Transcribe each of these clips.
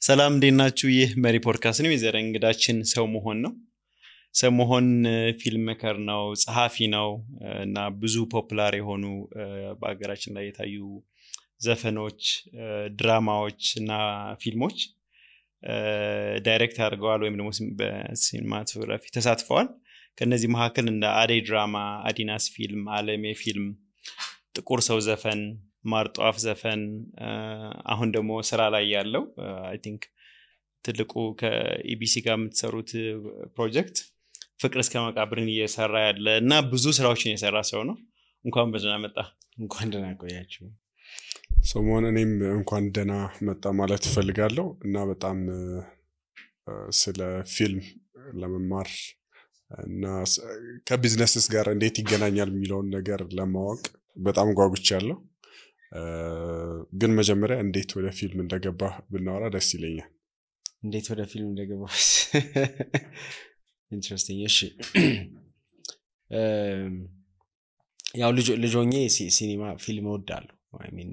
ሰላም እንዴት ናችሁ? ይህ መሪ ፖድካስት ነው። የዛሬ እንግዳችን ሰው መሆን ነው። ሰው መሆን ፊልም ሜከር ነው፣ ጸሐፊ ነው እና ብዙ ፖፑላር የሆኑ በአገራችን ላይ የታዩ ዘፈኖች፣ ድራማዎች እና ፊልሞች ዳይሬክት አድርገዋል ወይም ደግሞ በሲኒማቶግራፊ ተሳትፈዋል። ከነዚህ መካከል እንደ አደይ ድራማ፣ አዲናስ ፊልም፣ አለሜ ፊልም፣ ጥቁር ሰው ዘፈን፣ ማርጧፍ ዘፈን፣ አሁን ደግሞ ስራ ላይ ያለው አይ ቲንክ ትልቁ ከኢቢሲ ጋር የምትሰሩት ፕሮጀክት ፍቅር እስከ መቃብርን እየሰራ ያለ እና ብዙ ስራዎችን የሰራ ሰው ነው። እንኳን በደህና መጣ። እንኳን ደህና ቆያችሁ። ሰሞኑን እኔም እንኳን ደህና መጣ ማለት እፈልጋለሁ እና በጣም ስለ ፊልም ለመማር እና ከቢዝነስስ ጋር እንዴት ይገናኛል የሚለውን ነገር ለማወቅ በጣም ጓጉቻለሁ። ግን መጀመሪያ እንዴት ወደ ፊልም እንደገባ ብናወራ ደስ ይለኛል። እንዴት ወደ ፊልም እንደገባ ኢንትረስቲንግ። እሺ ያው ልጆኜ ሲኒማ ፊልም እወዳለሁ። አይ ሚን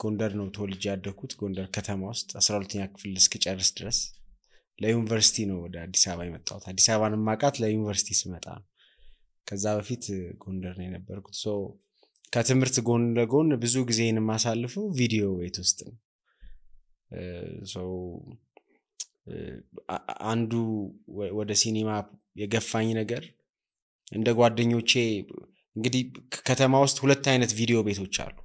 ጎንደር ነው ተወልጄ ያደኩት። ጎንደር ከተማ ውስጥ 12ኛ ክፍል እስክጨርስ ድረስ ለዩኒቨርሲቲ ነው ወደ አዲስ አበባ የመጣሁት። አዲስ አበባን ማቃት ለዩኒቨርሲቲ ስመጣ ነው። ከዛ በፊት ጎንደር ነው የነበርኩት። ሶ ከትምህርት ጎን ለጎን ብዙ ጊዜን ማሳልፈው ቪዲዮ ቤት ውስጥ ነው። ሶ አንዱ ወደ ሲኒማ የገፋኝ ነገር እንደ ጓደኞቼ እንግዲህ ከተማ ውስጥ ሁለት አይነት ቪዲዮ ቤቶች አሉ።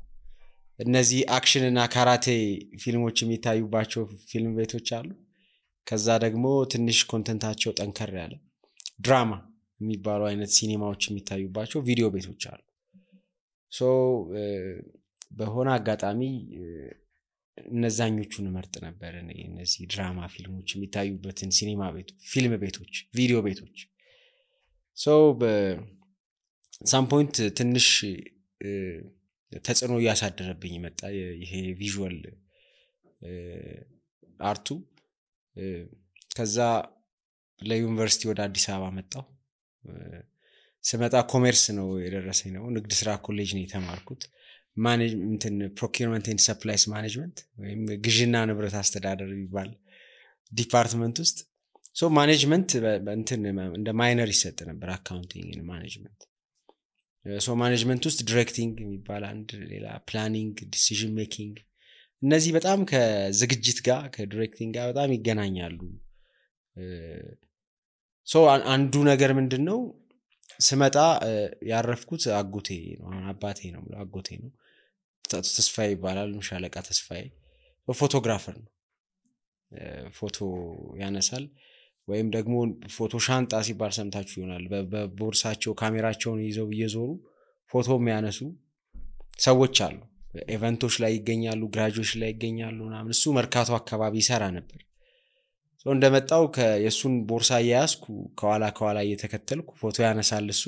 እነዚህ አክሽን እና ካራቴ ፊልሞች የሚታዩባቸው ፊልም ቤቶች አሉ። ከዛ ደግሞ ትንሽ ኮንተንታቸው ጠንከር ያለ ድራማ የሚባሉ አይነት ሲኒማዎች የሚታዩባቸው ቪዲዮ ቤቶች አሉ። ሶ በሆነ አጋጣሚ እነዛኞቹን መርጥ ነበር እኔ እነዚህ ድራማ ፊልሞች የሚታዩበትን ሲኒማ ቤት ፊልም ቤቶች ቪዲዮ ቤቶች። ሶ በሳም ፖይንት ትንሽ ተጽዕኖ እያሳደረብኝ መጣ ይሄ ቪዥዋል አርቱ። ከዛ ለዩኒቨርሲቲ ወደ አዲስ አበባ መጣሁ። ስመጣ ኮሜርስ ነው የደረሰኝ ነው። ንግድ ስራ ኮሌጅ ነው የተማርኩት። ማኔጅመንት ፕሮኪውርመንት ኤንድ ሰፕላይስ ማኔጅመንት ወይም ግዥና ንብረት አስተዳደር ይባል ዲፓርትመንት ውስጥ። ሶ ማኔጅመንት እንደ ማይነር ይሰጥ ነበር፣ አካውንቲንግ እና ማኔጅመንት። ሶ ማኔጅመንት ውስጥ ዲሬክቲንግ የሚባል አንድ ሌላ፣ ፕላኒንግ፣ ዲሲዥን ሜኪንግ፣ እነዚህ በጣም ከዝግጅት ጋር ከዲሬክቲንግ ጋር በጣም ይገናኛሉ። ሶ አንዱ ነገር ምንድነው ስመጣ ያረፍኩት አጎቴ ነው፣ አባቴ ነው አጎቴ ነው። ተስፋዬ ይባላል፣ ሻለቃ ተስፋዬ። ፎቶግራፈር ነው። ፎቶ ያነሳል ወይም ደግሞ ፎቶ ሻንጣ ሲባል ሰምታችሁ ይሆናል። በቦርሳቸው ካሜራቸውን ይዘው እየዞሩ ፎቶ የሚያነሱ ሰዎች አሉ። ኢቨንቶች ላይ ይገኛሉ፣ ግራጁዌሽን ላይ ይገኛሉ ምናምን። እሱ መርካቶ አካባቢ ይሰራ ነበር። ሶ እንደመጣው የሱን ቦርሳ ያያዝኩ ከኋላ እየተከተልኩ ፎቶ ያነሳል እሱ።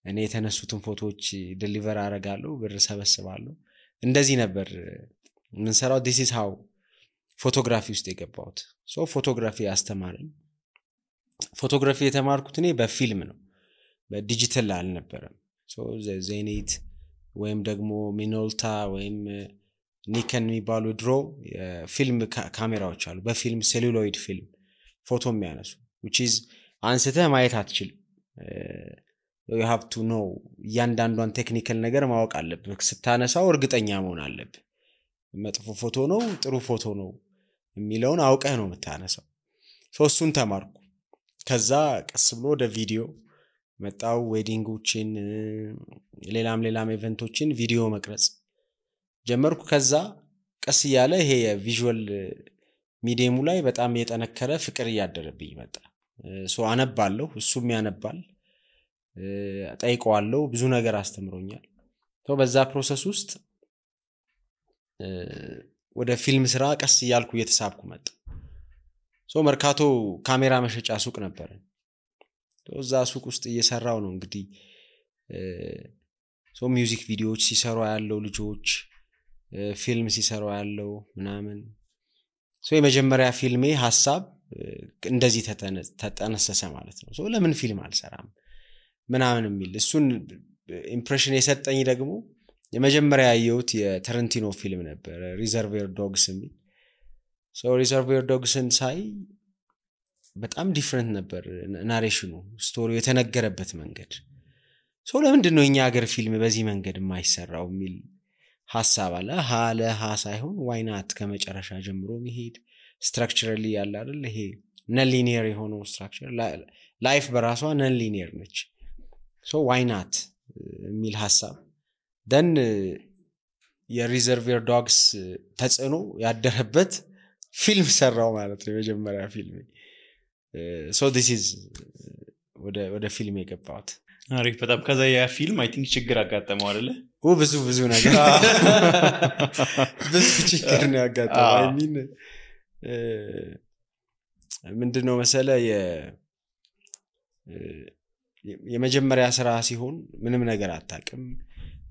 እኔ የተነሱትን ፎቶዎች ዴሊቨር አደርጋለሁ፣ ብር ሰበስባለሁ። እንደዚህ ነበር ምን ሰራው። this is how ፎቶግራፊ ውስጥ የገባሁት። ሶ ፎቶግራፊ አስተማረኝ። ፎቶግራፊ የተማርኩት እኔ በፊልም ነው፣ በዲጂታል አልነበረም። ሶ ዜኒት ወይም ደግሞ ሚኖልታ ወይም ኒከን የሚባሉ ድሮ ፊልም ካሜራዎች አሉ። በፊልም ሴሉሎይድ ፊልም ፎቶ የሚያነሱ which is አንስተህ ማየት አትችልም። you have to know እያንዳንዷን ቴክኒካል ነገር ማወቅ አለብህ። ስታነሳው እርግጠኛ መሆን አለብህ። መጥፎ ፎቶ ነው ጥሩ ፎቶ ነው የሚለውን አውቀህ ነው የምታነሳው። እሱን ተማርኩ። ከዛ ቀስ ብሎ ወደ ቪዲዮ መጣው። ዌዲንጎችን ሌላም ኢቨንቶችን ቪዲዮ መቅረጽ ጀመርኩ። ከዛ ቀስ እያለ ይሄ የቪዥዋል ሚዲየሙ ላይ በጣም የጠነከረ ፍቅር እያደረብኝ መጣ። ሶ አነባለሁ፣ እሱም ያነባል፣ ጠይቀዋለሁ። ብዙ ነገር አስተምሮኛል። በዛ ፕሮሰስ ውስጥ ወደ ፊልም ስራ ቀስ እያልኩ እየተሳብኩ መጣ። ሶ መርካቶ ካሜራ መሸጫ ሱቅ ነበር። እዛ ሱቅ ውስጥ እየሰራው ነው እንግዲህ ሶ ሚውዚክ ቪዲዮዎች ሲሰሩ ያለው ልጆች ፊልም ሲሰሩ ያለው ምናምን። ሶ የመጀመሪያ ፊልሜ ሐሳብ እንደዚህ ተጠነሰሰ ማለት ነው። ሶ ለምን ፊልም አልሰራም ምናምን የሚል እሱን ኢምፕሬሽን የሰጠኝ ደግሞ የመጀመሪያ ያየሁት የታረንቲኖ ፊልም ነበር ሪዘርቬር ዶግስ የሚል ሪዘርቬር ዶግስን ሳይ በጣም ዲፍረንት ነበር ናሬሽኑ ስቶሪው የተነገረበት መንገድ ለምንድን ነው እኛ ሀገር ፊልም በዚህ መንገድ የማይሰራው የሚል ሐሳብ አለ ለሃ ሳይሆን ዋይ ናት ከመጨረሻ ጀምሮ መሄድ ስትራክቸራሊ ያለ አይደል ይሄ ነን ሊኒየር የሆነው ስትራክቸር ላይፍ በራሷ ነን ሊኒየር ነች ዋይ ናት የሚል ሐሳብ ደን የሪዘርቬር ዶግስ ተጽዕኖ ያደረበት ፊልም ሰራው ማለት ነው የመጀመሪያ ፊልም this is ወደ ፊልም የገባሁት አሪፍ በጣም ከዛ ያ ፊልም አይ ቲንክ ችግር አጋጠመው አይደለ ብዙ ነገር ብዙ ችግር ነው ያጋጠመው አይ ሚን ምንድነው መሰለ የመጀመሪያ ስራ ሲሆን ምንም ነገር አታውቅም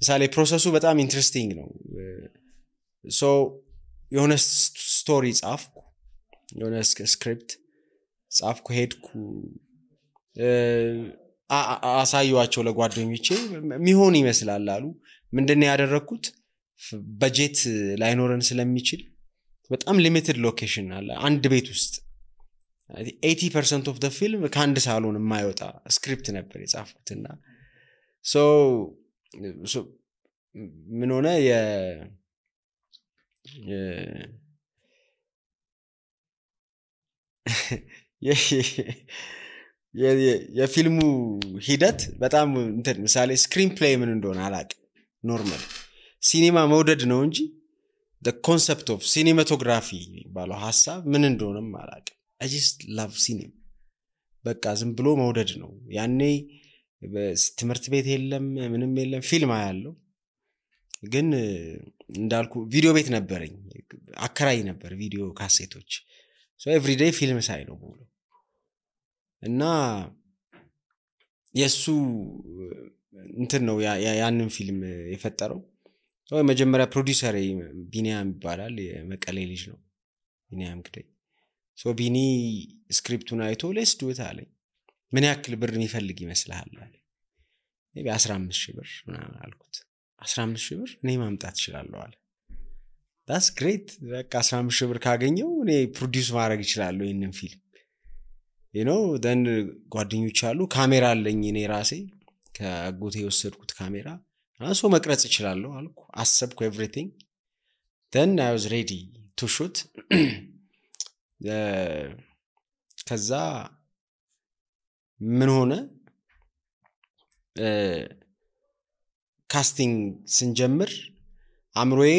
ምሳሌ ፕሮሰሱ በጣም ኢንትረስቲንግ ነው የሆነ ስቶሪ ጻፍኩ የሆነ ስክሪፕት ጻፍኩ ሄድኩ አሳዩዋቸው ለጓደኞቼ ሚሆን ይመስላል አሉ ምንድነው ያደረኩት በጀት ላይኖረን ስለሚችል በጣም ሊሚትድ ሎኬሽን አለ አንድ ቤት ውስጥ 80% of the film ከአንድ ሳሎን የማይወጣ ስክሪፕት ነበር የጻፍኩትና ምን ሆነ የፊልሙ ሂደት በጣም እንትን ምሳሌ ስክሪን ፕሌይ ምን እንደሆነ አላቅ ኖርማል ሲኒማ መውደድ ነው እንጂ the concept of cinematography ባለው ሐሳብ ምን እንደሆነም አላቅ I just love cinema በቃ ዝም ብሎ መውደድ ነው ያኔ ትምህርት ቤት የለም ምንም የለም ፊልም አያለው ግን እንዳልኩ ቪዲዮ ቤት ነበርኝ አከራይ ነበር ቪዲዮ ካሴቶች every day ፊልም ሳይ ነው ብሎ እና የሱ እንትን ነው ያንን ፊልም የፈጠረው መጀመሪያ ፕሮዲዩሰር ቢኒያም ይባላል የመቀሌ ልጅ ነው ቢኒያም ግደይ ቢኒ ስክሪፕቱን አይቶ let's do it አለኝ ምን ያክል ብር የሚፈልግ ይመስልሃል አለ maybe 15000 ብር አልኩት 15000 ብር እኔ ማምጣት እችላለሁ አለ that's great በቃ 15000 ብር ካገኘው እኔ ፕሮዲዩስ ማድረግ እችላለሁ ይሄንን ፊልም then ጓደኞች አሉ ካሜራ አለኝ እኔ ራሴ ከአጎቴ የወሰድኩት ካሜራ አንሶ መቅረጽ እችላለሁ አልኩ አሰብኩ everything then I was ready to shoot ከዛ ምን ሆነ ካስቲንግ ስንጀምር አምሮዬ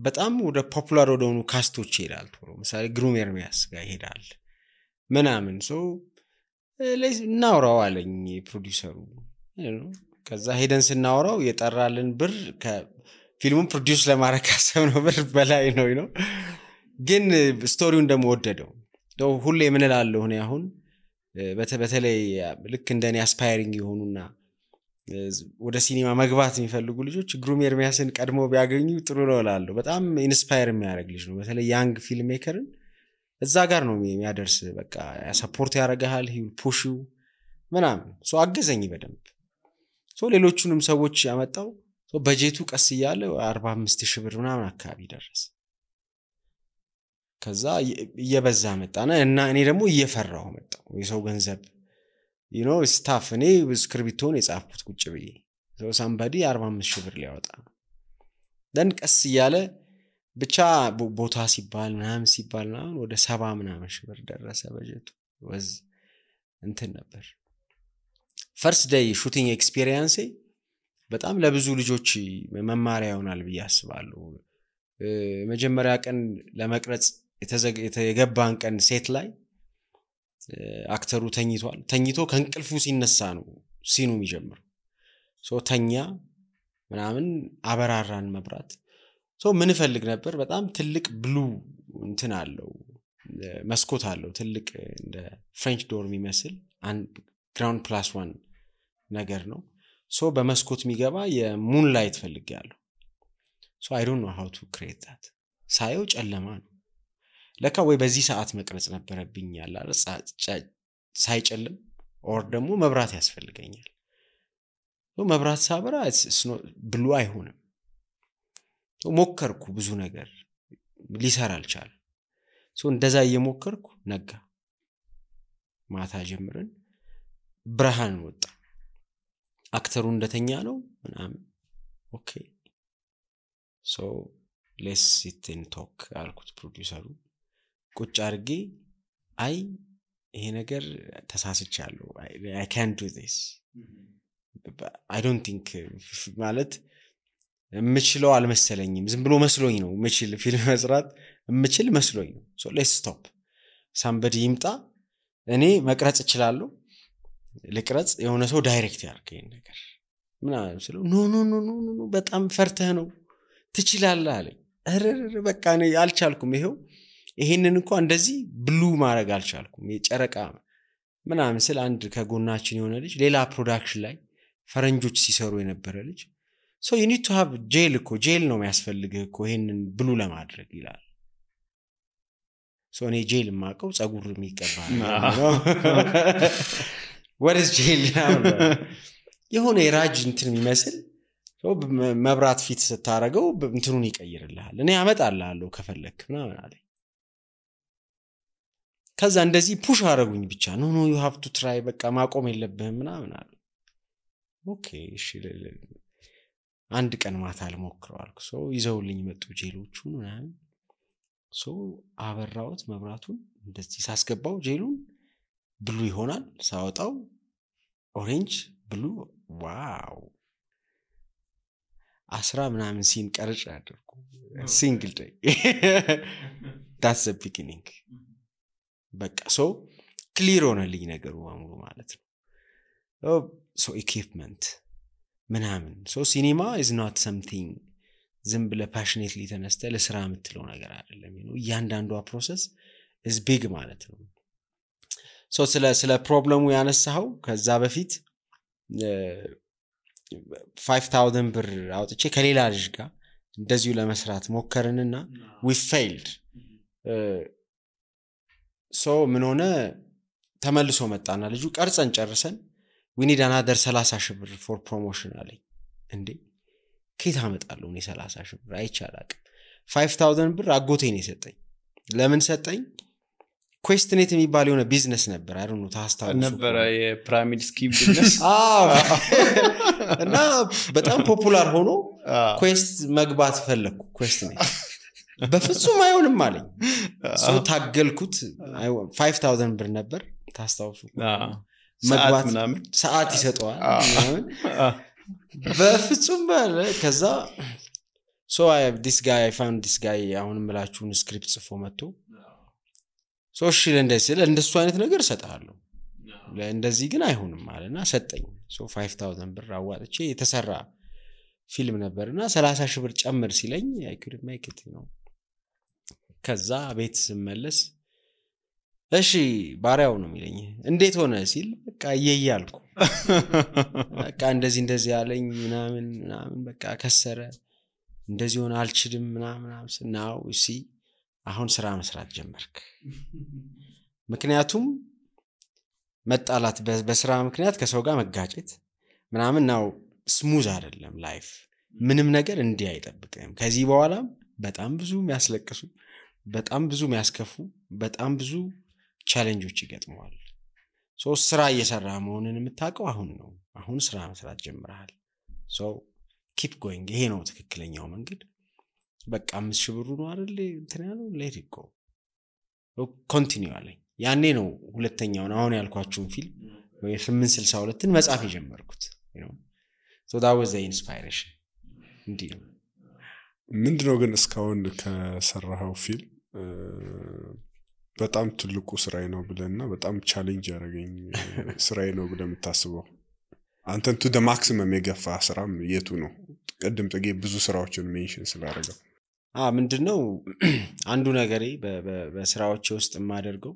በጣም ወደ ፖፑላር ወደሆኑ ካስቶች ይሄዳል ለምሳሌ ግሩም ኤርሚያስ ጋር ይሄዳል ምናምን እናውራው አለኝ ፕሮዲዩሰሩ ከዛ ሄደን ስናወራው የጠራልን ብር ከፊልሙን ፕሮዲዩስ ለማድረግ ካሰብነው ብር በላይ ነው ግን ስቶሪውን ደግሞ ወደደው ሁሌ ምን እላለሁ እኔ አሁን በተለይ ልክ እንደኔ አስፓይሪንግ የሆኑና ወደ ሲኒማ መግባት የሚፈልጉ ልጆች ግሩም ኤርሚያስን ቀድሞ ቢያገኙ ጥሩ ነው እላለሁ በጣም ኢንስፓየር የሚያደርግ ልጅ ነው በተለይ ያንግ ፊልም ሜከርን እዛ ጋር ነው የሚያደርስ በቃ ሰፖርት ያደርጋል he will push you ምናምን አገዘኝ በደንብ ሌሎቹንም ሰዎች ያመጣው በጀቱ ቀስ እያለ 45000 ብር ምናምን አካባቢ ደረሰ ከዛ እየበዛ መጣና እና እኔ ደግሞ እየፈራው መጣው የሰው ገንዘብ ስታፍ እኔ ስክሪፕቱን የጻፍኩት ቁጭ ብዬ somebody 45000 ብር ሊያወጣ then ቀስ እያለ ብቻ ቦታ ሲባል ምናምን ወደ 70 ምናምን ሺህ ብር ደረሰ በጀቱ ወዝ እንትን ነበር ፈርስት ዴይ ሹቲንግ ኤክስፒሪየንስ በጣም ለብዙ ልጆች መማሪያ ይሆናል ብዬ አስባለሁ መጀመሪያ ቀን ለመቅረጽ የተገባን ቀን ሴት ላይ አክተሩ ተኝቶ ከእንቅልፉ ሲነሳ ነው ሲኑ የሚጀምረው ተኛ ምናምን አበራራን መብራት ምን ፈልግ ነበር በጣም ትልቅ ብሉ እንትን አለው መስኮት አለው ትልቅ እንደ ፍሬንች ዶር የሚመስል ግራውንድ ፕላስ 1 ነገር ነው በመስኮት የሚገባ የሙን ላይት ፈልጋለሁ I don't know how to create that ሳየው ጨለማ ነው ለካ ወይ በዚህ ሰዓት መቅረጽ ነበረብኝ ያላለ ሳይጨልም ኦር ደግሞ መብራት ያስፈልገኛል መብራት ሳበራ ብሉ አይሆንም ሞከርኩ ብዙ ነገር ሊሰራ አልቻለም እንደዛ እየሞከርኩ ነጋ ማታ ጀምረን ብርሃን ወጣ አክተሩ እንደተኛ ነው ምናምን ኦኬ let's sit and talk አልኩት ፕሮዲዩሰሩ ቁጭ አርጌ አይ ይሄ ነገር ተሳስቻለሁ I can't do this I don't think ማለት ምችለው አልመሰለኝም ዝም ብሎ መስሎኝ ነው ምችል ፊልም መስራት ምችል መስሎኝ ነው let's stop somebody ይምጣ እኔ መቅረጽ እችላለሁ ልቅረጽ የሆነ ሰው ዳይሬክት ያርገኝ ነገር ምናምን ስለው ኖ በጣም ፈርተህ ነው ትችላለህ አለኝ በቃ እኔ አልቻልኩም ይሄንን እንኳን እንደዚህ ብሉ ማድረግ አልቻልኩም የጨረቃ ምናምን ስለ አንድ ከጎናችን የሆነ ልጅ ሌላ ፕሮዳክሽን ላይ ፈረንጆች ሲሰሩ የነበረ ልጅ so you need to have jail ነው የሚያስፈልግህ እኮ ይሄንን ብሉ ለማድረግ ይላል so እኔ ጄል ማቀው ጸጉር የሚቀባ ነው what is jail የሆነ የራጅ እንትን የሚመስል መብራት ፊት ስታረገው እንትኑን ይቀይርልሃል እኔ አመጣልሃለሁ ከፈለክ ምናምን አለኝ ከዛ እንደዚህ ፑሽ አረጉኝ ብቻ no you have to try በቃ ማቆም የለብህም ምናምን አለ ኦኬ እሺ አንድ ቀን ማታ ልሞክረው አልኩ ይዘውልኝ መጡ ጄሎቹ ምናምን አበራውት መብራቱን እንደዚህ ሳስገባው ጄሉን ብሉ ይሆናል ሳወጣው ኦሬንጅ ብሉ ዋው 10 ምናምን ሲን ቀርጭ አድርኩ ሲንግል ዴይ that's the beginning በቃ ክሊር ሆነልኝ ነገሩ አሙሉ ማለት ነው equipment ምናምን ሲኒማ is not something ዝም ብለ passionately ተነስተ ለስራ የምትለው ነገር አይደለም እያንዳንዷ ፕሮሰስ is big ማለት ነው ስለ ፕሮብለሙ ያነሳው ከዛ በፊት 5000 ብር አውጥቼ ከሌላ ልጅ ጋር እንደዚሁ ለመስራት ሞከርንና we failed ምን ሆነ ተመልሶ መጣና ልጁ ቀርጸን ጨርሰን we need another 30,000 ብር for promotion አለኝ እንዴ ከየት አመጣለሁ እኔ 30,000 ብር አይቻላቅ 5000 ብር አጎቴ ነው የሰጠኝ ለምን ሰጠኝ ኩዌስትኔት የሚባል የሆነ ቢዝነስ ነበር I don't know ታስታውሱ ነበር የፒራሚድ ስኪም ቢዝነስ እና በጣም ፖፑላር ሆኖ ኩዌስት መግባት ፈለኩ ኩዌስትኔት በፍጹም አይሆንም አለኝ ታገልኩት 5000 ብር ነበር ታስታውሱ መግባት ሰዓት ይሰጠዋል ምናምን በፍጹም ባለ ከዛ I found this guy አሁንም ምላችሁን ስክሪፕት ጽፎ መጥቶ እሺ እንደሱ አይነት ነገር ሰጣለሁ ለእንደዚህ ግን አይሆንም አለና ሰጠኝ 5000 ብር አዋጥቼ የተሰራ ፊልም ነበርና 30,000 ብር ጨምር ሲለኝ I couldn't make it ከዛ ቤት ስመለስ እሺ ባሪያው ነው የሚለኝ እንዴት ሆነ ሲል በቃ እየያልኩ በቃ እንደዚህ ያለኝ ምናምን በቃ ከሰረ እንደዚህ ሆነ አልችልም ምናምን now you see አሁን ስራ መስራት ጀመርክ ምክንያቱም መጣላት በስራ ምክንያት ከሰው ጋር መጋጨት ምናምን ነው ስሙዝ አይደለም ላይፍ ምንም ነገር እንዲህ አይጠብቅም ከዚህ በኋላ በጣም ብዙ የሚያስለቅሱ በጣም ብዙ የሚያስከፉ በጣም ብዙ ቻሌንጆች ይገጥመዋል ስራ እየሰራ መሆንን የምታውቀው አሁን ነው አሁን ስራ መስራት ጀምረሃል keep going ይሄ ነው ትክክለኛው መንገድ በቃ 5,000 ብሩ ነው አይደል እንትን ያለው let it go continue አለኝ ያኔ ነው ሁለተኛውን አሁን ያልኳችሁን ፊልም ወይ 862ን መጻፍ የጀመርኩት so that was the inspiration እንዴ ምንድነው ግን እስካሁን ከሰራው ፊልም በጣም ትልቁ ስራዬ ነው ብለና በጣም ቻሌንጅ ያደረገኝ ስራዬ ነው ብለ የምታስበው አንተን to the maximum የገፋ ስራም የቱ ነው ቀደም ጥጌ ብዙ ስራዎችን ሜንሽን ስላደረገው ምንድነው አንዱ ነገሬ በስራዎቼ ውስጥ የማደርገው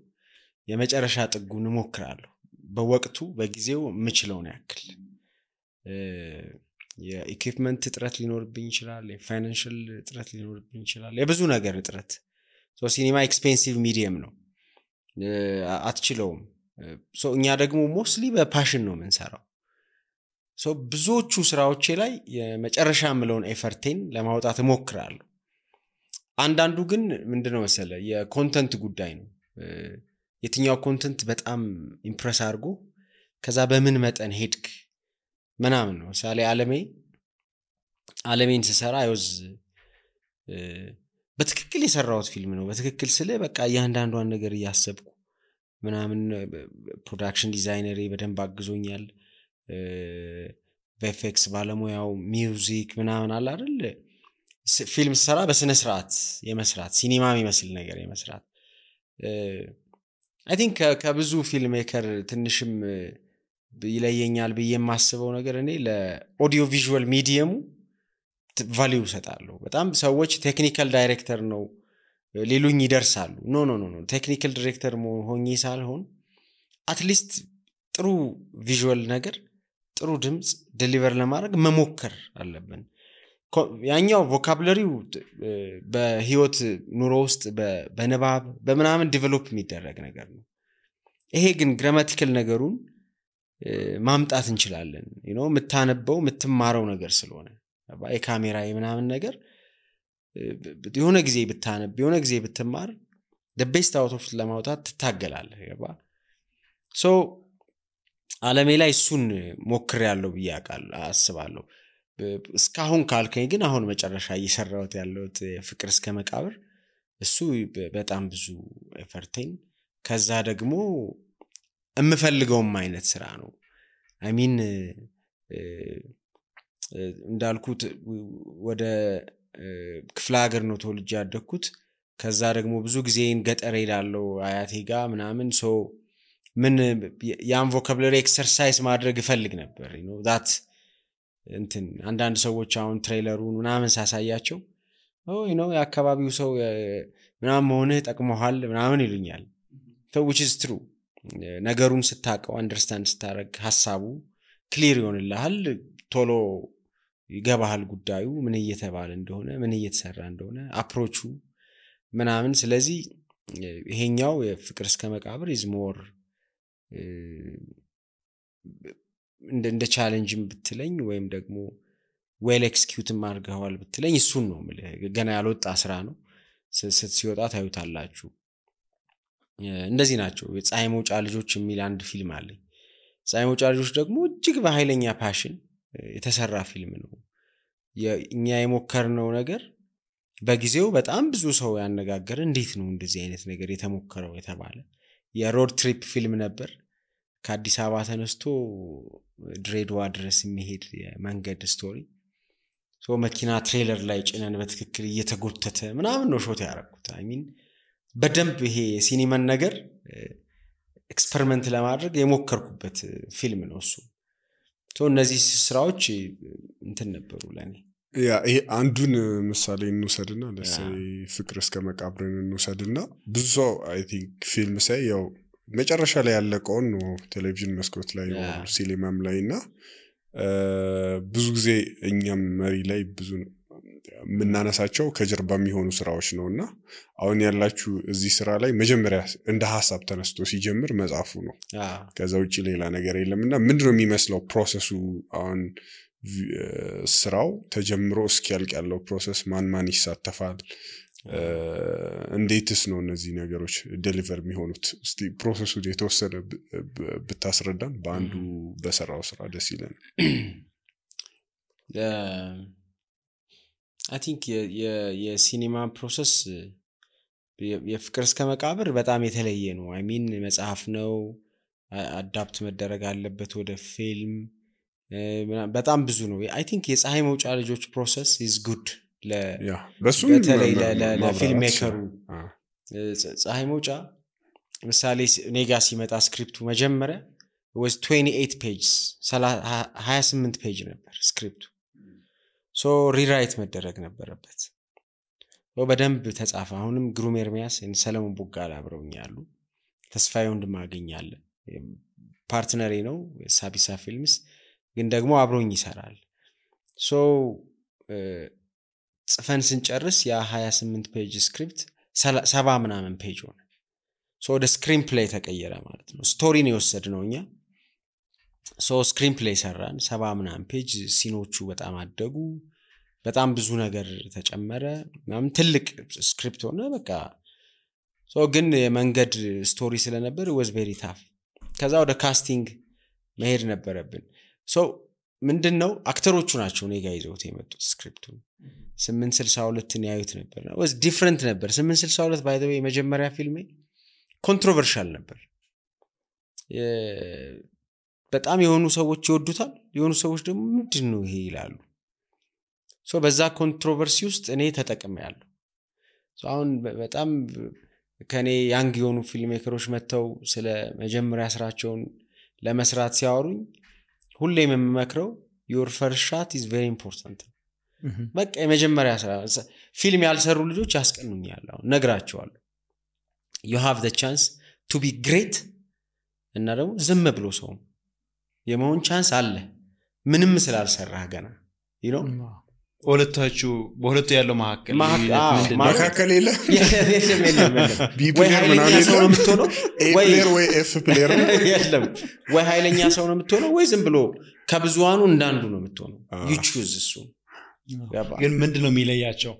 የመጨረሻ ጥጉን ሞክራለሁ በወቅቱ በጊዜው ምችለውን ያክል የኢኩዊፕመንት እጥረት ሊኖርብኝ ይችላል የፋይናንሻል እጥረት ሊኖርብኝ ይችላል የብዙ ነገር እጥረት ሲኒማ ኤክስፔንሲቭ ሚዲየም ነው አትችለውም እኛ ደግሞ ሞስትሊ በፓሽን ነው የምንሰራው ሶ ብዙዎቹ ስራዎቼ ላይ የመጨረሻ ምለውን ኤፈርቴን ለማውጣት እሞክራለሁ አንዳንዱ ግን ምንድነው መሰለ የኮንተንት ጉዳይ ነው የትኛው ኮንተንት በጣም ኢምፕረስ አድርጎ ከዛ በምን መጠን ሄድክ ምናምን ነው ሳሌ ዓለሜን ስሰራ አይወዝ በትክክል የሰራሁት ፊልም ነው በትክክል ስለ በቃ እያንዳንዷን ነገር እያሰብኩ ምናምን ፕሮዳክሽን ዲዛይነሬ በደንብ አግዞኛል ቪኤፍኤክስ ባለሙያው ሚውዚክ ምናምን አለ አይደል ፊልም ሰራ በስነ ስርዓት የመስራት ሲኒማ የሚመስል ነገር የመስራት አይ ቲንክ ከብዙ ፊልም ሜከር ትንሽም ይለየኛል ብዬ የማስበው ነገር እኔ ለኦዲዮ ቪዥዋል ሚዲየሙ ቫልዩ ሰጣለሁ በጣም ሰዎች ቴክኒካል ዳይሬክተር ነው ሌሉኝ ይደርሳሉ ኖ ቴክኒካል ዳይሬክተር ሆኜ ሳልሆን አትሊስት ጥሩ ቪዥዋል ነገር ጥሩ ድምጽ ዴሊቨር ለማድረግ መሞከር አለብን ያኛው ቮካቡላሪው በህይወት ኑሮ ውስጥ በንባብ በመናምን ዲቨሎፕ የሚደረግ ነገር ነው ይሄ ግን ግራማቲካል ነገሩን ማምጣት እንችላለን የምታነበው የምትማረው ነገር ስለሆነ በካሜራ የምናምን ነገር የሆነ ጊዜ ብታነብ የሆነ ጊዜ ብትማር the best out of ለማውጣት ትታገላለህ ያባ ሶ ዓለሜ ላይ እሱን ሞክሬያለሁ ብያቃል አስባለሁ እስካሁን ካልከኝ ግን አሁን መጨረሻ እየሰራሁት ያለሁት ፍቅር እስከ መቃብር እሱ በጣም ብዙ ኤፈርቴን ከዛ ደግሞ እምፈልገውም አይነት ስራ ነው አይ ሚን እንዳልኩት ወደ ክፍለ ሀገር ነው ተወልጄ ያደግኩት ከዛ ደግሞ ብዙ ጊዜን ገጠር ሄዳለሁ አያቴ ጋር ምናምን ሶ ምን ያን ቮካቡላሪ ኤክሰርሳይዝ ማድረግ እፈልግ ነበር that እንትን አንዳንድ ሰዎች አሁን ትሬለሩን ምናምን ሳሳያቸው የአካባቢው ሰው ምናምን ሆነ ጠቅሞሃል ምናምን ይሉኛል which is true ነገሩን ስታቀው አንደርስታንድ ስታረግ ሐሳቡ ክሊር ይሆንልሃል ቶሎ ይገባሃል ጉዳዩ ምን እየተባለ እንደሆነ ምን እየተሰራ እንደሆነ አፕሮቹ ምናምን ስለዚህ ይሄኛው የፍቅር እስከ መቃብር is more እንደ ቻሌንጅም ብትለኝ ወይም ደግሞ ዌል ኤክስኪዩት ማርገዋል ብትለኝ እሱን ነው ገና ያልወጣ ስራ ነው ሲወጣ ታዩታላችሁ እንደዚህ ናቸው የፀሐይ መውጫ ልጆች የሚል አንድ ፊልም አለኝ ፀሐይ መውጫ ልጆች ደግሞ እጅግ በኃይለኛ ፓሽን የተሰራ ፊልም ነው እኛ የሞከርነው ነገር በጊዜው በጣም ብዙ ሰው ያነጋገረ እንዴት ነው እንደዚህ አይነት ነገር የተሞከረው የተባለ የሮድ ትሪፕ ፊልም ነበር ከአዲስ አበባ ተነስቶ ድሬዳዋ ድረስ የሚሄድ የመንገድ ስቶሪ ሶ መኪና ትሬለር ላይ ጭነን በትክክል እየተጎተተ ምናምን ነው ሾት ያደረኩት አይ ሚን በደንብ ይሄ ሲኒማን ነገር ኤክስፐሪመንት ለማድረግ የሞከርኩበት ፊልም ነው እሱ ሶ እነዚህ ስራዎች እንትን ነበሩ ለኔ ይሄ አንዱን ምሳሌ እንውሰድና ለሰይ ፍቅር እስከ መቃብርን እንውሰድና ብዙ ሰው አይ ቲንክ ፊልም ሳይ ያው መጨረሻ ላይ ያለቀውን ነው ቴሌቪዥን መስኮት ላይ ነው ሲኒማም ላይና ብዙ ጊዜ እኛም መሪ ላይ ብዙ ምናነሳቸው ከጀርባ የሚሆኑ ስራዎች ነውና አሁን ያላችሁ እዚህ ስራ ላይ መጀመሪያ እንደ ሐሳብ ተነስቶ ሲጀምር መጻፉ ነው ከዛ ውጪ ሌላ ነገር የለምና ምንድነው የሚመስለው ፕሮሰሱ አሁን ስራው ተጀምሮ እስኪያልቅ ያለው ፕሮሰስ ማን ይሳተፋል እንዴትስ ነው እነዚህ ነገሮች ዴሊቨር የሚሆኑት እስቲ ፕሮሰሱ የተወሰነ ብታስረዳን በአንዱ በሰራው ስራ ደስ ይላል I think የሲኒማ ፕሮሰስ የፍቅር እስከ መቃብር በጣም የተለየ ነው አይ ሚን መጽሐፍ ነው አዳፕት መደረግ አለበት ወደ ፊልም በጣም ብዙ ነው አይ ቲንክ የፀሐይ መውጫ ልጆች ፕሮሰስ is good በተለይ ለፊልም ሜከሩ ፀሐይ መውጫ ምሳሌ ኔጋ ሲመጣ ስክሪፕቱ መጀመሪያ was 28 pages 28 ፔጅ ነበር ስክሪፕቱ ሶ ሪራይት መደረግ ነበረበት በደንብ ተጻፈ አሁንም ግሩም ኤርሚያስ እና ሰለሞን ቦጋላ አብረውኛሉ ተስፋዬ ወንድማገኛለ ፓርትነሬ ነው ሳቢሳ ፊልምስ ግን ደግሞ አብሮኝ ይሰራል ሶ ጽፈን ስንጨርስ ያ 28 ፔጅ ስክሪፕት 70 ምናምን ፔጅ ሆነ ሶ ወደ ስክሪን ፕሌይ ተቀየረ ማለት ነው ስቶሪ ነው የወሰድነው እኛ ሶ ስክሪን ፕሌይ ሰራን 70 ምናምን ፔጅ ሲኖቹ በጣም አደጉ በጣም ብዙ ነገር ተጨመረ ምናምን ትልቅ ስክሪፕት ሆነ በቃ ሶ ግን የመንገድ ስቶሪ ስለነበር was very tough ከዛ ወደ ካስቲንግ መሄድ ነበረብን ሶ ምንድነው አክተሮቹ ናቸው እኔ ጋር ይዘውት የመጡት ስክሪፕቱን 862 ን ያዩት ነበር was different ነበር 862 by the way መጀመሪያ ፊልሜ ኮንትሮቨርሻል ነበር በጣም የሆኑ ሰዎች ይወዱታል የሆኑ ሰዎች ደግሞ ምንድነው ይሄ ይላሉ ሶ በዛ ኮንትሮቨርሲ ውስጥ እኔ ተጠቅሜያለሁ ሶ አሁን በጣም ከኔ ያንግ የሆኑ ፊልም ሜከሮች መተው ስለ መጀመሪያ ስራቸውን ለመስራት ሲያወሩኝ ሁሌም የምመክረው your first shot is very important በቃ የመጀመሪያ ስራ ፊልም ያልሰሩ ልጆች ያስቀኑኛል አሁን ነግራቸዋለሁ you have the chance to be great እና ደግሞ ዝም ብሎ ሰው የመሆን ቻንስ አለ ምንም ስላልሰራህ ገና you know በሁለቱ ያለው መሐከል መሐከል የለ ቢ ወይ ፕሌየር ኃይለኛ ምናምን ሰው ነው የምትሆነው ኤ ፕሌየር ወይ ኤፍ ፕሌየር የለም ወይ ኃይለኛ ሰው ነው የምትሆነው ወይ ዝም ብሎ ከብዙዋኑ እንዳንዱ ነው የምትሆነው you choose እሱ ግን ምንድነው የሚለያቸው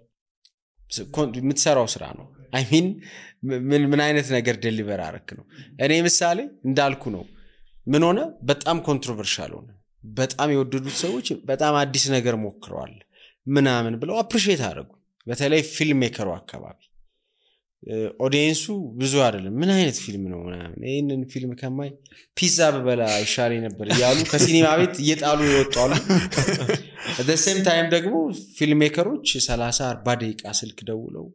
የምትሰራው ስራ ነው I mean ምን አይነት ነገር ዴሊቨር አረክ ነው እኔ ምሳሌ እንዳልኩ ነው ምን ሆነ በጣም ኮንትሮቨርሻል ሆነ በጣም የወደዱት ሰዎች በጣም አዲስ ነገር ሞክረዋል ምናምን ብለው አፕሪሺየት አደረጉ በተለይ ፊልም ሜከሩ አካባቢ ኦዲየንሱ ብዙ አይደለም ምን አይነት ፊልም ነው ምናምን ይሄንን ፊልም ከማይ ፒዛ በበላ ይሻለኝ ነበር ያሉ ከሲኒማ ቤት እየጣሉ ይወጣሉ at the same time ደግሞ ፊልም ሜከሮች 30 40 ደቂቃ ስልክ ደውለው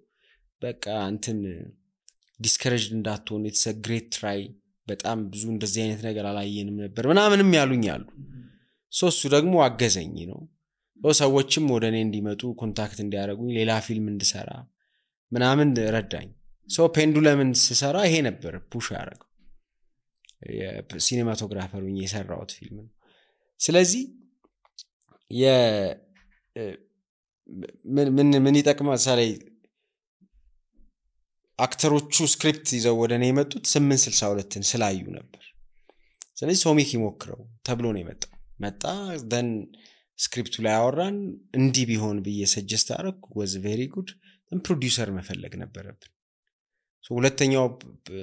በቃ እንትን ዲስከሬጅድ እንዳትሆን it's a great try በጣም ብዙ እንደዚህ አይነት ነገር አላየንም ነበር ምናምንም ያሉኝ አሉ ሶስቱ ደግሞ አገዘኝ ነው ሰዎችም ወደኔ እንዲመጡ ኮንታክት እንዲያደርጉኝ ሌላ ፊልም እንድሰራ ምናምን ረዳኝ ሶ ፔንዱለምን ስሰራ ይሄ ነበር ፑሽ ያደረገው የሲኔማቶግራፈር ሆኜ የሰራሁት ፊልም ነው ስለዚህ ምን ይጠቅማል ሳላይ አክተሮቹ ስክሪፕት ይዘው ወደኔ የመጡት 862ን ስላዩ ነበር ስለዚህ ሶሚክ ይሞክረው ተብሎ ነው የመጣው መጣ then ስክሪፕቱ ላይ አወራን እንዲ ቢሆን በየ ሰጀስት አረኩ was very good then ፕሮዲዩሰር መፈለግ ነበረብን ሶ ሁለተኛው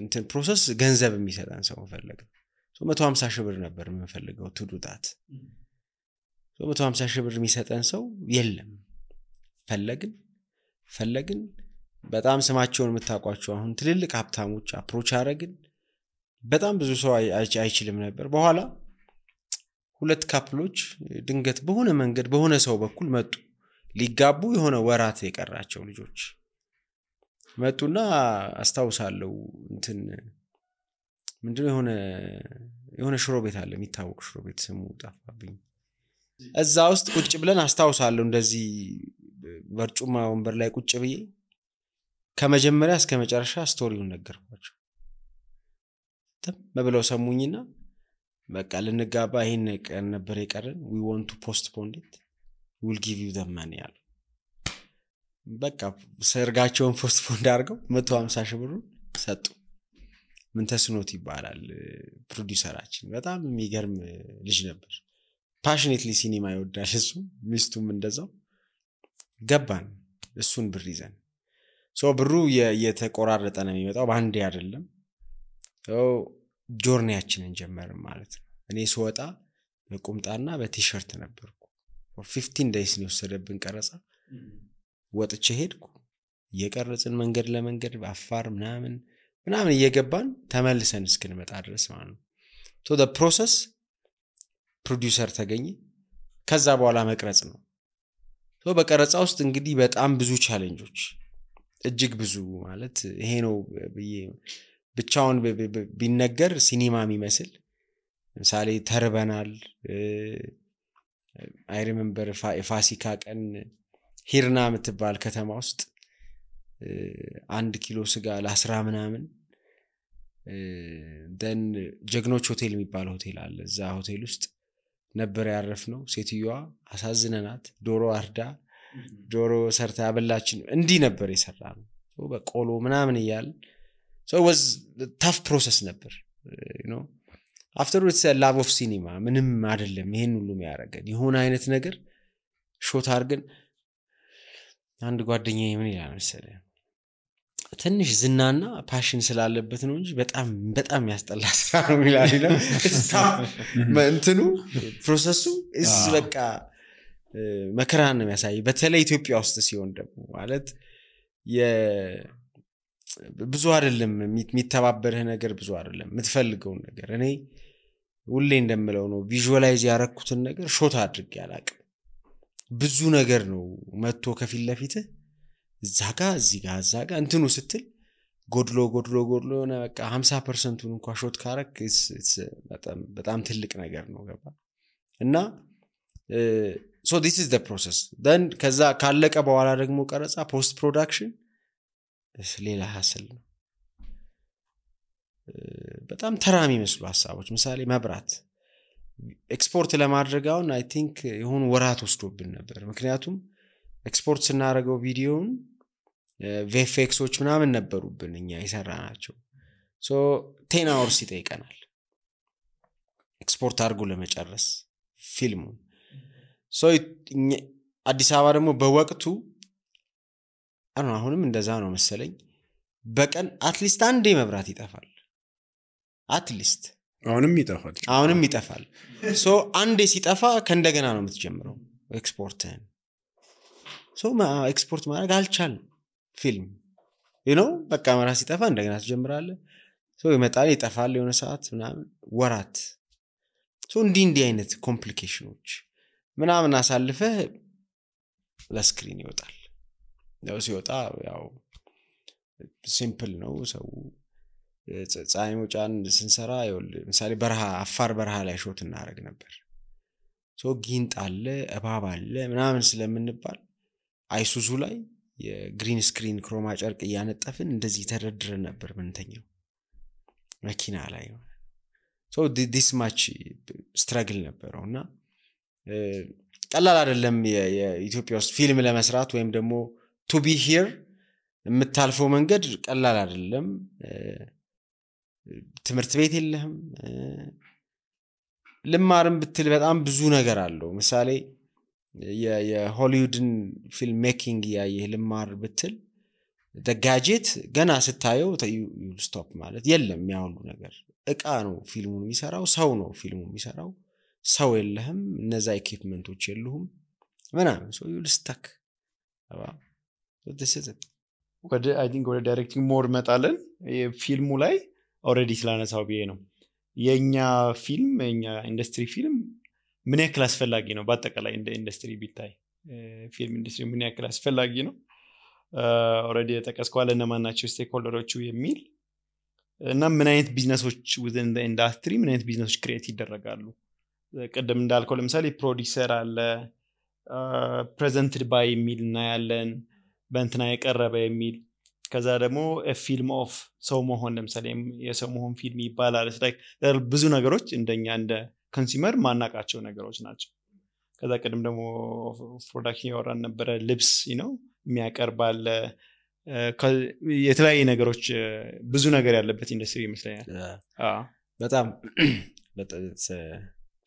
እንትን ፕሮሰስ ገንዘብ የሚሰጣን ሰው መፈለግ ሶ 150 ሺህ ብር ነበር የምፈልገው to do that ሶ 150 ሺህ ብር የሚሰጠን ሰው የለም ፈለግን በጣም ስማቸውን የምታቋቸው አሁን ትልልቅ ሀብታሞች አፕሮች አረግን በጣም ብዙ ሰው አይችልም ነበር በኋላ ሁለት ካፕሎች ድንገት በሆነ መንገድ በሆነ ሰው በኩል መጡ ሊጋቡ የሆነ ወራት የቀራቸው ልጆች መጡና አስተዋውሳለሁ እንትን ምንድነው የሆነ ሽሮ ቤት አለ የሚታወቅ ሽሮ ቤት ስሙ ጠፋብኝ እዛ ውስጥ ቁጭ ብለን አስተዋውሳለሁ እንደዚህ በርጩማ ወንበር ላይ ቁጭ ብዬ ከመጀመሪያ እስከ መጨረሻ ስቶሪውን ነገርኳቸው መብለው ሰሙኝና በቃ ልንጋባ ይሄን ቀን ነበር የቀረን we want to postpone it we'll give you the money አሉ በቃ ሰርጋቸውን ፖስትፖን አድርገው 150 ሺህ ብር ሰጡ ምን ተስኖት ይባላል ፕሮዲዩሰራችን በጣም የሚገርም ልጅ ነበር passionately ሲኒማ ይወዳል እሱ ሚስቱም እንደዛው ገባን እሱን ብር ይዘን ሶ ብሩ የተቆራረጠ ነው የሚመጣው ባንዴ አይደለም ሶ ጆርኒያችንን ጀመርን ማለት ነው እኔ ስወጣ በቁምጣና በቲሸርት ነበርኩ for 15 days ነው ወሰደብን ቀረጻ ወጥቼ ሄድኩ እየቀረጽን መንገድ ለመንገድ በአፋር ምናምን እየገባን ተመልሰን እስክንመጣ ድረስ ማለት ነው so the process ፕሮዲዩሰር ተገኘ ከዛ በኋላ መቅረጽ ነው so በቀረጻ ውስጥ እንግዲህ በጣም ብዙ ቻሌንጆች እጅግ ብዙ ማለት ይሄ ነው ብቻውን ቢነገር ሲኒማ የሚመስል ምሳሌ ተርበናል I remember ፋሲካ ቀን ሂርና የምትባል ከተማ ውስጥ 1 ኪሎ ስጋ ለ10 ምናምን then ጀግኖች ሆቴል የሚባል ሆቴል አለ እዛ ሆቴል ውስጥ ነበር ያረፍነው ሴትዮዋ አሳዝነናት ዶሮ አርዳ ዶሮ ሰርታ ያበላችን እንዲ ነበር የሰራነው በቆሎ ምናምን ይያል so it was a tough process ነበር you know afterwards love of cinema ምንም አይደለም ይሄን ሁሉ የሚያረጋን የሆነ አይነት ነገር ሾት አርገን አንድ ጓደኛዬ ምን ይላል መሰለህ ትንሽ ዝናና ፓሽን ስላለበት ነው እንጂ በጣም ያስጠላ ስራ ነው ይላል እንትኑ ፕሮሰሱ is በቃ መከራን ነው የሚያሳይ በተለይ ኢትዮጵያ ውስጥ ሲሆን ደግሞ ማለት ብዙ አይደለም የሚተባበርህ ነገር ብዙ አይደለም የምትፈልገው ነገር እኔ ሁሌ እንደምለው ነው ቪዥዋላይዝ ያረኩትን ነገር ሾት አድርጌ ያላቅም ብዙ ነገር ነው መጥቶ ከፊት ለፊት እዛጋ እዛጋ እንትኑ ስትል ጎድሎ ሆነ በቃ 50%ን እንኳን ሾት ካረክ በጣም ትልቅ ነገር ነው ገባ እና so this is the process then ከዛ ካለቀ በኋላ ደግሞ ቀረጻ post production ሌላ ሀስል ነው በጣም ተራሚ መስሉ ሐሳቦች ምሳሌ መብራት ኤክስፖርት ለማድረግ አሁን I think የሆነ ወራት ወስዶብን ነበር ምክንያቱም ኤክስፖርት ስናደርገው ቪዲዮውን VFXዎች ምናምን ነበሩብን እኛ ይሰራናቸው so 10 hours ይጠይቀናል ኤክስፖርት አድርጎ ለመጨረስ ፊልሙን so አዲስ አበባ ደግሞ በወቅቱ አሁንም እንደዛ ነው መሰለኝ በቀን አትሊስት አንዴ መብራት ይጠፋል አትሊስት አሁንም ይጠፋል so አንዴ ሲጠፋ ከእንደገና ነው የምትጀምረው ኤክስፖርትን so ኤክስፖርት ማድረግ አልቻልንም ፊልም በቃ መብራት ሲጠፋ እንደገና ትጀምራለህ so ይመጣል ይጠፋል የሆነ ሰዓት ምናምን ወራት so እንዲህ አይነት ኮምፕሊኬሽኖች ምናምን አሳልፈህ ለስክሪን ይወጣል ያው ሲወጣ ያው ሲምፕል ነው ሰው ፀሐይ መውጫን ስንሰራ ለምሳሌ አፋር በረሃ ላይ ሾት እናደርግ ነበር so ጊንጥ አለ እባብ አለ ምናምን ስለምንባል አይሱዙ ላይ የግሪን ስክሪን ክሮማ ጨርቅ ያነጠፍን እንደዚህ ተደርድረን ነበር ምንተኛው መኪና ላይ so this much struggle ነበርና ቀላል አይደለም የኢትዮጵያ ውስጥ ፊልም ለመስራት ወይም ደግሞ to be here የምታልፈው መንገድ ቀላል አይደለም ትምህርት ቤት የለህም ልማርም ብትል በጣም ብዙ ነገር አለው ምሳሌ የሆሊውድን ፊልም ሜኪንግ ያየህ ልማር ብትል the gadget ገና ስታየው you stop ማለት የለም ያውሉ ነገር እቃ ነው ፊልሙን የሚሰራው ሰው ነው ፊልሙን የሚሰራው ሰው የለህም እነዛ ኢኩዊፕመንቶች የሉህም ምናምን so you stuck so this is it I think ወደ ዳይሬክቲንግ ሞር መጣለን ፊልሙ ላይ ኦሬዲ ስላነሳው ቢዬ ነው የኛ ፊልም የኛ ኢንደስትሪ ፊልም ምን ያክል አስፈላጊ ነው በአጠቃላይ እንደ ኢንደስትሪ ቢታይ ፊልም ኢንደስትሪ ምን ያክል አስፈላጊ ነው ኦሬዲ ተቀስቋል እነማናቸው ስቴክሆልደሮቹ የሚል እና ምን አይነት ቢዝነሶች within the industry ምን አይነት ቢዝነሶች ክሬት ይደረጋሉ ቀደም እንዳልከው ለምሳሌ ፕሮዲዩሰር አለ presented by የሚልና ያለን በእንትና የቀረበ የሚል ከዛ ደግሞ ፊልም ኦፍ ሰው መሆን ለምሳሌ የሰው መሆን ፊልም ይባላል ብዙ ነገሮች እንደኛ እንደ ኮንሱመር ማናቃቸው ነገሮች ናቸው ከዛ ቀደም ደግሞ ፕሮዳክሽን ያወራን ነበር ልብስ የሚያቀርባል የተለያየ ነገሮች ብዙ ነገር ያለበት ኢንደስትሪ ይመስለኛል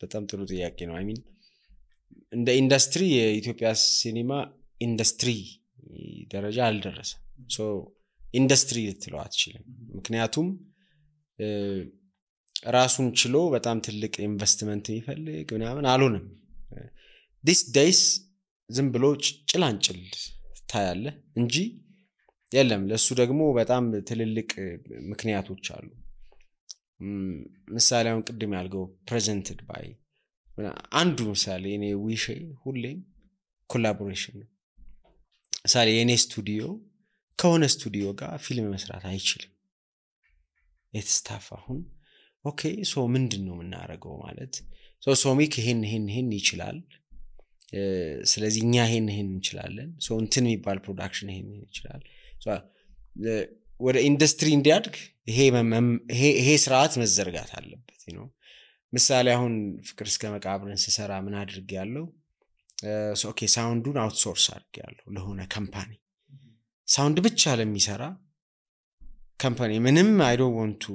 በጣም ጥሩ ጥያቄ ነው I mean እንደ ኢንደስትሪ የኢትዮጵያ ሲኒማ ኢንደስትሪ ደረጃ አልደረሰም so ኢንደስትሪ ልትለው አትችልም ምክንያቱም ራሱን ችሎ በጣም ትልቅ ኢንቨስትመንት ይፈልግ ምናምን አልሆነም these days ዝም ብሎ ጭላንጭል ታያለ እንጂ የለም ለሱ ደግሞ በጣም ትልልቅ ምክንያቶች አሉ ምሳሌ አሁን ቅድም ያልገው presented by አንዱ ምሳሌ እኔ ዊሽ ሁሌም ኮላቦሬሽን ነው ምሳሌ የኔ ስቱዲዮ ከሆነ ስቱዲዮ ጋር ፊልም መስራት አይችልም የተስታፋ አሁን ኦኬ ሶ ምንድነው የምናረገው ማለት ሶሚክ ይሄን ይችላል ስለዚህ እኛ ይሄን እንችላለን ሶ እንትን የሚባል ፕሮዳክሽን ይሄን ይችላል ሶ ወደ ኢንደስትሪ እንዲያድግ ይሄ ስርዓት መዘርጋት አለበት ምሳሌ አሁን ፍቅር እስከ መቃብርን ሲሰራ ምን አድርግ ያለው ኦኬ ሳውንዱን አውትሶርስ አድርግ ያለው ለሆነ ካምፓኒ ሳውንድ ብቻ ለሚሰራ ካምፓኒ ምንም I don't want to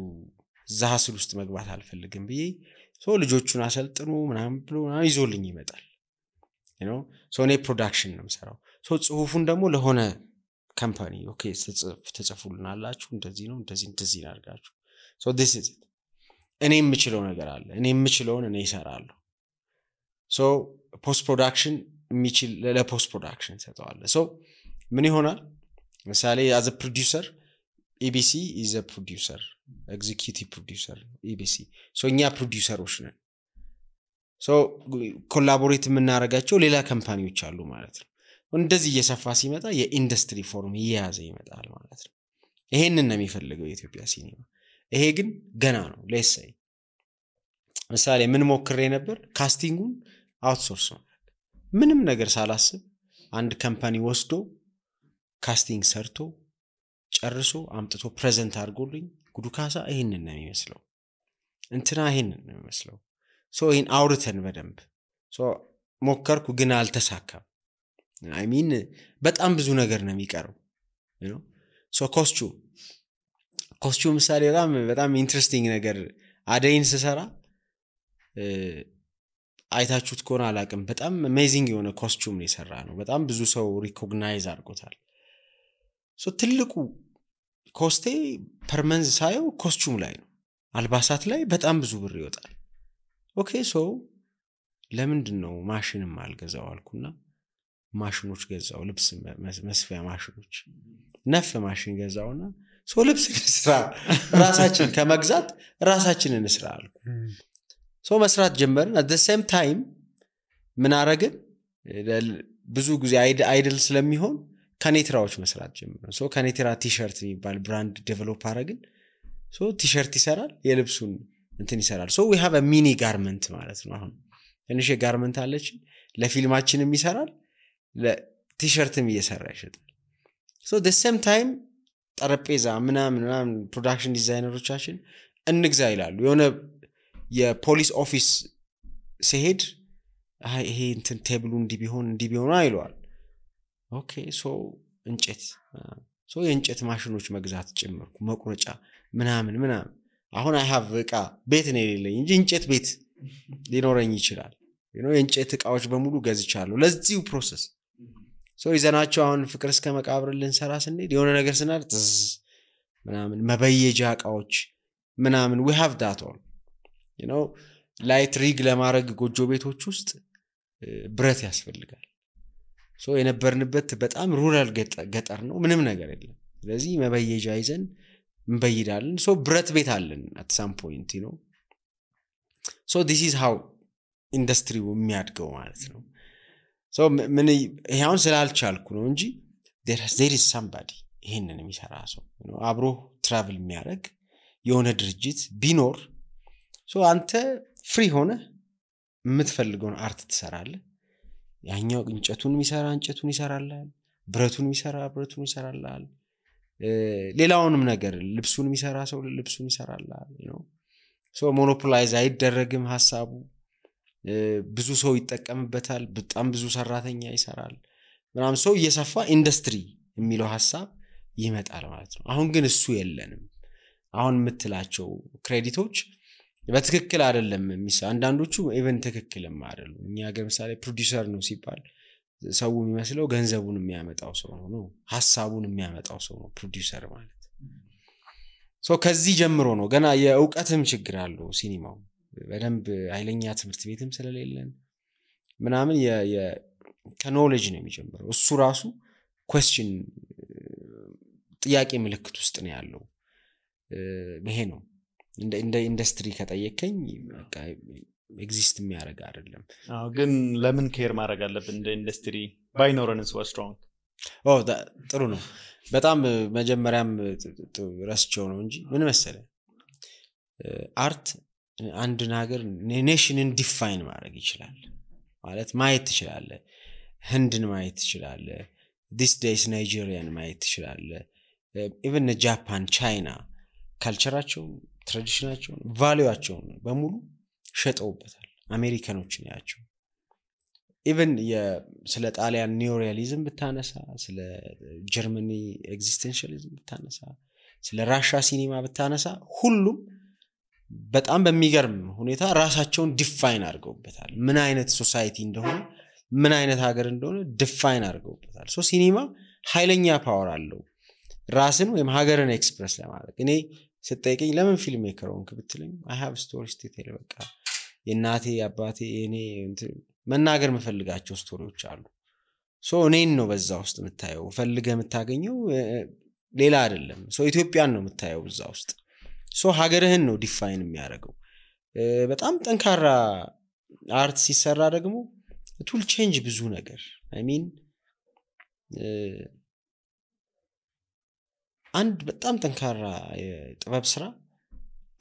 እዛ ሀስል ውስጥ መግባት አልፈልግም ብዬ ልጆቹን አሰልጥኑ ምናምን ብሎ ይዞልኝ ይመጣል እኔ ፕሮዳክሽን ነው የምሰራው ጽሁፉን ደግሞ ለሆነ ካምፓኒ ኦኬ ተጽፉልናላችሁ እንደዚህ ነው እንደዚህ አድርጋችሁ this is it እኔ የምችለው ነገር አለ እኔ የምችለውን እኔ እሰራለሁ ፖስት ፕሮዳክሽን የሚችል ለፖስት ፕሮዳክሽን ሰጠዋለሁ ምን ይሆናል ምሳሌ as a producer EBC is a producer executive producer EBC እኛ ፕሮዲዩሰሮች ነን ኮላቦሬት የምናደርጋቸው ሌላ ካምፓኒዎች አሉ ማለት ነው እንደዚህ እየሰፋ ሲመጣ የኢንዱስትሪ ፎርም እየያዘ ይመጣል ማለት ነው ይሄንን ነው የሚፈልገው የኢትዮጵያ ሲኒማ ይሄ ግን ገና ነው ለሰይ ምሳሌ ምን ሞክሬ ነበር ካስቲንጉን አውትሶርስ ነው ምንም ነገር ሳላስብ አንድ ካምፓኒ ወስዶ ካስቲንግ ሰርቶ ጨርሶ አምጥቶ ፕሬዘንት አድርጎልኝ ጉዱ ካሳ ይሄንን ነው የሚመስለው እንትና ይሄንን ነው የሚመስለው ይሄን አውርተን በደንብ ሞከርኩ ግን አልተሳካም I mean በጣም ብዙ ነገር ነው የሚቀረው ኮስቹም ምሳሌ በጣም ኢንትረስቲንግ ነገር አደይን ስሰራ አይታችሁት ከሆነ አላቅም በጣም አሜዚንግ የሆነ ኮስቹም ነው የሰራ ነው በጣም ብዙ ሰው ሪኮግናይዝ አድርጎታል ትልቁ ኮስቴ ፐርመንዝ ሳየው ኮስቹም ላይ ነው አልባሳት ላይ በጣም ብዙ ብር ይወጣል ኦኬ ለምንድነው ማሽንም አልገዛው አልኩና ማሽኖች ገዛው ልብስ መስፊያ ማሽኖች ነፍ ማሽን ገዛውና ልብስ ስራ ራሳችን ከመግዛት ራሳችንን እንስራ አልኩ መስራት ጀመርን at the same time ምን አረግን ብዙ ጊዜ አይድል ስለሚሆን ከኔትራዎች መስራት ጀመርን ከኔትራ ቲሸርት የሚባል ብራንድ ዴቨሎፕ አረግን ቲሸርት ይሰራል የልብሱን እንትን ይሰራል we have a mini garment ማለት ነው አሁን ትንሽ ጋርመንት አለች ለፊልማችንም ይሰራል ለቲሸርትም እየሰራ ይሸጣል the same time ጠረጴዛ ምናምን ፕሮዳክሽን ዲዛይነሮቻችን እንግዛ ይላሉ የሆነ የፖሊስ ኦፊስ ሲሄድ ይሄ እንትን ቴብሉ እንዲቢሆን አይሏል ኦኬ እንጨት የእንጨት ማሽኖች መግዛት ጀመርኩ መቁረጫ ምናምን አሁን I have እቃ ቤት ነው የሌለኝ እንጂ እንጨት ቤት ሊኖረኝ ይችላል የእንጨት እቃዎች በሙሉ ገዝቻለሁ ለዚሁ ፕሮሰስ ይዘናቸው አሁን ፍቅር እስከ መቃብር ልንሰራ ስንሄድ የሆነ ነገር ስናርጥ ምናምን መበየጃ እቃዎች ምናምን we have that all ላይት ሪግ ለማድረግ ጎጆ ቤቶች ውስጥ ብረት ያስፈልጋል የነበርንበት በጣም ሩራል ገጠር ነው ምንም ነገር የለም ስለዚህ መበየጃ ይዘን እንበይዳለን ብረት ቤት አለን at some point this is how industry የሚያድገው ማለት ነው ምን ይሄውን ስላልቻልኩ ነው እንጂ there is somebody ይሄንን የሚሰራ ሰው አብሮ ትራቭል የሚያደርግ የሆነ ድርጅት ቢኖር አንተ ፍሪ ሆነ የምትፈልገውን አርት ትሰራለህ ያኛው እንጨቱን ይሰራልሃል ብረቱን ይሰራልሃል ሌላውንም ነገር ልብሱን የሚሰራ ሰው ልብሱን ይሰራልሃል ሞኖፖላይዝ አይደረግም ሐሳቡ ብዙ ሰው ይጠቀምበታል በጣም ብዙ ሰራተኛ ይሰራል ምናምን እየሰፋ ኢንዱስትሪ የሚለው ሐሳብ ይመጣል ማለት ነው አሁን ግን እሱ የለንም አሁን የምትላቸው ክሬዲቶች በትክክል አይደለም አንዳንዶቹ ኢቨን ትክክልም አይደሉም እኛ ሀገር ምሳሌ ፕሮዲዩሰር ነው ሲባል ሰው የሚመስለው ገንዘቡን የሚያመጣው ሰው ነው ሐሳቡን የሚያመጣው ሰው ነው ፕሮዲዩሰር ማለት ከዚህ ጀምሮ ነው ገና የእውቀትም ችግር አለው ሲኒማው በደንብ ኃይለኛ ትምህርት ቤትም ስለሌለን ምናምን ከኖሌጅ ነው የሚጀምረው እሱ ራሱ question ጥያቄ ምልክት ውስጥ ነው ያለው ይሄ ነው እንደ ኢንዱስትሪ ከጠየቀኝ በቃ ኤግዚስት የሚያደርግ አይደለም ግን ለምን ኬር ማድረግ አለብን እንደ ኢንዱስትሪ ባይኖረንስ was strong ጥሩ ነው በጣም መጀመሪያም ረስቸው ነው እንጂ ምን መሰለ አርት አንድ ነገር ኔሽንን ዲፋይን ማድረግ ይችላል ማለት ማየት ትችላለ ህንድን ማየት ትችላለ this days ናይጄሪያን ማየት ትችላለ even ጃፓን ቻይና ካልቸራቸው ትራዲሽናቸው ቫልዩአቸው በሙሉ ሸጠውበታል አሜሪካኖችን ያቸው even ስለ ጣሊያን ኒዮሪያሊዝም ብታነሳ ስለ ጀርመኒ ኤግዚስተንሻሊዝም ብታነሳ ስለ ራሻ ሲኒማ ብታነሳ ሁሉም በጣም በሚገርም ሁኔታ ራሳቸውን ዲፋይን አድርገውበታል ምን አይነት ሶሳይቲ እንደሆነ ምን አይነት ሀገር እንደሆነ ዲፋይን አድርገውበታል ሶ ሲኒማ ኃይለኛ ፓወር አለው ራስን ወይም ሀገርን ኤክስፕረስ ለማድረግ እኔ ስትጠይቀኝ ለምን ፊልም ሜከር ሆንክ ብትለኝ I have stories to tell በቃ የናቴ አባቴ እኔ መናገር መፈልጋቸው ስቶሪዎች አሉ ሶ እኔን ነው በዛ ውስጥ የምታየው ፈልገህ የምታገኘው ሌላ አይደለም ሶ ኢትዮጵያን ነው የምታየው በዛ ውስጥ ሶ ሀገርህን ነው ዲፋይን የሚያደርገው በጣም ጠንካራ አርት ሲሰራ ደግሞ it will change ብዙ ነገር I mean አንድ በጣም ጠንካራ ጥበብ ስራ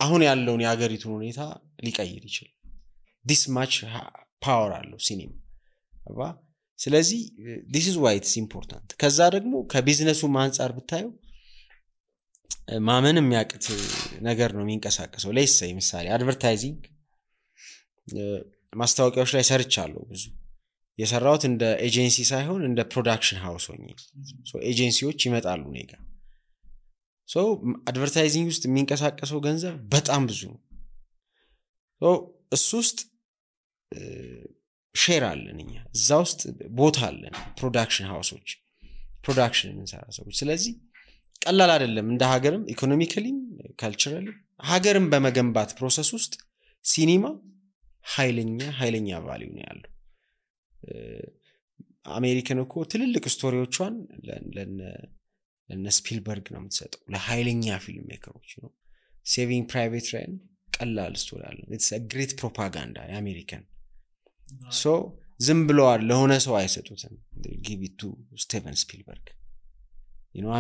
አሁን ያለውን የሀገሪቱን ሁኔታ ሊቀይር ይችላል this much power አለው ሲኒማ አባ ስለዚህ this is why it's important ከዛ ደግሞ ከቢዝነሱ አንፃር ብታዩ ማመን የሚያቅት ነገር ነው የሚንቀሳቀሰው ለይሰይ ምሳሌ አድቨርታይዚንግ ማስታወቂያዎች ላይ ሰርቻለሁ ብዙ የሰራሁት እንደ ኤጀንሲ ሳይሆን እንደ ፕሮዳክሽን ሃውስ ሆኜ ሶ ኤጀንሲዎች ይመጣሉ ኔጋ ሶ አድቨርታይዚንግ ውስጥ የሚንቀሳቀሰው ገንዘብ በጣም ብዙ ነው ሶ እሱ ውስጥ ሼር አለን እኛ እዛ ውስጥ ቦታ አለን ፕሮዳክሽን ሃውሶች ፕሮዳክሽን እንሰራ ሰዎች ስለዚህ ቀላል አይደለም እንደ ሀገርም ኢኮኖሚካሊም ካልቸራሊ ሀገርም በመገንባት ፕሮሰስ ውስጥ ሲኒማ ኃይለኛ ቫልዩ ነው ያለው አሜሪካን እኮ ትልልቅ ስቶሪዎቿን ለነ ስፒልበርግ ነው የምትሰጠው ለኃይለኛ ፊልም ሜከሮች ነው ሴቪንግ ፕራይቬት ራያን ቀላል ስቶሪ አለ it's a great propaganda የአሜሪካን ሶ ዝም ብለዋል ለሆነ ሰው አይሰጡትም give it to ስቲቨን ስፒልበርግ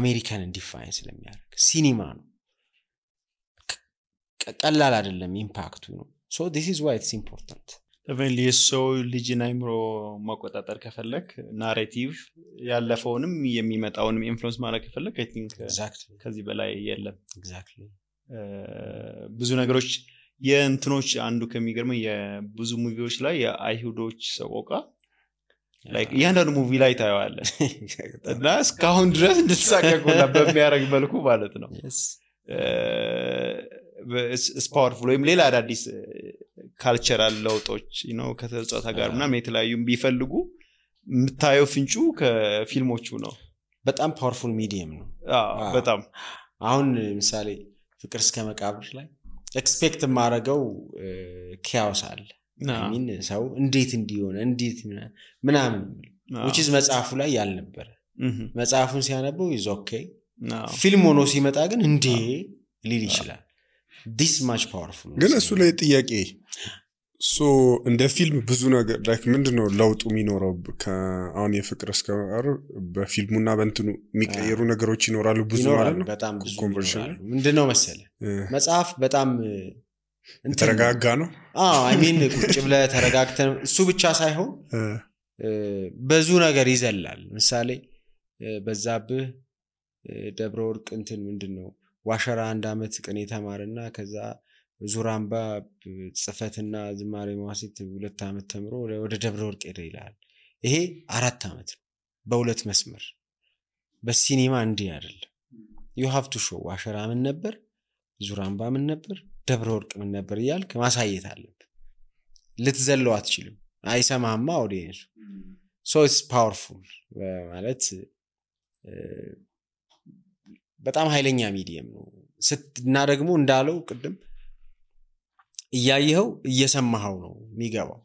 አሜሪካን ዲፋይን ስለሚያደርግ ሲኒማ ነው ቀላል አይደለም ኢምፓክቱ ነው so this is why it's important even so ልጅን አይምሮ ማቆጣጠር ከፈለክ ናሬቲቭ ያለፈውንም የሚመጣውንም ኢንፍሉዌንስ ማድረግ ከፈለክ I think exactly ከዚህ በላይ የለም exactly ብዙ ነገሮች የእንትኖች አንዱ ከሚገርመው የብዙ ሙቪዎች ላይ የአይሁዶች ሰቆቃ like ያንዳንዱ ሙቪ ላይ ታየዋለህ እና እስካሁን ድረስ እንድትሳቀቁና በሚያረግ መልኩ ማለት ነው it's powerful ወይም ሌላ አዳዲስ ካልቸራል ለውጦች ከተጻጻ ጋር ምናምን የተለያዩ ቢፈልጉ የምታየው ፍንጩ ከፊልሞቹ ነው በጣም ፓወርፉል ሚዲየም ነው በጣም አሁን ምሳሌ ፍቅር እስከ መቃብር ላይ ኤክስፔክት ማረገው ኪያውስ አለ I mean ሰው እንዴት እንዲሆነ እንዴት ምናምን which is መጽሐፉ ላይ ያልነበረ መጽሐፉን ሲያነበው is okay ፊልም ሆኖ ሲመጣ ግን እንዴ ሊል ይችላል this much powerful ግን እሱ ላይ ጥያቄ ሶ እንደ ፊልም ብዙ ነገር like ምንድነው ለውጡ የሚኖረው ከአሁን የፍቅር እስከ መቃብር በፊልሙና በእንትኑ የሚቀየሩ ነገሮች ይኖራሉ ብዙ ማለት ነው በጣም ብዙ ኮንቨርሽን ምንድነው መሰለ መጽሐፍ በጣም ተረጋጋ ነው I mean ቁጭ ብለ ተረጋግተን እሱ ብቻ ሳይሆን ብዙ ነገር ይዘላል ምሳሌ በዛብህ ደብረ ወርቅ እንትን ምንድነው ዋሸራ አንድ አመት ቀን የተማረና ከዛ ዙራምባ ጽፈትና ዝማሬ ማዋሲት 2 አመት ተምሮ ወደ ደብረ ወርቅ ሄደ ይላል ይሄ 4 አመት ነው በሁለት መስመር በሲኒማ እንዴ አይደለም you have to show ዋሸራ ምን ነበር ዙራምባ ምን ነበር ደብረ ወርቅ ምን ነበር ይያልክ ማሳየት አለበት ልትዘለው አትችልም አይሰማማ ኦዲየንሱ so it's powerful ማለት በጣም ኃይለኛ ሚዲየም ነው እና ደግሞ እንዳለው ቅድም እያየኸው እየሰማኸው ነው የሚገባው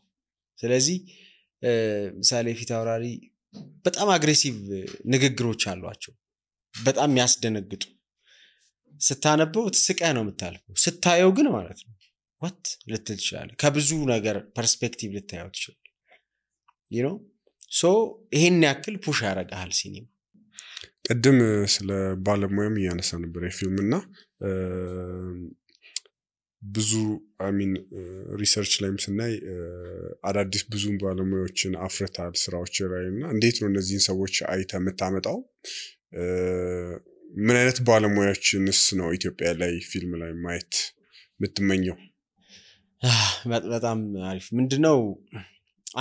ስለዚህ ምሳሌ ፊት አውራሪ በጣም አግሬሲቭ ንግግሮች አሏቸው በጣም ያስደነግጡ ስታነበው ትስቀህ ነው የምታልፈው ስታየው ግን ማለት ነው what ልትል ይችላል ከብዙ ነገር ፐርስፔክቲቭ ልታየው ይችላል so ይሄን ያክል ፑሽ ያረጋል ሲኒማ ቀደም ስለ ባለሙያም ያነሳ ነበር የፊልምና ብዙ I mean ሪሰርች ላይም ስናይ አዳዲስ ብዙ ባለሙያዎችን አፍርታል ስራዎች ላይና እንዴት ነው እነዚህን ሰዎች አይተ መታመጣው ምን አይነት ባለሙያዎችንስ ነው ኢትዮጵያ ላይ ፊልም ላይ ማየት የምትመኘው በጣም አሪፍ ምንድነው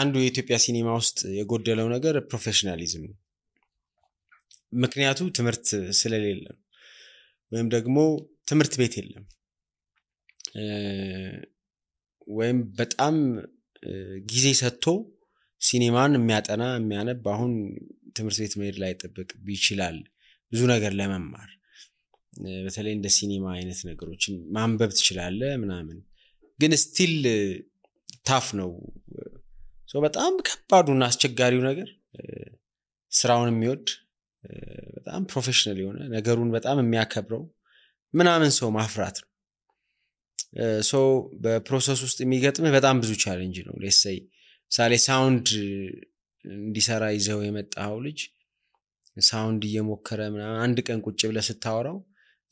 አንዱ የኢትዮጵያ ሲኒማ ውስጥ የጎደለው ነገር ፕሮፌሽናሊዝም ምክንያቱ ትምህርት ስለሌለ ወይም ደግሞ ትምህርት ቤት የለም ወይም በጣም ጊዜ ሰጥቶ ሲኒማን የሚያጠና የሚያነብ አሁን ትምህርት ቤት መሄድ ላይ ተጠብቅ ይችላል ብዙ ነገር ለመማር በተለይ እንደ ሲኒማ አይነት ነገሮችን ማንበብ ትችላለህ ምናምን ግን ስቲል ታፍ ነው በጣም ከባዱና አስቸጋሪው ነገር ስራውን የሚወድ በጣም ፕሮፌሽናል የሆነ ነገሩን በጣም የሚያከብረው ምናምን ሰው ማፍራት ነው በፕሮሰስ ውስጥ የሚገጥምህ በጣም ብዙ ቻሌንጅ ነው ሌትስ ሴይ ሳሌ ሳውንድ እንዲሰራ ይዘው የመጣው ልጅ ሳውንድ እየሞከረ ምናምን አንድ ቀን ቁጭ ብለህ ስታወራው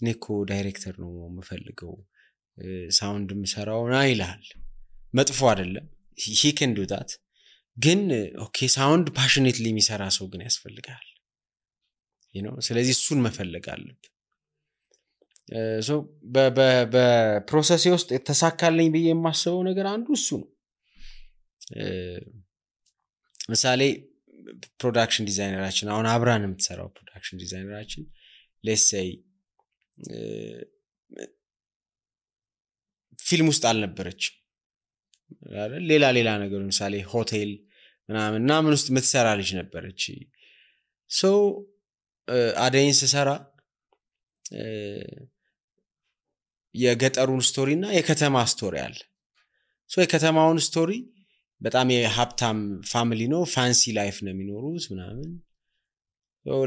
እኔኮ ዳይሬክተር ነው የምፈልገው ሳውንድ ምሰራው ይላል መጥፎ አይደለም he can do that ግን ኦኬ ሳውንድ passionately የሚሰራ ሰው ግን ያስፈልጋል ስለዚህ እሱን መፈለግ አለብህ በፕሮሰስ ውስጥ ተሳካልኝ ብዬ የማስበው ነገር አንዱ እሱ ነው ምሳሌ ፕሮዳክሽን ዲዛይነራችን አሁን አብራን የምትሰራው ፕሮዳክሽን ዲዛይነራችን let's say ፊልም ውስጥ አልነበረችም አይደል ሌላ ነገር ምሳሌ ሆቴል ምናምን ውስጥ የምትሰራ ልጅ ነበረች አደይን ስሰራ የገጠሩን ስቶሪ እና የከተማ ስቶሪ አለ የከተማውን ስቶሪ በጣም የሀብታም ፋሚሊ ነው ፋንሲ ላይፍ ነው የሚኖሩት ምናምን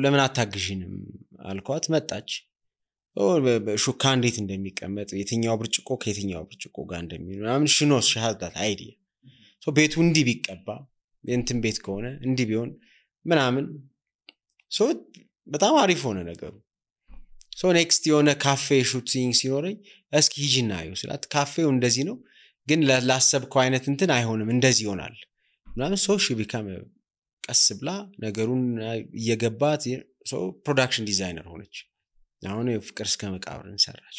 ለምን አታግዢንም አልኳት መጣች ሹካ እንዴት እንደሚቀመጥ የትኛው ብርጭቆ ከየትኛው ብርጭቆ ጋር እንደሚሆን ምናምን ሽኖስ ሻሃዳት አይዲያ ቤቱ እንዲህ ቢቀባ እንትን ቤት ከሆነ እንዲህ ቢሆን ምናምን በጣም አሪፍ ሆነ ነገሩ ኔክስት የሆነ ካፌ ሹቲንግ ሲኖረኝ እስኪ ሂጂና አዩ ስላት ካፌው እንደዚህ ነው ግን ላሰብከው አይነት እንትን አይሆንም እንደዚህ ይሆናል ምናምን ቢካም ቀስ ብላ ነገሩን እየገባት ፕሮዳክሽን ዲዛይነር ሆነች አሁን ፍቅር እስከ መቃብር እንሰራች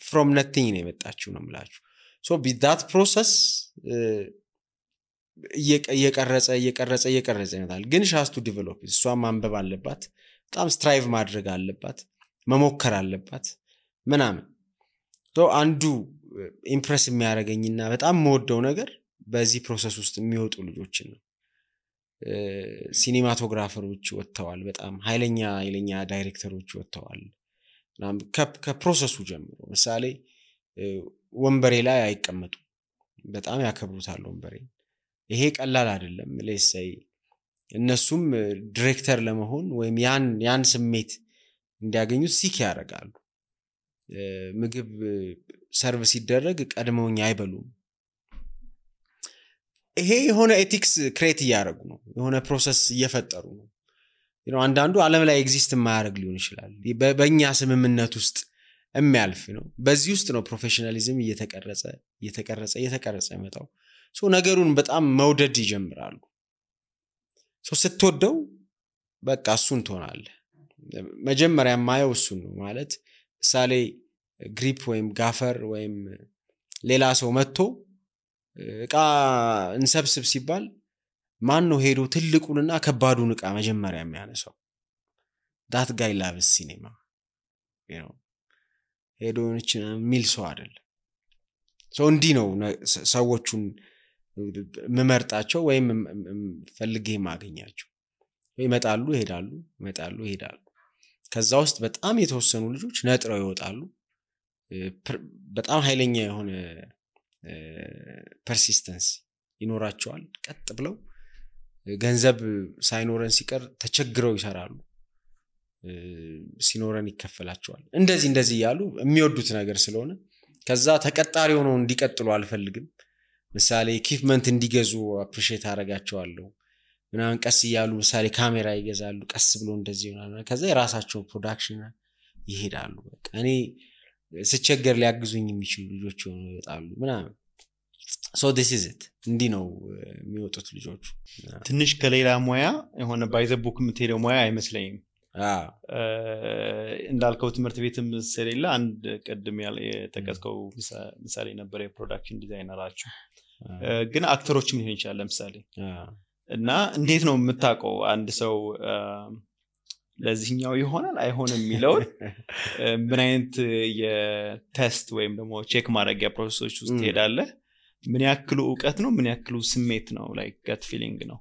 from nothing ነው የመጣችው ነው የምላችሁ that process እየቀረጸ ይመጣል ግን she has to develop እሷ ማንበብ አለባት በጣም ስትራይቭ ማድረግ አለባት መሞከር አለባት ምናምን አንዱ ኢምፕረስ የሚያደርገኝና በጣም የምወደው ነገር በዚህ ፕሮሰስ ውስጥ የሚወጡ ልጆችን ነው ሲኒማቶግራፈሮች ወጥተዋል በጣም ኃይለኛ ዳይሬክተሮች ወጥተዋል ከፕሮሰሱ ጀምሮ ምሳሌ ወንበሬ ላይ አይቀመጡ በጣም ያከብሩታል ወንበሬ ይሄ ቀላል አይደለም let's say እነሱም ዳይሬክተር ለመሆን ወይም ያን ስሜት እንዲያገኙት ሲክ ያደርጋሉ ምግብ ሰርቪስ ሲደረግ ቀድመውኝ አይበሉም ይሄ የሆነ ኤቲክስ ክሬት ያደርጉ ነው የሆነ ፕሮሰስ እየፈጠሩ ነው አንዳንዱ ዓለም ላይ ኤግዚስት የማያደርግ ሊሆን ይችላል በእኛ ስምምነት ውስጥ የሚያልፍ ነው በዚህ ውስጥ ነው ፕሮፌሽናሊዝም እየተቀረጸ ይመጣው ነገሩን በጣም መውደድ ይጀምራሉ ስትወደው በቃ እሱን ትሆናለህ መጀመሪያ ማየው እሱን ነው ማለት ምሳሌ ግሪፕ ወይም ጋፈር ወይም ሌላ ሰው መጥቶ እቃ እንሰብስብ ሲባል ማን ነው ሄዶ ትልቁንና ከባዱን እቃ መጀመሪያ የሚያነሳው that guy loves cinema ሄዶ ሚል ሰው አይደለም እንዲህ ነው ሰዎቹን መመርጣቸው ወይም ፈልጌ ማገኛቸው ይመጣሉ ይሄዳሉ ከዛ ውስጥ በጣም የተወሰኑ ልጆች ነጥረው ይወጣሉ በጣም ኃይለኛ የሆነ ፐርሲስተንስ ይኖራቸዋል ቀጥ ብለው ገንዘብ ሳይኖረን ሲቀር ተቸግረው ይሰራሉ ሲኖረን ይከፈላቸዋል እንደዚህ ያሉ የሚወዱት ነገር ስለሆነ ከዛ ተቀጣሪ ሆነው እንዲቀጥሉ አልፈልግም ምሳሌ ኢኩዊፕመንት እንዲገዙ አፕሪሺየት አደርጋቸዋለሁ ምናምን ቀስ ይያሉ ምሳሌ ካሜራ ይገዛሉ ቀስ ብሎ እንደዚህ ይሆናል ከዛ የራሳቸው ፕሮዳክሽን ይሄዳሉ በቃ እኔ ስቸገር ሊያግዙኝ የሚችሉ ልጆች ይወጣሉ ምናምን this is it እንዲህ ነው የሚወጡት ልጆቹ ትንሽ ከሌላ ሙያ የሆነ ባይዘቡክ የምትሄደው ሙያ አይመስለኝም እንዳልከው ትምህርት ቤትም ስለሌለ አንድ ቀድም የተቀስከው ምሳሌ ነበር የፕሮዳክሽን ዲዛይነራችሁ ግን አክተሮችም ሊሆን ይችላል ለምሳሌ እና እንዴት ነው የምታውቀው አንድ ሰው ለዚህኛው ይሆናል አይሆንም የሚለው ምን አይነት የቴስት ወይም ደግሞ ቼክ ማድረጊያ ፕሮሰሶች ውስጥ ትሄዳለህ? ምን ያክሉ ዕውቀት ነው ምን ያክሉ ስሜት ነው? ላይክ gut feeling ነው?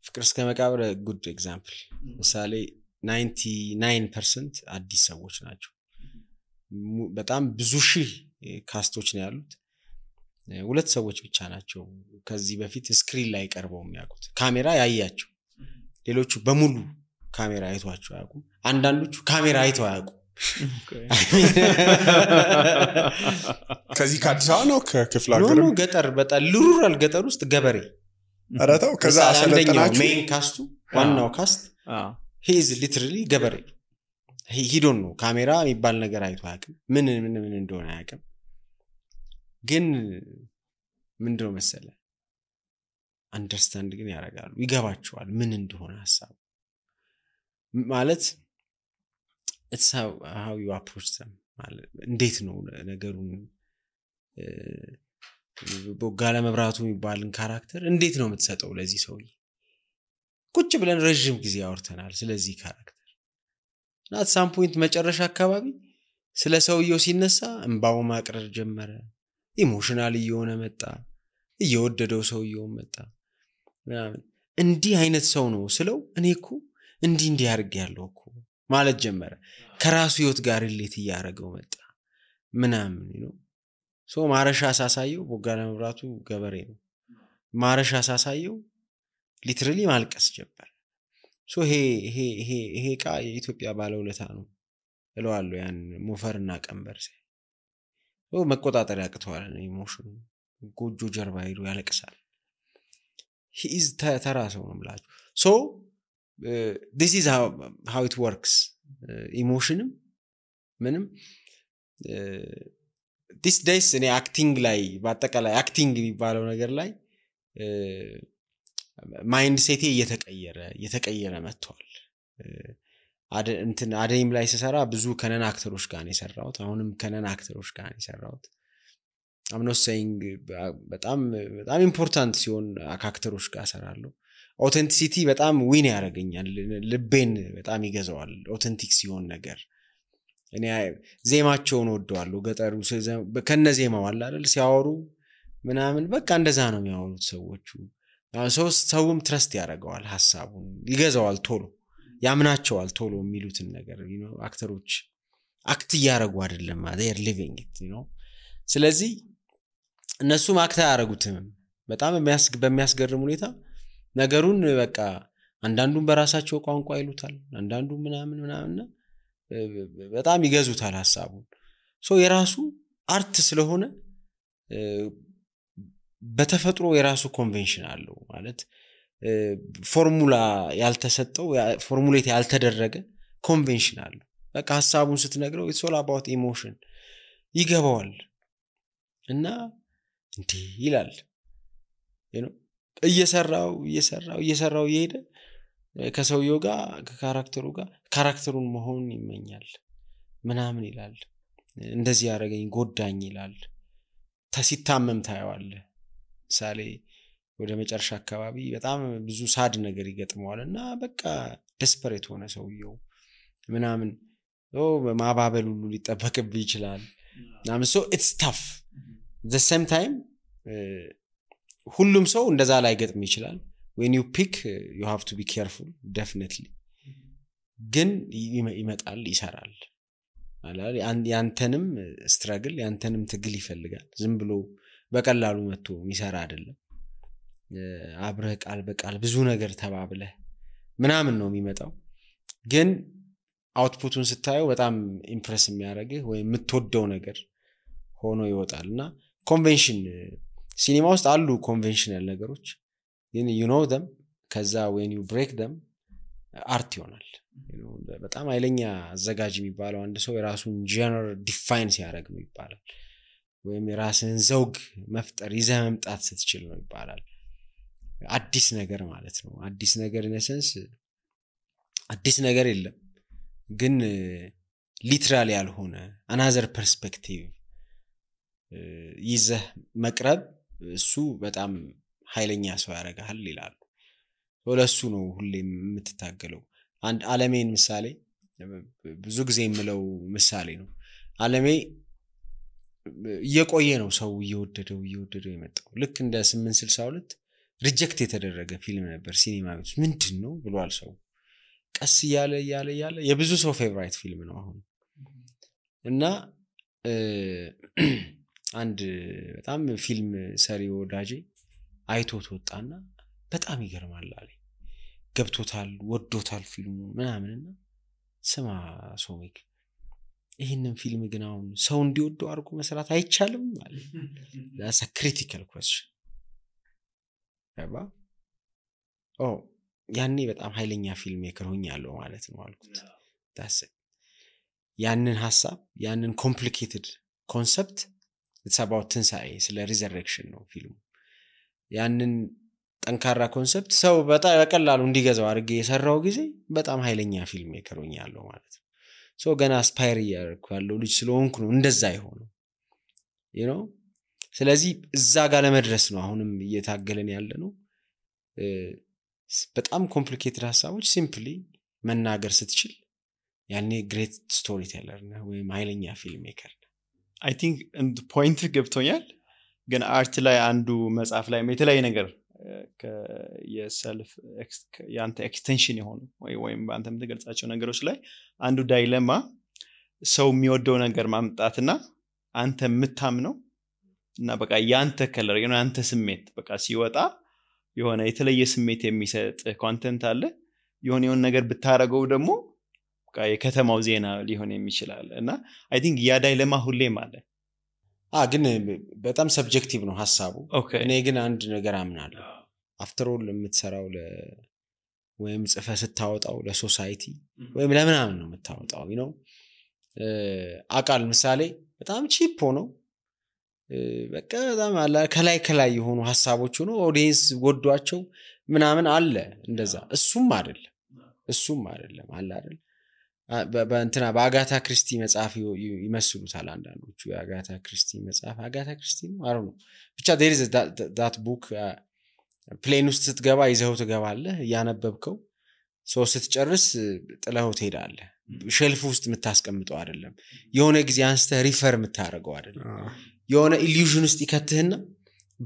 ፍቅር እስከ መቃብር ጉድ ኤግዛምፕል ምሳሌ 99% አዲስ ሰዎች ናቸው። በጣም ብዙ ሺህ ካስቶች ነው ያሉት። 2 ሰዎች ብቻ ናቸው ከዚህ በፊት ስክሪን ላይ ቀርበው የሚያውቁት ካሜራ ያያቸው። ሌሎቹ በሙሉ ካሜራ አይቷቸው አያውቁም። አንዳንዶቹ ካሜራ አይተው አያውቁም። ከዚህ ከአዲስ አበባ ነው ከክፍለ ሀገር ነው ገጠር በጣም ሩራል ገጠር ውስጥ ገበሬ አራታው ከዛ አሰለጠናችሁ። ሜን ካስቱ ዋናው ካስት he is literally ገበሬ he don't know ካሜራ የሚባል ነገር አይቶ አያውቅም። ምን እንደሆነ አያውቅም። ግን ምንድነው መሰለ አንደርስታንድ ግን ያደርጋሉ፣ ይገባቸዋል ምን እንደሆነ ሐሳቡ ማለት it's how you approach them ማለት እንዴት ነው ነገሩን በጋለ መብራቱ የሚባልን ካራክተር እንዴት ነው የምትሰጠው ለዚህ ሰውዬ? ቁጭ ብለን ረጅም ጊዜ አውርተናል ስለዚህ ካራክተር እና at some point መጨረሻ አካባቢ ስለ ሰውየው ሲነሳ እንባው ማቅረር ጀመረ። ኢሞሽናል እየሆነ መጣ። እየወደደው ሰውየው መጣ ምናምን። እንዲህ አይነት ሰው ነው ስለው እኔ እኮ እንዲህ አድርጌ ያለው እኮ ማለት ጀመረ። ከራሱ ህይወት ጋር ሪሌት ያደረገው መጣ ምናምን ነው። ሶ ማረሻ ሳሳየው ቦጋለ መብራቱ ገበሬ ነው። ማረሻ ሳሳየው ሊትራሊ ማልቀስ ጀመረ። ሶ ይሄ ቃ የኢትዮጵያ ባለውለታ ነው እለዋለሁ። ያን ሞፈርና ቀንበር መቆጣጠር ያቅተዋል ኢሞሽኑ። ጎጆ ጀርባ ሄዶ ያለቅሳል። he is ተራ ሰው ነው ብላችሁ so this is how it works ኢሞሽንም ምንም this days እኔ አክቲንግ ላይ በአጠቃላይ አክቲንግ የሚባለው ነገር ላይ ማይንድ ሴቴ እየተቀየረ መጥቷል። አደይም ላይ ሲሰራ ብዙ ከነን አክተሮች ጋር ነው የሰራሁት። አሁንም ከነን አክተሮች ጋር ነው የሰራሁት። I'm not saying በጣም ኢምፖርታንት ሲሆን አክተሮች ጋር ሰራለሁ። ኦተንቲሲቲ በጣም ዊን ያደርገኛል፣ ልቤን በጣም ይገዛዋል ኦተንቲክ ሲሆን ነገር። እኔ ዜማቸውን ወደዋለሁ። ገጠሩ ከነዜማው አለ አይደል ሲያወሩ ምናምን በቃ እንደዛ ነው የሚያወሩት ሰዎቹ። ሰውም ትረስት ያደርገዋል፣ ሐሳቡን ይገዛዋል፣ ቶሎ ያምናቸዋል ቶሎ የሚሉትን ነገር አክተሮች አክት ያደርጉ አይደለም they are living it ስለዚህ እነሱም አክት ያደርጉትም በጣም በሚያስገርም ሁኔታ ነገሩን በቃ አንዳንዱን በራሳቸው ቋንቋ ይሉታል፣ አንዳንዱ ምናምን በጣም ይገዙታል ሐሳቡን። ሶ የራሱ አርት ስለሆነ በተፈጥሮ የራሱ ኮንቬንሽን አለው ማለት ፎርሙላ ያልተሰጠው ፎርሙሌት ያልተደረገ ኮንቬንሽን አለው። በቃ ሐሳቡን ስትነግረው it's all about emotion ይገባዋል እና እንዴ ይላል እየሰራው ይሄደ ከሰውየው ጋር ከካራክተሩ ጋር ካራክተሩን መሆን ይመኛል ምናምን ይላል። እንደዚህ ያደረገኝ ጎዳኝ ይላል። ሲታመም ታየዋል። ሳሌ ወደ መጨረሻ አካባቢ በጣም ብዙ ሳድ ነገር ይገጥመዋልና በቃ ዴስፐሬት ሆነ ሰውየው ምናምን ማባበል ሁሉ ሊጠበቅብህ ይችላል ምናምን። so it's tough the same time ሁሉም ሰው እንደዛ ላይ ገጥም ይችላል። when you pick you have to be careful definitely ግን ይመጣል ይሰራል አላል ያንተንም ስትራግል ያንተንም ትግል ይፈልጋል። ዝም ብሎ በቀላሉ መጥቶ የሚሰራ አይደለም። አብረህ ቃል በቃል ብዙ ነገር ተባብለህ ምናምን ነው የሚመጣው። ግን አውትፑቱን ስታየው በጣም ኢምፕረስ የሚያደርግህ ወይ የምትወደው ነገር ሆኖ ይወጣልና ኮንቬንሽን ሲኒማ ውስጥ አሉ ኮንቬንሽናል ነገሮች ግን you know them ከዛ when you break them አርት ይሆናል። በጣም ኃይለኛ አዘጋጅ የሚባለው አንድ ሰው የራሱን ጀነር ዲፋይን ሲያደርግ ነው ይባላል። ወይም የራስን ዘውግ መፍጠር ይዘህ መምጣት ስትችል ነው ይባላል። አዲስ ነገር ማለት ነው። አዲስ ነገር ኢነሰንስ አዲስ ነገር የለም ግን ሊትራሊ ያልሆነ another perspective ይዘህ መቅረብ እሱ በጣም ኃይለኛ ሰው ያደርጋል ይላሉ። ወለሱ ነው ሁሌም የምትታገለው። አንድ ዓለሜን ምሳሌ ብዙ ጊዜ የምለው ምሳሌ ነው ዓለሜ እየቆየ ነው ሰው እየወደደው የመጣው ልክ እንደ 862 ሪጀክት የተደረገ ፊልም ነበር ሲኒማ ቤት ምንድነው ብሏል ሰው ቀስ ያለ የብዙ ሰው ፌቨራይት ፊልም ነው አሁን እና አንድ በጣም ፊልም ሰሪ ወዳጄ አይቶት ወጣና በጣም ይገርማል አለኝ ገብቶታል ወዶታል ፊልሙ ምናምንና ስማ ሶሚክ ይሄንን ፊልም ግን አሁን ሰው እንዲወደው አድርጎ መስራት አይቻልም ማለት that's a critical question አባ ያኔ በጣም ኃይለኛ ፊልም ሜከር ሆኛለሁ ማለት ነው አልኩት that's it ያንን ሐሳብ ያንን complicated concept it's about ትንሳኤ ስለ resurrection ነው ፊልሙ ያንን ጠንካራ ኮንሰፕት ሰው በጣም በቀላሉ እንዲገዛው አድርጌ የሰራው ጊዜ በጣም ኃይለኛ ፊልም ሜከር ሆኛለሁ ማለት ነው ሶ ገና አስፓየር ያደርኩ ልጅ ስለሆንኩ ነው እንደዛ ይሆነው you know ስለዚህ እዛ ጋር ለመድረስ ነው አሁንም እየታገለን ያለ ነው በጣም ኮምፕሊኬትድ ሐሳቦች ሲምፕሊ መናገር ስትችል ያኔ ግሬት ስቶሪ ቴለር ነው ወይ ኃይለኛ ፊልም ሜከር I think and point ገብቶኛል ግን አርት ላይ አንዱ መጽሐፍ ላይ የተለያየ ነገር የሰልፍ ያንተ ኤክስቴንሽን የሆኑ ወይም አንተ የምትገልጻቸው ነገሮች ላይ አንዱ ዳይለማ ሰው የሚወደው ነገር ማምጣትና አንተ የምታምነው እና በቃ ያንተ ከለር ያንተ ስሜት በቃ ሲወጣ የሆነ የተለየ ስሜት የሚሰጥ ኮንቴንት አለ የሆነ ነገር ብታረገው ደግሞ በቃ የከተማው ዜና ሊሆን የሚችላል እና አይ ቲንክ ያ ዳይለማ ሁሌም አለ ግን በጣም ሰብጀክቲቭ ነው ሐሳቡ እኔ ግን አንድ ነገር አምናለሁ አፍተር ኦል የምትሰራው ወይም ጽፈ ስታወጣው ለሶሳይቲ ወይም ለምናምን ነው የምታወጣው you know አቃል ምሳሌ በጣም ቺፕ ነው በቃ በጣም አለ ከላይ የሆኑ ሐሳቦች ሆኖ ኦዲየንስ ወዷቸው ምናምን አለ እንደዛ እሱም አይደለም አለ አይደል በእንትና በአጋታ ክሪስቲ መጽሐፍ ይመስሉታል አንዳንዶቹ የአጋታ ክሪስቲ መጽሐፍ አጋታ ክሪስቲ ነው አሩ ነው ብቻ there is that book ፕሌን ውስጥ ስትገባ ይዘው ትገባለህ ያነበብከው ሶ ስትጨርስ ጥለው ትሄዳለህ ሼልፍ ውስጥ የምታስቀምጠው አይደለም የሆነ ጊዜ አንስተ ሪፈር የምታረገው አይደለም የሆነ ኢሉዥን ውስጥ ይከትህና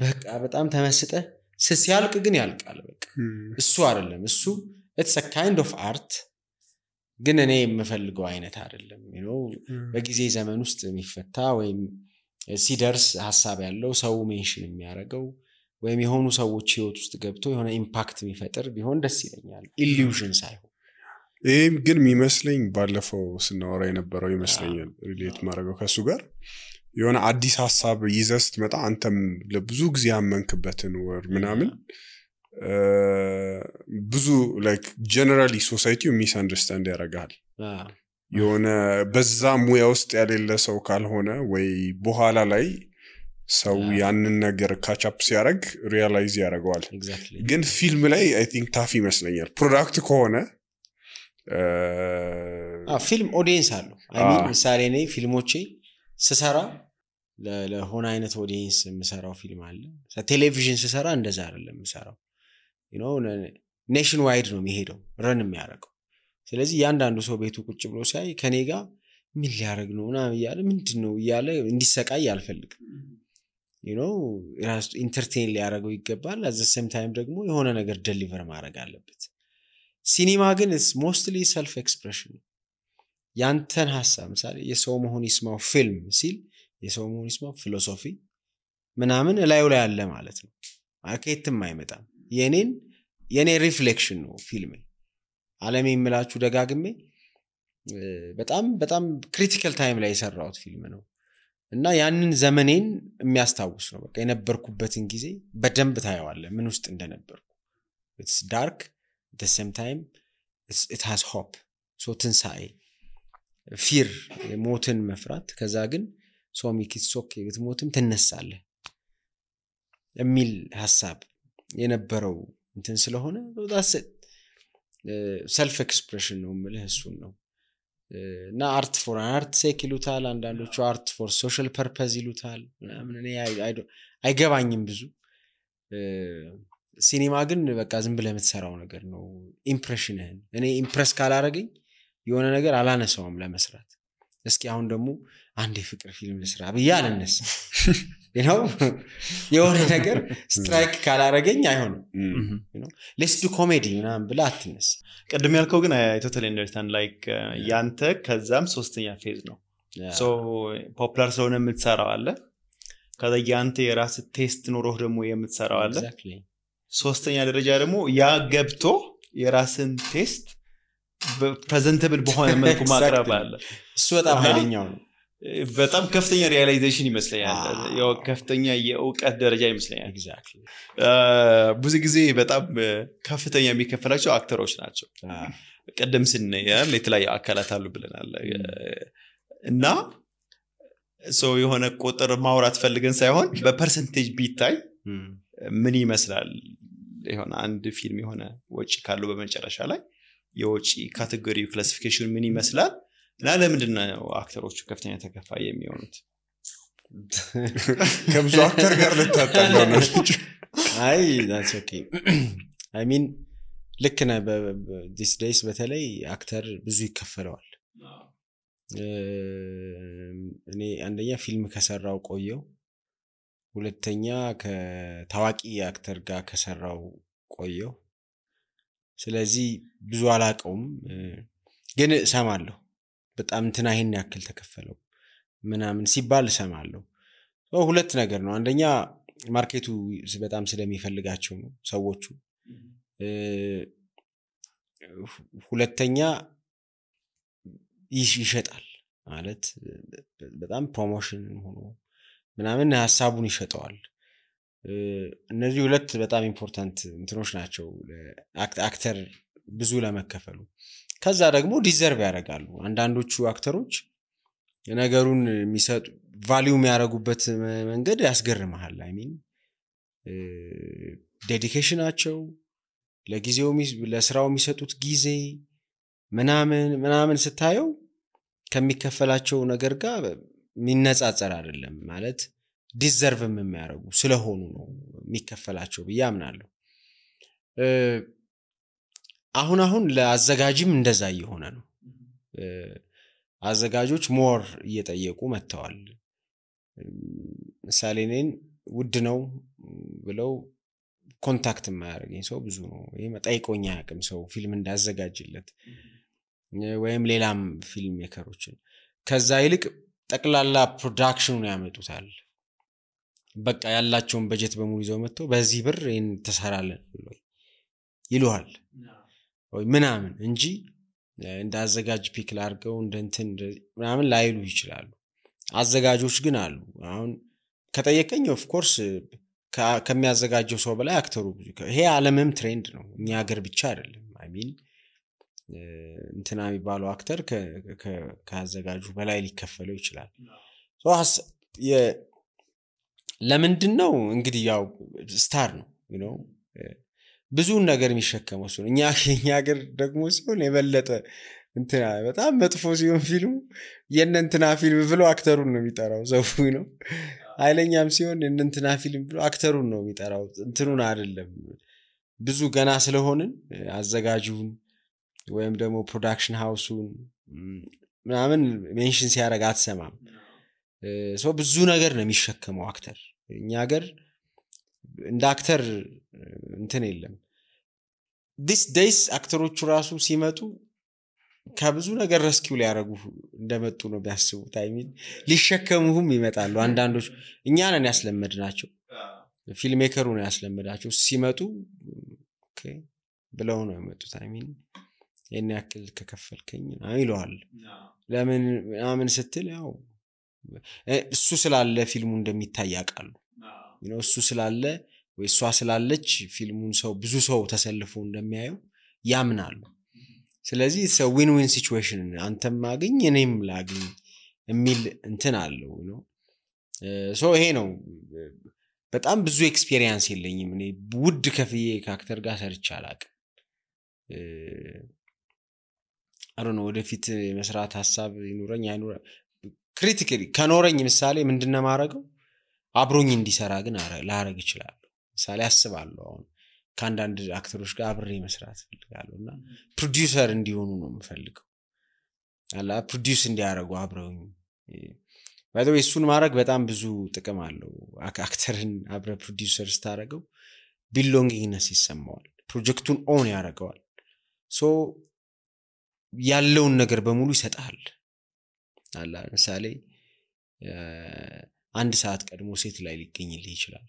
በቃ በጣም ተመስጠህ ሲያልቅ ግን ያልቃል በቃ እሱ አይደለም እሱ it's a kind of art ግን እኔ የምፈልገው አይነት አይደለም you know በጊዜ ዘመን ውስጥ የሚፈታ ወይም ሲደርስ ሐሳብ ያለው ሰው ሜንሽን የሚያረጋው ወይም የሆኑ ሰዎች ህይወት ውስጥ ገብቶ የሆነ ኢምፓክት የሚፈጥር ቢሆን ደስ ይለኛል ኢሉዥን ሳይሆን ይሄም ግን የሚመስለኝ ባለፈው ስናወራ የነበረው ይመስለኛል ሪሌት ማድረገው ከሱ ጋር የሆነ አዲስ ሐሳብ ይዘህ ስትመጣ አንተም ለብዙ ጊዜ ያመንክበትን ወር ምናምን ብዙ like generally society misunderstand ያረጋል የሆነ በዛ ሙያ ውስጥ ያለለ ሰው ካልሆነ ወይ በኋላ ላይ ሰው ያንን ነገር ካቻፕ ሲያረግ ሪያላይዝ ያረጋዋል ግን ፊልም ላይ I think ታፍ ይመስለኛል ፕሮዳክት ከሆነ ፊልም ኦዲየንስ አለው I mean ምሳሌ ነኝ ፊልሞቼ ስሰራ ለሆነ አይነት ኦዲየንስ የምሰራው ፊልም አለ ቴሌቪዥን ስሰራ እንደዛ አይደለም የምሰራው you know ኔሽን ዋይድ ነው የሚሄደው ረን የሚያረጋው ስለዚህ ያንዳንዱ ሰው ቤቱ ቁጭ ብሎ ሳይ ከኔ ጋር ምን ሊያረግ ነው እና ይያለ ምንድነው ይያለ እንዲሰቃይ አልፈልግም you know ራስ ኢንተርቴይን ሊያረጋው ይገባል at the same time ደግሞ የሆነ ነገር ዴሊቨር ማድረግ አለበት ሲኒማ ግን is mostly self expression ያንተን ሐሳብ ምሳሌ የሰው መሆን ይስማው ፊልም ሲል የሰው መሆን ይስማው ፊሎሶፊ ምናምን ላዩ ላይ አለ ማለት ነው ማርኬትም አይመጣም የኔ ሪፍሌክሽን ነው ፊልም ዓለም የሚላችሁ ደጋግሜ በጣም ክሪቲካል ታይም ላይ የሰራሁት ፊልም ነው እና ያንን ዘመኔን የሚያስታውስ ነው በቃ የነበርኩበትን ጊዜ በደንብ ታየዋለህ ምን ውስጥ እንደነበርኩ it's dark at the same time it has hope so ትንሳኤ fear ሞትን መፍራት ከዛ ግን so make it okay ብትሞትም ትነሳለህ የሚል ሐሳብ የነበረው እንትን ስለሆነ that's it self expression ነው ማለት እሱን ነው እና art for art sake ይሉታል አንዳንዶቹ art for social purpose ይሉታል ምናምን እኔ አይገባኝም ብዙ ሲኒማ ግን በቃ ዝም ብለህ የምትሰራው ነገር ነው ኢምፕሬሽንህን እኔ ኢምፕረስ ካላረገኝ የሆነ ነገር አላነሳውም ለመስራት እስኪ አሁን ደግሞ አንድ የፍቅር ፊልም ልስራ ብዬ አልነሳ የሆነ ነገር ስትራይክ ካላረገኝ አይሆንም ሌትስ ዱ ኮሜዲ ምናምን ብላ አትነሳ ቅድም ያልከው ግን አይ ቶታሊ አንደርስታንድ ላይክ ያንተ ከዛም ሶስተኛ ፌዝ ነው ሶ ፖፑላር ስለሆነ የምትሰራው አለ ከዛ ያንተ የራስ ቴስት ኖሮህ ደግሞ የምትሰራው አለ ሶስተኛ ደረጃ ደግሞ ያ ገብቶ የራስን ቴስት ፕሬዘንተብል በሆነ መልኩ ማቅረብ አለ እሱ በጣም ኃይለኛው ነው በጣም ከፍተኛ ሪያላይዜሽን ይመስለኛል ያው ከፍተኛ የእውቀት ደረጃ ይመስለኛል ኤግዛክትሊ ብዙ ጊዜ በጣም ከፍተኛ የሚከፈላቸው አክተሮች ናቸው ቀደም ስንያል የተለያየ አካላት አሉ ብለናል እና ሶ የሆነ ቁጥር ማውራት ፈልገን ሳይሆን በፐርሰንቴጅ ቢታይ ምን ይመስላል የሆነ አንድ ፊልም የሆነ ወጪ ካለው በመጨረሻ ላይ የወጪ ካቴጎሪ ክላሲፊኬሽን ምን ይመስላል እና ለምንድነው አክተሮቹ ከፍተኛ ተከፋይ የሚሆኑት ከብዙ አክተር ጋር ልታጣለው ነው አይ that's okay I mean ልክ ነህ this days በተለይ አክተር ብዙ ይከፈለዋል እኔ አንደኛ ፊልም ከሰራው ቆየው ሁለተኛ ከታዋቂ አክተር ጋር ከሰራው ቆየው ስለዚህ ብዙ አላቀውም ግን ሰማለሁ በጣም እንትና ይሄን ያክል ተከፈለው ምናምን ሲባል ሰማለሁ ሁለት ነገር ነው አንደኛ ማርኬቱ በጣም ስለሚፈልጋቸው ነው ሰዎቹ ሁለተኛ ይሸጣል ማለት በጣም ፕሮሞሽን ሆኖ ምናምን ሐሳቡን ይሸጣል እነዚህ ሁለት በጣም ኢምፖርታንት እንትኖች ናቸው አክተር ብዙ ለመከፈሉ ከዛ ደግሞ ዲዘርቭ ያደርጋሉ አንዳንዶቹ አክተሮች ነገሩን የሚሰጡ ቫልዩ የሚያደርጉበት መንገድ ያስገርማል አይ ሚን ዴዲኬሽናቸው ለጊዜው ለስራው የሚሰጡት ጊዜ ምናምን ስታየው ከሚከፈላቸው ነገር ጋር ሚነጻጸር አይደለም ማለት ዲዘርቭም የሚያደርጉ ስለሆኑ ነው የሚከፈላቸው በያምናለሁ አሁን ለአዘጋጅም እንደዛ እየሆነ ነው አዘጋጆች ሞር እየጠየቁ መተዋል ምሳሌ ነን ውድ ነው ብለው ኮንታክት የማያደርገኝ ሰው ብዙ ነው ይሄ መጣይቆኛ ያቅም ሰው ፊልም እንዳዘጋጅለት ወይም ሌላም ፊልም ሜከሮችን ከዛ ይልቅ ጠቅላላ ፕሮዳክሽኑን ያመጡታል በቃ ያላቸውን በጀት በሙሉ ይዘው መጥተው በዚህ ብር ይሄን ተሰራለን ይሉሃል ወይ ምናምን እንጂ እንዳዘጋጅ ፒክ ላርገው እንደንትን ምናምን ላይሉ ይችላሉ አዘጋጆች ግን አሉ አሁን ከጠየቀኝ ኦፍ ኮርስ ከሚያዘጋጀው ሰው በላይ አክተሩ ይሄ ዓለምም ትሬንድ ነው እኛ ሀገር ብቻ አይደለም አይ ሚን እንትና የሚባለው አክተር ከአዘጋጁ በላይ ሊከፈለው ይችላል ለምንድነው እንግዲህ ያው ስታር ነው you know ብዙ ነገር የሚሸከመው ሰው እኛ ሀገር ደግሞ ሲሆን የበለጠ እንትና በጣም መጥፎ ሲሆን ፊልሙ የእንትና ፊልም ብሎ አክተሩን ነው የሚጠራው ዘው ነው አይለኛም ሲሆን የእንትና ፊልም ብሎ አክተሩን ነው የሚጠራው እንትኑን አይደለም ብዙ ገና ስለሆንን አዘጋጁን ወይም ደግሞ ፕሮዳክሽን ሃውሱን ምናምን ሜንሽን ሲያደርግ አትሰማም ሰው ብዙ ነገር ነው የሚሸከመው አክተር እኛ ሀገር እንደ አክተር እንትን የለም this days አክተሮቹ ራሱ ሲመጡ ከብዙ ነገር ረስኪው ሊያረጉ እንደመጡ ነው ቢያስቡት አይ ሚን ሊሸከሙም ይመጣሉ አንዳንዶች እኛ ነን ያስለመድናቸው ፊልም ሜከሩ ነው ያስለመዳቸው ሲመጡ ኦኬ ብለው ነው የመጡት አይ ሚን የኔ ያክል ከከፈልከኝ አይሏል ለምን ስትል ያው እሱ ስላለ ፊልሙ እንደሚታይ ያቃሉ እሱ ስላለ ወይ እሷ ስላለች ፊልሙን ሰው ብዙ ሰው ተሰልፎ እንደሚያየው ያምናሉ ስለዚህ ሰው ዊን ዊን ሲቹዌሽን አንተም ማግኝ እኔም ላግኝ የሚል እንትን አለው ነው ሶ ይሄ ነው በጣም ብዙ ኤክስፒሪየንስ የለኝም እኔ ውድ ከፍዬ ከአክተር ጋር ሰርቻ አላቅ አሮን ወደፊት መስራት ሐሳብ ይኑረኝ አይኑረ ክሪቲካሊ ከኖረኝ ምሳሌ ምንድነው ማረገው አብሮኝ እንዲሰራ ግን ላረግ ይችላል ምሳሌ አስባለሁ አሁን ከአንዳንድ አክተሮች ጋር አብሬ መስራት ፈልጋለሁና ፕሮዲዩሰር እንዲሆኑ ነው የምፈልገው አላ ፕሮዲዩስ እንዲያደርጉ አብረውኝ ባይ ዘ ዌይ እሱን ማድረግ በጣም ብዙ ጥቅም አለው አክተርን አብረ ፕሮዲዩሰር ስታደርገው ቢሎንጊንግነስ ይሰማዋል ፕሮጀክቱን ኦን ያደርገዋል ሶ ያለውን ነገር በሙሉ ይሰጣል አላ ለምሳሌ አንድ ሰዓት ቀድሞ ሴት ላይ ሊገኝልህ ይችላል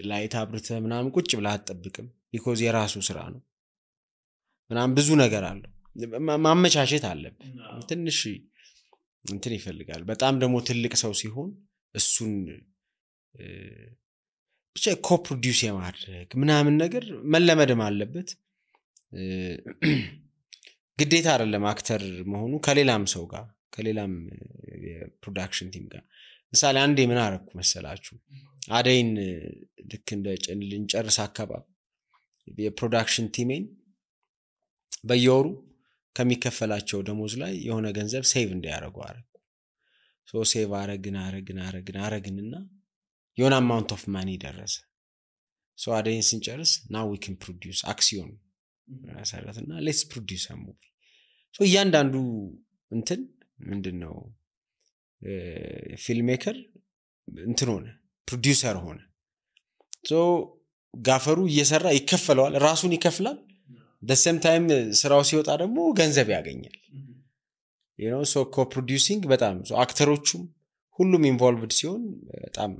ላይት አብርተ ምናምን ቁጭ ብላ አትጠብቅም ቢኮዝ የራሱ ስራ ነው ምናምን ብዙ ነገር አለው ማመቻቸት አለበት ትንሽ እንትን ይፈልጋል በጣም ደግሞ ትልቅ ሰው ሲሆን እሱን ብቻ ኮፕሮዲዩስ የማድረግ ምናምን ነገር መለመድም አለበት ግዴታ አይደለም አክተር መሆኑ ከሌላም ሰው ጋር ከሌላም የፕሮዳክሽን ቲም ጋር ምሳሌ አንዴ ምን አረኩ መሰላችሁ አደይን ልክ እንደ ልንጨርስ አካባቢ የፕሮዳክሽን ቲሜን በየወሩ ከሚከፈላቸው ደሞዝ ላይ የሆነ ገንዘብ ሴቭ እንዲያደርጉ አረኩ ሶ ሴቭ አረግንና የሆነ አማውንት ኦፍ ማኒ ደረሰ ሶ አደይን ስንጨርስ now we can produce አክሲዮን ሰራተና let's produce a movie ሶ እያንዳንዱ እንትን ምንድነው ፊልም ሜከር እንትን ሆነ ፕሮዲዩሰር ሆነ ሶ ጋፈሩ እየሰራ ይከፈለዋል ራሱን ይከፍላል the same time ስራው ሲወጣ ደግሞ ገንዘብ ያገኛል you know so co-producing በጣም so አክተሮቹም ሁሉም ኢንቮልቭድ ሲሆን በጣም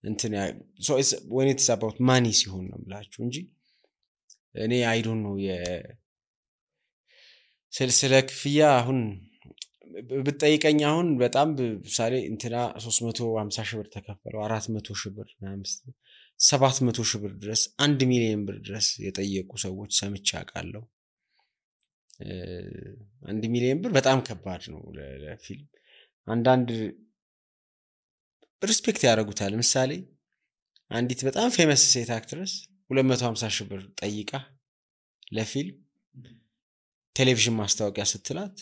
እንትን so it's when it's about money ሲሆን ነው ብላችሁ እንጂ እኔ I don't know ስለ ክፍያ አሁን ብትጠይቀኝ አሁን በጣም ምሳሌ እንትና 350 ሺህ ብር ተከፈለው 400 ሺህ ብር 700 ሺህ ብር ድረስ 1 ሚሊዮን ብር ድረስ የጠየቁ ሰዎች ሰምቼ አውቃለሁ 1 ሚሊዮን ብር በጣም ከባድ ነው ለፊልም አንዳንድ ሪስፔክት ያደርጉታል ምሳሌ አንዲት በጣም ፌመስ ሴት አክትረስ 250 ሺህ ብር ጠይቃ ለፊልም ቴሌቪዥን ማስታወቂያ ስትላት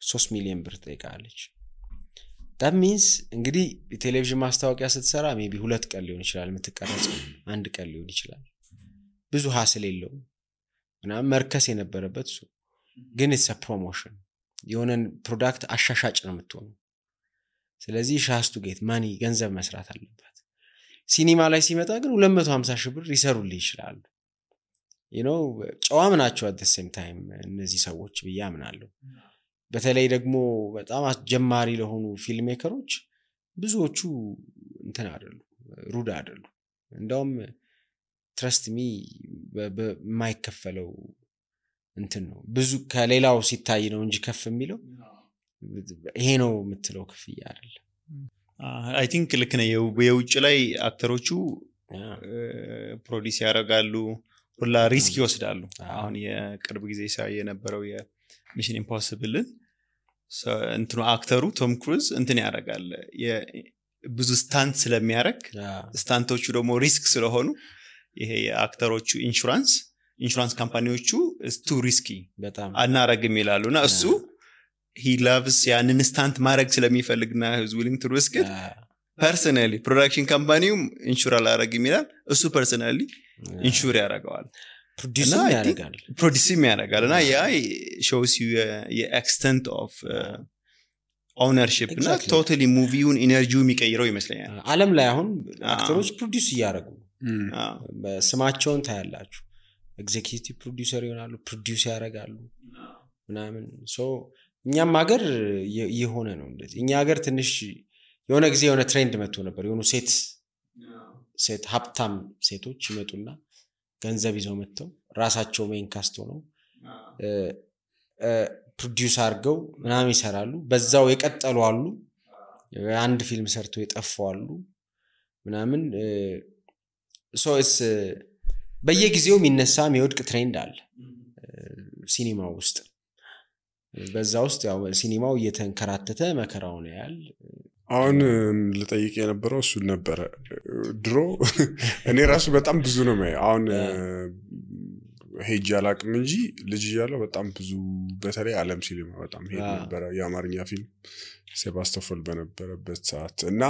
3 ሚሊዮን ብር ጠይቃለች that means እንግዲህ ቴሌቪዥን ማስታወቂያ ስትሰራ ሜቢ 2 ቀን ሊሆን ይችላል የምትቀረጸው 1 ቀን ሊሆን ይችላል ብዙ ሀስል የለውም እና መርከስ የነበረበት እሱ ግን it's a promotion የሆነን ፕሮዳክት አሻሻጭ ነው የምትሆነው ስለዚህ has to get money ገንዘብ መስራት አለበት ሲኒማ ላይ ሲመጣ ግን 250 ሺህ ብር ይሰሩልኝ ይችላል you know ጨዋም ናቸው at the same time እነዚህ ሰዎች በያምናለሁ በተለይ ደግሞ በጣም አስጀማሪ ለሆኑ ፊልም ሜከሮች ብዙዎቹ እንትን አይደሉ ሩድ አይደሉ እንደውም trust me በማይከፈለው እንትን ነው ብዙ ከሌላው ሲታይ ነው እንጂ ከፍ የሚለው ይሄ ነው የምትለው ክፍያ አይደለም I think ልክ ነው የውጭ ላይ አክተሮቹ ፕሮዲዩስ ያደርጋሉ ሁላ ሪስክ ይወስዳሉ አሁን የቅርብ ጊዜ ሳይ የነበረው የሚሽን ኢምፖሲብል እንትኑ አክተሩ ቶም ክሩዝ እንትን ያደርጋል ብዙ ስታንት ስለሚያደርግ ስታንቶቹ ደግሞ ሪስክ ስለሆኑ ይሄ የአክተሮቹ ኢንሹራንስ ካምፓኒዎቹ is too risky በጣም አናረግም ይላሉና እሱ he loves ያንን ስታንት ማድረግ ስለሚፈልግና is willing to risk it personally production company ኢንሹር አላረግም ይላል እሱ personally ኢንሹር ያደርጋል ፕሮዲዩስ ያደርጋል እና ያ shows you the extent of ownership እና totally movie-ውን ኢነርጂው የሚቀይረው ይመስለኛል ዓለም ላይ አሁን አክተሮች ፕሮዲዩስ ያደርጉ በስማቸውን ታያላችሁ ኤግዜኪዩቲቭ ፕሮዲዩሰር ይሆናሉ ፕሮዲዩስ ያደርጋሉ ምናምን ሶ እኛም ሀገር የሆነ ነው እንደዚህ እኛ ሀገር ትንሽ የሆነ ጊዜ የሆነ ትሬንድ መጥቶ ነበር የሆኑ ሴት ሀብታም ሴቶች ይመጡና ገንዘብ ይዘው መጥተው ራሳቸው ሜን ካስት ሆነው ፕሮዲዩስ አድርገው ምናምን ይሰራሉ በዛው የቀጠሉ አሉ አንድ ፊልም ሰርተው የጠፉ አሉ ምናምን ሶ it's በየጊዜው የሚነሳ የሚወድቅ ትሬንድ አለ ሲኒማው ውስጥ በዛ ውስጥ ያው ሲኒማው እየተንከራተተ መከራውን ያያል አሁን ልጠይቅ የነበረው እሱ ነበር ድሮ እኔ ራሱ በጣም ብዙ ነው ማለት አሁን ሄጅ አላቅም እንጂ ልጅ እያለሁ በጣም ብዙ በተለይ ዓለም ሲኒማ በጣም ሄድ ነበር የአማርኛ ፊልም ሴባስቶፖል በነበረበት ሰዓት እና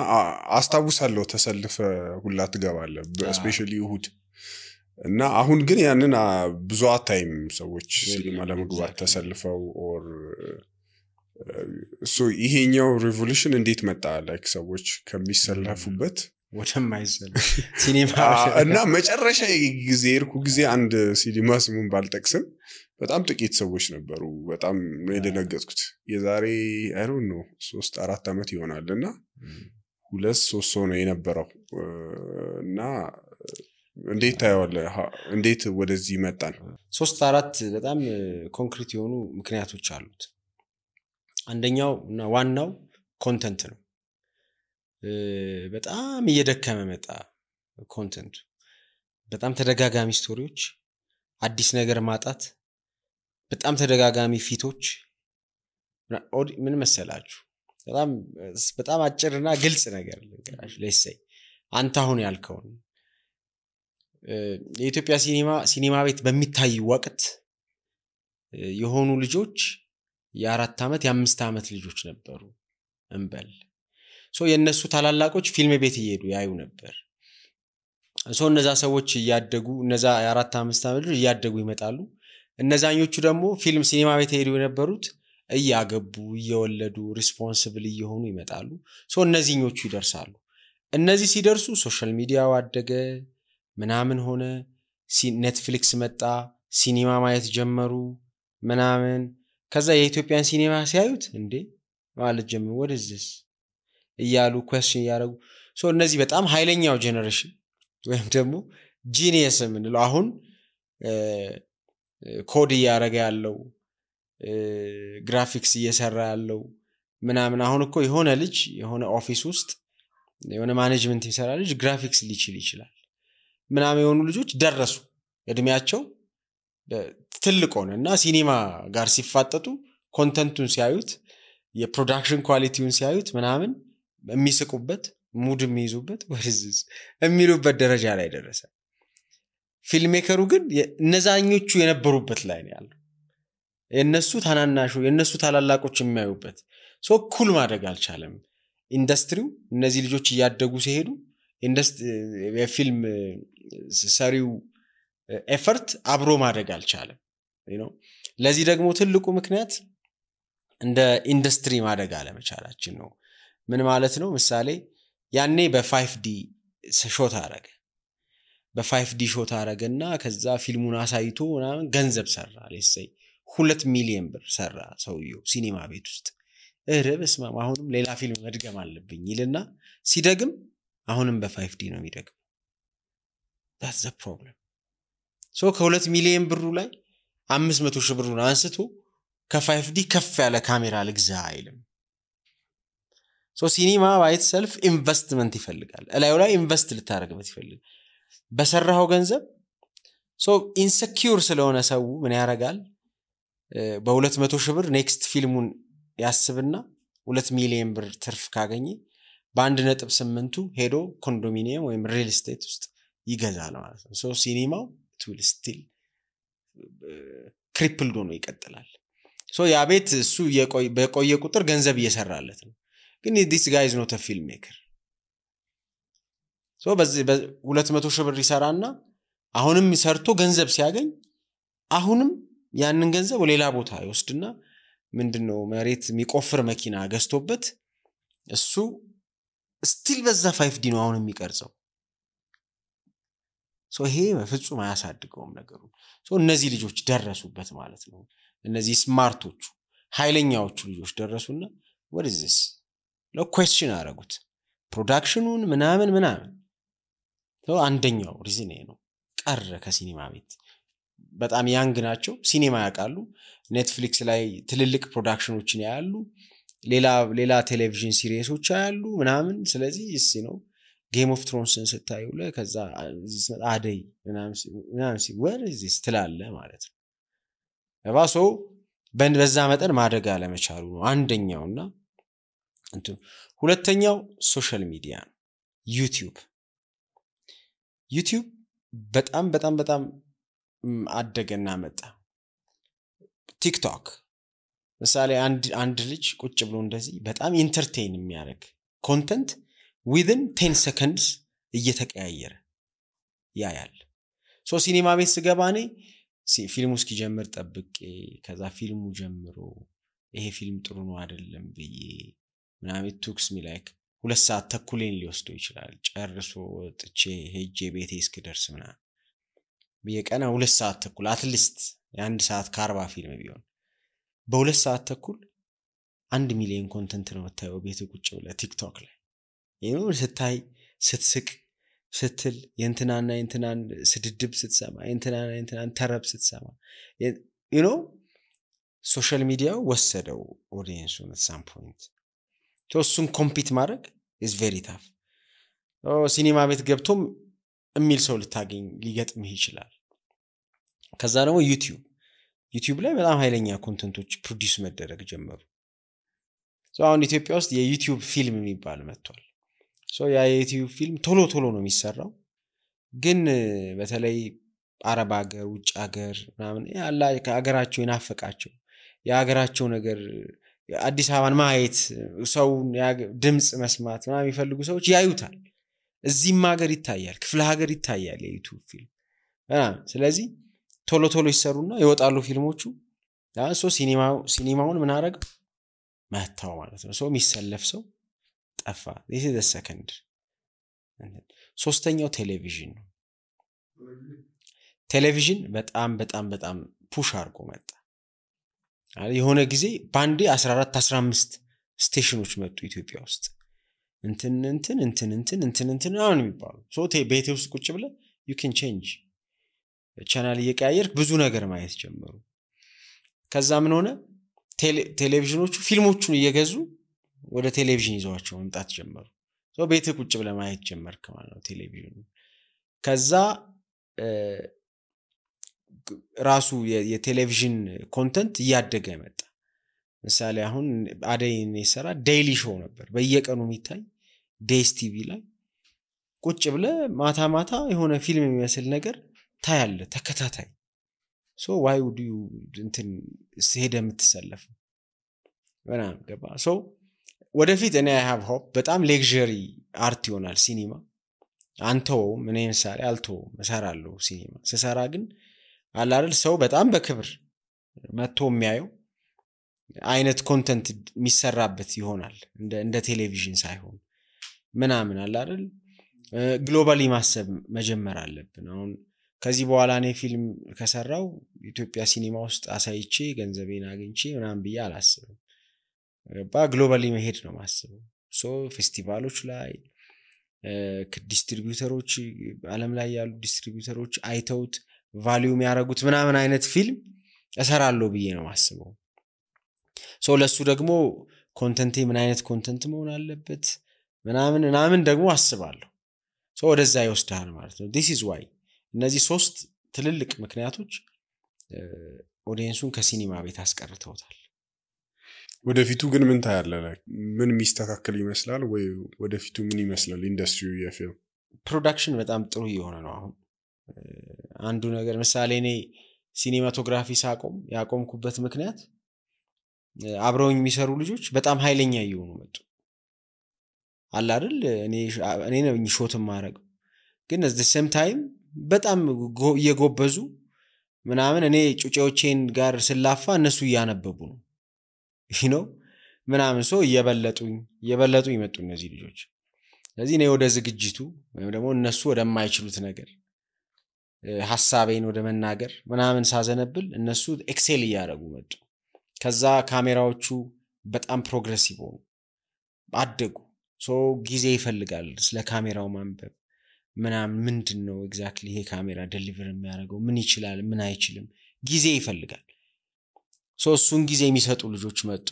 አስታውሳለሁ ተሰልፈ ሁላ ትገባለህ ስፔሻሊ እሁድ እና አሁን ግን ያንን ብዙ አታይም ሰዎች ሲኒማ ለመግባት ተሰልፈው ኦር ሶ ይሄኛው ሪቮሉሽን እንዴት መጣ ላይክ ሰዎች ከሚሰለፉበት ወደማይሰል ሲኒማ እና መጨረሻ ጊዜ እርኩ ጊዜ አንድ ሲኒማ ስሙን ባልጠቅስም በጣም ጥቂት ሰዎች ነበሩ በጣም ነው የደነገጥኩት የዛሬ አይ ዶንት ኖ 3-4 አመት ይሆናልና 2-3 ሰው ነው የነበረው እና እንዴት ታየዋለህ እንዴት ወደዚህ መጣን 3-4 በጣም ኮንክሪት የሆኑ ምክንያቶች አሉት አንደኛው እና ዋናው ኮንተንት ነው በጣም እየደከመ መጣ ኮንተንቱ በጣም ተደጋጋሚ ስቶሪዎች አዲስ ነገር ማጣት በጣም ተደጋጋሚ ፊቶች ምን መሰላችሁ በጣም አጭርና ግልጽ ነገር ልንገራችሁ ለይሰይ አንተ አሁን ያልከው የኢትዮጵያ ሲኒማ ቤት በሚታይ ወቅት የሆኑ ልጆች የ4 አመት የ5 አመት ልጆች ነበሩ እንበል ሶ የነሱ ታላላቆች ፊልም ቤት እየሄዱ ያዩ ነበር ሶ እነዛ ሰዎች ያደጉ እነዛ የ4 5 አመት ልጆች ያደጉ ይመጣሉ እነዛኞቹ ደግሞ ፊልም ሲኒማ ቤት ሄዱ የነበሩት እያገቡ እየወለዱ ሪስፖንሲብል እየሆኑ ይመጣሉ ሶ እነዚህኞቹ ይደርሳሉ እነዚህ ሲደርሱ ሶሻል ሚዲያው አደገ ምናምን ሆነ ኔትፍሊክስ መጣ ሲኒማ ማየት ጀመሩ ምናምን ከዛ የኢትዮጵያን ሲኒማ ሲያዩት እንዴ ማለት ጀመሩ what is this እያሉ question ያረጉ ሶ እነዚህ በጣም ኃይለኛው ጄነሬሽን ወይም ደግሞ ጂኒየስ ምንለው አሁን ኮድ ያረጋ ያለው ግራፊክስ እየሰራ ያለው ምናምን አሁን እኮ የሆነ ልጅ የሆነ ኦፊስ ውስጥ የሆነ ማኔጅመንት ይሰራ ልጅ ግራፊክስ ሊችል ይችላል ምናምን የሆኑ ልጆች ደረሱ እድሜያቸው ትልቅ ሆነና ሲኒማ ጋር ሲፋጠጡ ኮንተንቱን ሲያዩት የፕሮዳክሽን ኳሊቲውን ሲያዩት ምናምን የሚስቁበት ሙድ የሚይዙበት ወርዝስ የሚሉበት ደረጃ ላይ ደረሰ ፊልም ሜከሩ ግን እነዛኞቹ የነበሩበት ላይ ነው ያለው የነሱ ታናናሹ የነሱ ታላላቆች የሚያዩበት ሶ ኩል ማድረግ አልቻለም ኢንዱስትሪው እነዚህ ልጆች ያደጉ ሲሄዱ የፊልም ሰሪው ኤፈርት አብሮ ማድረግ አልቻለም ለዚህ ደግሞ ትልቁ ምክንያት እንደ ኢንዱስትሪ ማድረግ አለመቻላችን ነው ምን ማለት ነው ምሳሌ ያኔ በ5D ሾት አረገ በ5D ሾት አረገና ከዛ ፊልሙን አሳይቶ ምናምን ገንዘብ ሰራ ለሰይ 2 ሚሊዮን ብር ሰራ ሰውየው ሲኒማ ቤት ውስጥ በስመ አብ አሁንም ሌላ ፊልም መድገም አለብኝ ይልና ሲደግም አሁንም በ5D ነው የሚደግም that's the problem ሶ ከ2 ሚሊዮን ብሩ ላይ 500 ሺህ ብሩን አንስቶ ከ5D ከፍ ያለ ካሜራ ልግዛ አይልም ሶ ሲኒማ ባይት ሰልፍ ኢንቨስትመንት ይፈልጋል እላዩ ላይ ኢንቨስት ልታረግበት ይፈልጋል በሰራው ገንዘብ ሶ ኢንሴኪዩር ስለሆነ ሰው ምን ያረጋል በ200 ሺህ ብር ኔክስት ፊልሙን ያስብና 2 ሚሊዮን ብር ትርፍ ካገኘ በ1.8 ሄዶ ኮንዶሚኒየም ወይም ሪል ስቴት ውስጥ ይገዛል ማለት ነው ሶ ሲኒማው ቱል ስቲል ክሪፕልድ ሆኖ ይቀጥላል ሶ ያ ቤት እሱ በቆየ ቁጥር ገንዘብ እየሰራለት ነው ግን this guy is not a filmmaker ሶ በዚህ 200 ሺህ ብር ይሰራና አሁንም ሰርቶ ገንዘብ ሲያገኝ አሁንም ያንን ገንዘብ ሌላ ቦታ ይወስድና ምንድነው መሬት የሚቆፍር መኪና ገዝቶበት እሱ ስቲል በዛ 5D ነው አሁን የሚቀርጸው ሶ ይሄ በፍጹም አያሳድገውም ነገሩ ሶ እነዚህ ልጆች ደረሱበት ማለት ነው እነዚህ ስማርቶቹ ኃይለኛዎቹ ልጆች ደረሱና what is this ነው question አረጉት ፕሮዳክሽኑን ምናምን ሶ አንደኛው ሪዝን ነው ቀረ ከሲኒማ ቤት በጣም ያንግ ናቸው ሲኒማ ያውቃሉ ኔትፍሊክስ ላይ ትልልቅ ፕሮዳክሽኖችን ያያሉ ሌላ ቴሌቪዥን ሲሪየሶች ያያሉ ምናምን ስለዚህ ነው ጌም ኦፍ ትሮንስን ስታዩ ለከዛ አደይ ምናምን where is this ትላለ ማለት ነው ለባሶ በዛ መጠን ማደግ አለመቻሉ ነው አንደኛውና ሁለተኛው ሶሻል ሚዲያ ነው ዩቲዩብ በጣም አደገና መጣ ቲክቶክ ምሳሌ አንድ ልጅ ቁጭ ብሎ እንደዚህ በጣም ኢንተርቴይን የሚያደርግ ኮንተንት within 10 seconds እየተቀያየረ ያያል ሶ ሲኒማ ቤት ስገባ እኔ ፊልሙ እስኪጀምር ጠብቄ ከዛ ፊልሙ ጀምሮ ይሄ ፊልም ጥሩ ነው አይደለም ብዬ ምናምን ቱክስ ሚ ላይክ 2 ሰዓት ተኩሌን ሊወስደው ይችላል ጨርሶ ወጥቼ ሄጄ ቤቴ እስክደርስ ምናምን በየቀና 2 ሰዓት ተኩል አትሊስት የ1 ሰዓት ከ40 ፊልም ቢሆን በ2 ሰዓት ተኩል 1 ሚሊዮን ኮንተንት ነው የምታየው ቤት ቁጭ ብለህ ቲክቶክ ላይ ይሄው ስታይ ስትስቅ ስትል የእንትናና የእንትናን ስድድብ ስትሰማ የእንትናና የእንትናን ተረብ ስትሰማ you know ሶሻል ሚዲያው ወሰደው ኦዲየንሱን at some point እሱን ኮምፒት ማድረግ is very tough ሲኒማ ቤት ገብቶም የሚል ሰው ልታገኝ ሊገጥምህ ይችላል ከዛ ደግሞ ዩቲዩብ ላይ በጣም ኃይለኛ ኮንተንቶች ፕሮዲዩስ መደረግ ጀመሩ አሁን ኢትዮጵያ ውስጥ የዩቲዩብ ፊልም የሚባል መጥቷል ያ የዩቲዩብ ፊልም ቶሎ ነው የሚሰራው ግን በተለይ አረብ ሀገር ውጭ ሀገር ምናምን ያላ ከሀገራቸው ይናፈቃቸው የሀገራቸው ነገር አዲስ አበባን ማየት ሰው ድምጽ መስማት ምናምን የሚፈልጉ ሰዎች ያዩታል እዚህም ሀገር ይታያል ክፍለ ሀገር ይታያል የዩቲዩብ ፊልም ስለዚህ ቶሎ ይሰሩና ይወጣሉ ፊልሞቹ ሲኒማውን ምን አረግ መታው ማለት ነው የሚሰለፍ ሰው ጠፋ this is the second ሶስተኛው ቴሌቪዥን በጣም ፑሽ አድርጎ መጣ የሆነ ጊዜ ባንዴ 14-15 ስቴሽኖች መጡ ኢትዮጵያ ውስጥ እንትን አሁን የሚባሉ ቤቴ ውስጥ ቁጭ ብለ you can change ቻናል እየቀያየርክ ብዙ ነገር ማየት ጀመሩ ከዛ ምን ሆነ ቴሌቪዥኖቹ ፊልሞቹን እየገዙ ወደ ቴሌቪዥን ይዘዋቸው መምጣት ጀመሩ ቤት ቁጭ ብለ ማየት ጀመርክ ማለት ነው ቴሌቪዥኑ ከዛ ራሱ የቴሌቪዥን ኮንተንት እያደገ መጣ ምሳሌ አሁን አደይን ይሰራ ዴይሊ ሾው ነበር በየቀኑ የሚታይ ዴይስ ቲቪ ላይ ቁጭ ብለ ማታ የሆነ ፊልም የሚመስል ነገር ታያለ ተከታታይ why would you እንትን ሄደ የምትሰለፍ በጣም ገባ ወደፊት እኔ I have hope በጣም ሌክዠሪ አርት ይሆናል ሲኒማ አንተው ምን ምሳሌ አልተው መሰራለሁ ሲኒማ ስሰራ ግን አላል ሰው በጣም በክብር መጥቶ የሚያየው አይነት ኮንተንት የሚሰራበት ይሆናል እንደ ቴሌቪዥን ሳይሆን ምናምን አላል ግሎባሊ ማሰብ መጀመር አለብን አሁን ከዚህ በኋላ እኔ ፊልም ከሰራው ኢትዮጵያ ሲኒማ ውስጥ አሳይቼ ገንዘቤን አግኝቼ ምናምን ብዬ አላስብም ግሎባሊ መሄድ ነው ማስበው ፌስቲቫሎች ላይ ዲስትሪቢዩተሮች ዓለም ላይ ያሉ ዲስትሪቢዩተሮች አይተውት ቫልዩ የሚያረጉት ምናምን አይነት ፊልም እሰራለሁ ብዬ ነው ማስበው ለሱ ደግሞ ኮንተንቴ ምን አይነት ኮንተንት መሆን አለበት ምናምን ደግሞ አስባለሁ ወደዛ ይወስዳል ማለት ነው this is why እነዚህ 3 ትልልቅ ምክንያቶች ኦዲየንሱን ከሲኒማ ቤት አስቀርተውታል ወደፊቱ ግን ምን ታያለህ ምን ሚስተካከል ይመስላል ወይ ወደፊቱ ምን ይመስላል ኢንደስትሪው የፊልም ፕሮዳክሽን በጣም ጥሩ እየሆነ ነው አሁን አንዱ ነገር ምሳሌ እኔ ሲኒማቶግራፊ ያቆምኩበት ምክንያት አብረውኝ የሚሰሩ ልጆች በጣም ኃይለኛ እየሆኑ መጡ አለ አይደል እኔ ነኝ ሾት ማረግ ግን at the same time በጣም እየጎበዙ ምናምን እኔ ጩጬዎቼን ጋር ስላፋ እነሱ ያነበቡ ነው ምናምን እየበለጡ ይመጡ እነዚህ ልጆች ስለዚህ እኔ ወደ ዝግጅቱ ወይም ደግሞ እነሱ ወደማይችሉት ነገር ሐሳቤን ወደ መናገር ምናምን ሳዘነብል እነሱ ኤክሴል ያያረጉ መጡ ከዛ ካሜራዎቹ በጣም ፕሮግሬሲቭ ሆኑ አደጉ ጊዜ ይፈልጋል ስለ ካሜራው ማንበብ ምናምን ምንድነው ኤግዛክትሊ ይሄ ካሜራ ዴሊቨር የሚያደርገው ምን ይችላል ምን አይችልም ጊዜ ይፈልጋል እሱን ጊዜ የሚሰጡ ልጆች መጡ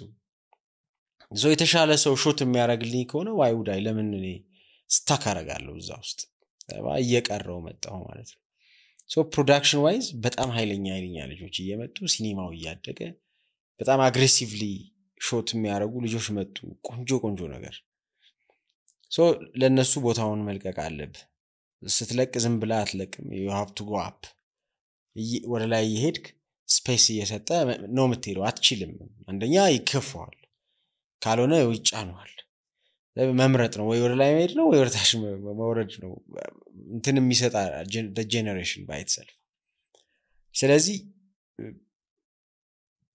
የተሻለ ሰው ሾት የሚያደርግልኝ ከሆነ ዋይ ውዳይ ለምን እኔ ስታክ አረጋለሁ እዛ ውስጥ እየቀረው መጣው ማለት ነው ፕሮዳክሽን ዋይዝ በጣም ኃይለኛ ልጆች እየመጡ ሲኒማው እያደገ በጣም አግሬሲቭሊ ሾት የሚያደርጉ ልጆች መጡ ቆንጆ ነገር ለነሱ ቦታውን መልቀቅ አለብ ስትለቅ ዝም ብላ አትለቅም you have to go up ወደ ላይ ይሄድክ ስፔስ እየሰጠ ነው የምትሄደው አትችልም አንደኛ ይከፋዋል ካልሆነ ይጫነዋል መምረጥ ነው ወይ ወደ ላይ መሄድ ነው ወይ ወደ ታች መውረድ ነው እንትን የሚሰጣ ጀነሬሽን ባይ itself ስለዚህ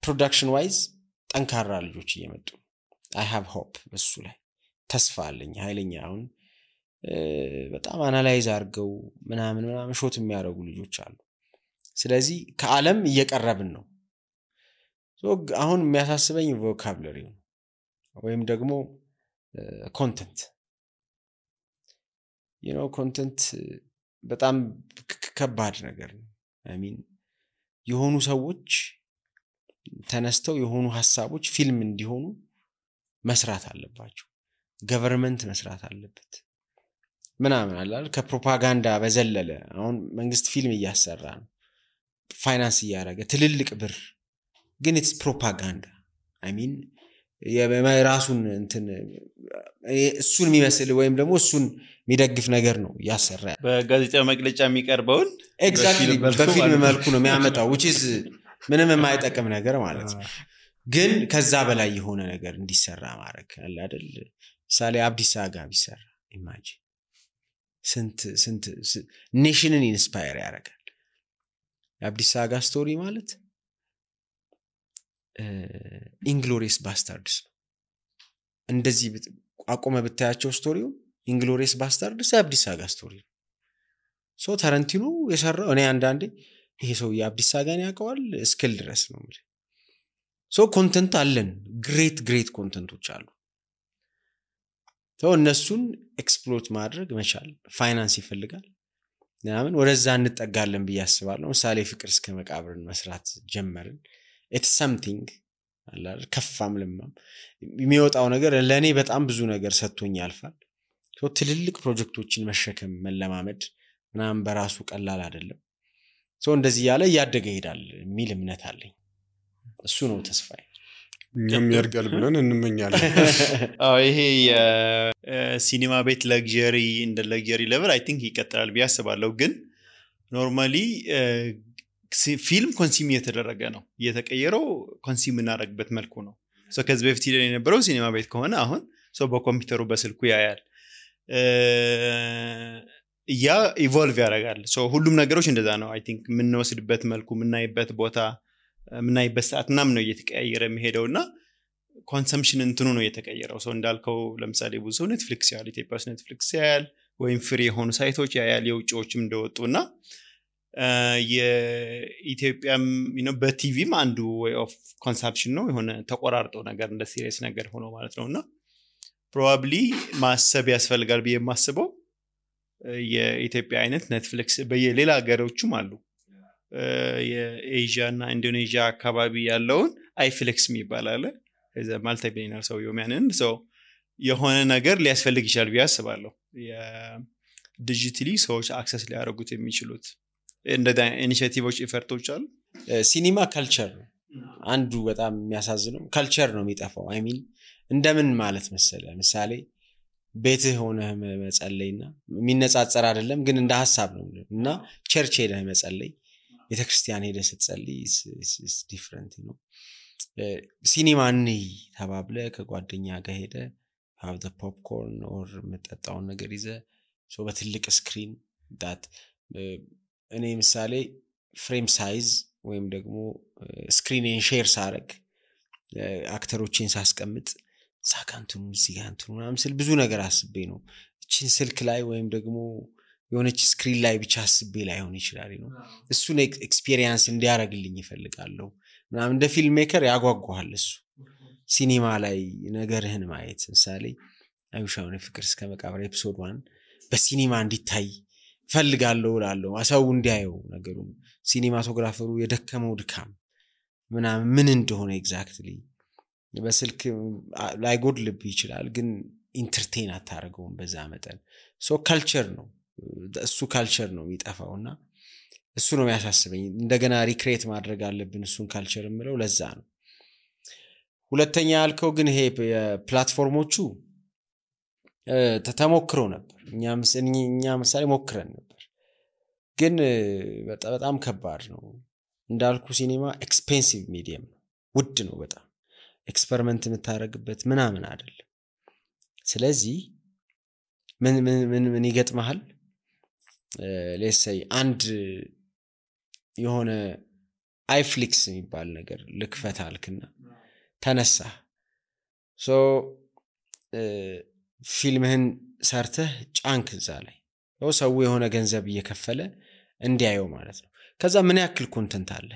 ፕሮዳክሽን ዋይዝ ጠንካራ ልጆች እየመጡ I have hope በሱ ላይ ተስፋ አለኝ ኃይለኛ አሁን በጣም አናላይዝ አድርገው ምናምን ሾት የሚያደርጉ ልጆች አሉ ስለዚህ ከዓለም እየቀረብን ነው አሁን የሚያሳስበኝ ቮካብለሪ ነው ወይም ደግሞ ኮንተንት ኮንተንት በጣም ከባድ ነገር ነው I mean የሆኑ ሰዎች ተነስተው የሆኑ ሐሳቦች ፊልም እንዲሆኑ መስራት አለባቸው ገቨርንመንት መስራት አለበት ምናምን አይደል ከፕሮፓጋንዳ በዘለለ አሁን መንግስት ፊልም እያሰራ ነው ፋይናንስ ያደረገ ትልልቅ ብር ግን it's propaganda I mean የራሱን እንትን እሱን የሚመስል ወይም ደግሞ እሱን የሚደግፍ ነገር ነው ያሰራ በጋዜጣ መግለጫ የሚቀርበውን ኤግዛክትሊ በፊልም መልኩ ነው የሚያመጣው which is ምንም የማይጠቅም ነገር ማለት ነው ግን ከዛ በላይ የሆነ ነገር እንዲሰራ ማድረግ አለ አይደል ሳሌ አብዲስ አጋ ቢሰራ ኢማጂን ስንት ኔሽንን ኢንስፓየር ያደርጋል አብዲስ አጋ ስቶሪ ማለት ኢንግሎሪየስ ባስታርድስ እንደዚህ አቆመ ብታያቸው ስቶሪው ኢንግሎሪየስ ባስታርድስ አብዲስ አጋ ስቶሪ ሶ ታረንቲኖ የሰራው እኔ አንዳንዴ ይሄ ሰው የአብዲስ አጋን ያውቀዋል እስክል ድረስ ነው ማለት ሶ ኮንተንት አለን ግሬት ኮንተንቶች አሉ ሶ እነሱን ኤክስፕሎይት ማድረግ መቻል ፋይናንስ ይፈልጋል ምናምን ወደዛ እንጠጋለን በያስባለሁ ምሳሌ ፍቅር እስከ መቃብርን መስራት ጀመርን it's something አላል ከፋም ለማም የሚወጣው ነገር ለኔ በጣም ብዙ ነገር ሰጥቶኝ ያልፋል ሶ ትልልቅ ፕሮጀክቶችን መሸከም መለማመድ ምናምን በራሱ ቀላል አይደለም ሶ እንደዚህ ያለ ያደገ ይሄዳል የሚል እምነት አለኝ እሱ ነው ተስፋዬ እኛም ያርጋል ብለን እንመኛለን ይሄ የሲኒማ ቤት ለግዠሪ እንደ ለግዠሪ ሌቨል አይ ቲንክ ይቀጥላል ቢያስባለው ግን ኖርማሊ ፊልም ኮንሱም እየተደረገ ነው እየተቀየረው ኮንሱም እናደርግበት መልኩ ነው ሶ ከዚህ በፊት የነበረው ሲኒማ ቤት ከሆነ አሁን ሶ በኮምፒውተሩ በስልኩ ያያል ያ ኢቮልቭ ያደርጋል ሶ ሁሉም ነገሮች እንደዛ ነው አይ ቲንክ ምንወስድበት መልኩ ምናይበት ቦታ ምናይበት ሰዓት ምናምን ነው እየተቀያየረ የሚሄደውና ኮንሰምፕሽን እንትኑ ነው እየተቀየረው ሶ እንዳልከው ለምሳሌ ብዙ ኔትፍሊክስ ያለ ኢትዮጵያስ ኔትፍሊክስ ያያል ወይም ፍሪ የሆኑ ሳይቶች ያያል የውጭዎችም እንደወጡና የኢትዮጵያም በቲቪም አንዱ way of consumption ነው የሆነ ተቆራርጦ ነገር እንደ ሲሪየስ ነገር ሆኖ ማለት ነውና probably ማሰብ ያስፈልጋል በየማስበው የኢትዮጵያ አይነት ኔትፍሊክስ በየሌላ ሀገሮችም አሉ የኤዥያ እና ኢንዶኔዥያ አካባቢ ያለውን አይፍሊክስ የሚባላል እዛ ማልቲ ቢሊየነር ሰው የሚያንን ሰው የሆነ ነገር ሊያስፈልግ ይችላል ቢያስባለሁ የዲጂታሊ ሰዎች አክሰስ ሊያደርጉት የሚችሉት እንደዛ ኢኒሺዬቲቮች ኢፈርቶች አሉ ሲኒማ ካልቸር አንዱ በጣም የሚያሳዝነው ካልቸር ነው የሚጠፋው አይ ሚን እንደምን ማለት መሰለ ምሳሌ ቤትህ ሆነ መጸለይና የሚነጻጸር አይደለም ግን እንደ ሐሳብ ነው እና ቸርች ሄደህ መጸለይ ቤተክርስቲያን ሄደህ ስትጸልይ is different ነው ሲኒማ ነይ ተባብለ ከጓደኛ ጋር ሄደ have the popcorn or መጠጣው ነገር ይዘ ሶ በትልቅ ስክሪን that እኔ ምሳሌ ፍሬም ሳይዝ ወይም ደግሞ ስክሪንን ሼር ሳረግ አክተሮችን ሳስቀምጥ ሳካንቱን ሲጋንቱን ምናምን ስል ብዙ ነገር አስቤ ነው እቺን ስልክ ላይ ወይም ደግሞ የሆነች ስክሪን ላይ ብቻ አስቤ ላይ ሆነ ይችላል ነው እሱን ኤክስፒሪየንስ እንዲያረግልኝ ይፈልጋለሁ ምናምን እንደ ፊልም ሜከር ያጓጓሃል እሱ ሲኒማ ላይ ነገርህን ማየት ምሳሌ አይሻውን ፍቅር እስከ መቃብር ኤፒሶድ 1 በሲኒማ እንዲታይ ፈልጋለሁ እላለሁ አሳው እንዲያየው ነገሩን ሲኒማቶግራፈሩ የደከመው ድካም ምናምን ምን እንደሆነ ኤግዛክትሊ በስልክ ላይ ጎድልብ ይችላል ግን ኢንተርቴን አታረገውም በዛ መጠን ሶ ካልቸር ነው እሱ ካልቸር ነው የሚጠፋውና እሱ ነው የሚያሳስበኝ እንደገና ሪክሬት ማድረግ አለብን እሱን ካልቸር ምለው ለዛ ነው ሁለተኛ ያልከው ግን ይሄ ፕላትፎርሞቹ ተሞክሮ ነበር እኛ ምሳሌ ሞክረን ነበር ግን በጣም ከባድ ነው እንዳልኩ ሲኒማ ኤክስፔንሲቭ ሚዲየም ውድ ነው በጣም ኤክስፐሪመንት የምታረግበት ምናምን አይደለም ስለዚህ ምን ይገጥማል let's say አንድ የሆነ አይፍሊክስ የሚባል ነገር ልክፈት አልክና ተነሳ ሶ ፊልምህን ሰርተህ ጫንክ እዛ ላይ ሰው የሆነ ገንዘብ እየከፈለ እንዲያየው ማለት ነው ከዛ ምን ያክል ኮንተንት አለ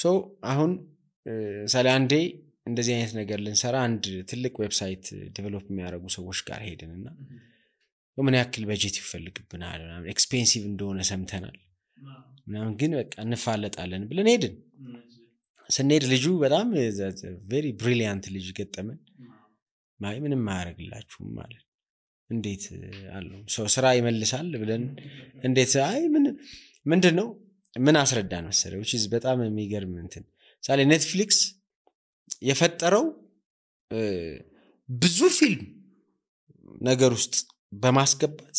ሶ አሁን ሳለ አንዴ እንደዚህ አይነት ነገር ልንሰራ አንድ ትልቅ ዌብሳይት ዴቨሎፕ የሚያደርጉ ሰዎች ጋር ሄድንና ምን ያክል በጀት ይፈልግብናል ምናምን ኤክስፔንሲቭ እንደሆነ ሰምተናል ምናምን ግን በቃ እንፋለጣለን ብለን ሄድን ስንሄድ ልጁ በጣም ቬሪ ብሪሊያንት ልጅ ገጠመን ምንም ማያረግላችሁም ማለት እንዴት አለው ሰው ስራ ይመልሳል ብለን እንዴት አይ ምንድነው ምን አስረዳን መሰለው which is በጣም የሚገርም እንትን ሳለ ኔትፍሊክስ የፈጠረው ብዙ ፊልም ነገር ውስጥ በማስገባት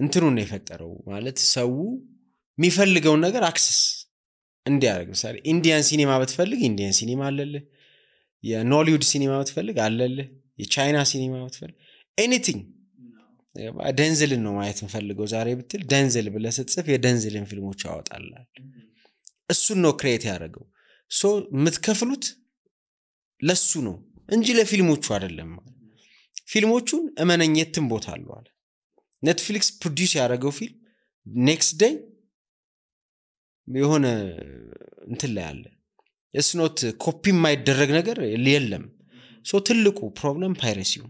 እንትኑን ነው የፈጠረው ማለት ሰው የሚፈልገው ነገር አክሰስ እንዲያደርግ ምሳሌ ኢንዲያን ሲኒማ ብትፈልግ ኢንዲያን ሲኒማ አለልህ የኖሊውድ ሲኒማ ብትፈልግ አለልህ የቻይና ሲኒማ ብትፈልግ ኤኒቲንግ ደንዝልን ነው ማየት እንፈልገው ዛሬ ብትል ደንዝል ብለህ ስትጽፍ የደንዝልን ፊልሞች ያወጣልሃል እሱን ነው ክሬት ያደርገው ሶ የምትከፍሉት ለሱ ነው እንጂ ለፊልሞቹ አይደለም ፊልሞቹን እመነኝትም ቦታ አለው አለ ኔትፍሊክስ ፕሮዲዩስ ያደረገው ፊልም ኔክስት ዴይ የሆነ እንትን ላይ አለ it's not ኮፒ የማይደረግ ነገር የለም ሶ ትልቁ ፕሮብለም ፓይሬሲው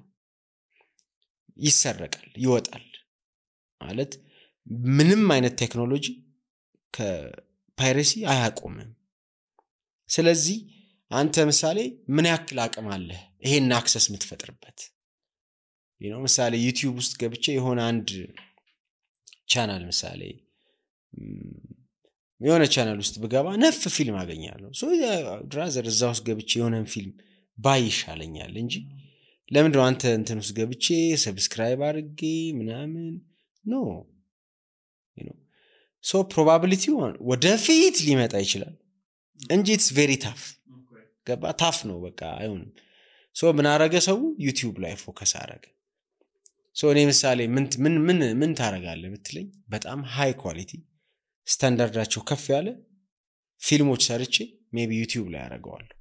ይሰረቃል ይወጣል ማለት ምንም አይነት ቴክኖሎጂ ከፓይሬሲ አያቆምም ስለዚህ አንተ ምሳሌ ምን ያክል አቅም አለ ይሄን አክሰስ የምትፈጥርበት ምሳሌ ዩቲዩብ ውስጥ ገብቼ የሆነ አንድ ቻናል ምሳሌ የሆነ ቻናል ውስጥ ብገባ ነፍ ፊልም አገኛለሁ ሶ ድራዘር እዛ ውስጥ ገብቼ የሆነን ፊልም ባይ ይሻለኛል እንጂ ለምንድነው አንተ እንትን ውስጥ ገብቼ ሰብስክራይብ አድርጌ ምናምን ኖ ሶ ፕሮባቢሊቲው ወደፊት ሊመጣ ይችላል እንጂ it's very tough ገባ ታፍ ነው በቃ አይሆንም ሶ ምን አረገ ሰው ዩቲዩብ ላይ ፎከስ አረገ ሶ እኔ ምሳሌ ምን ታረጋለህ ብትለኝ በጣም ሃይ ኳሊቲ ስታንዳርዳቸው ከፍ ያለ ፊልሞች ሰርቼ ሜቢ ዩቲዩብ ላይ አረጋዋለሁ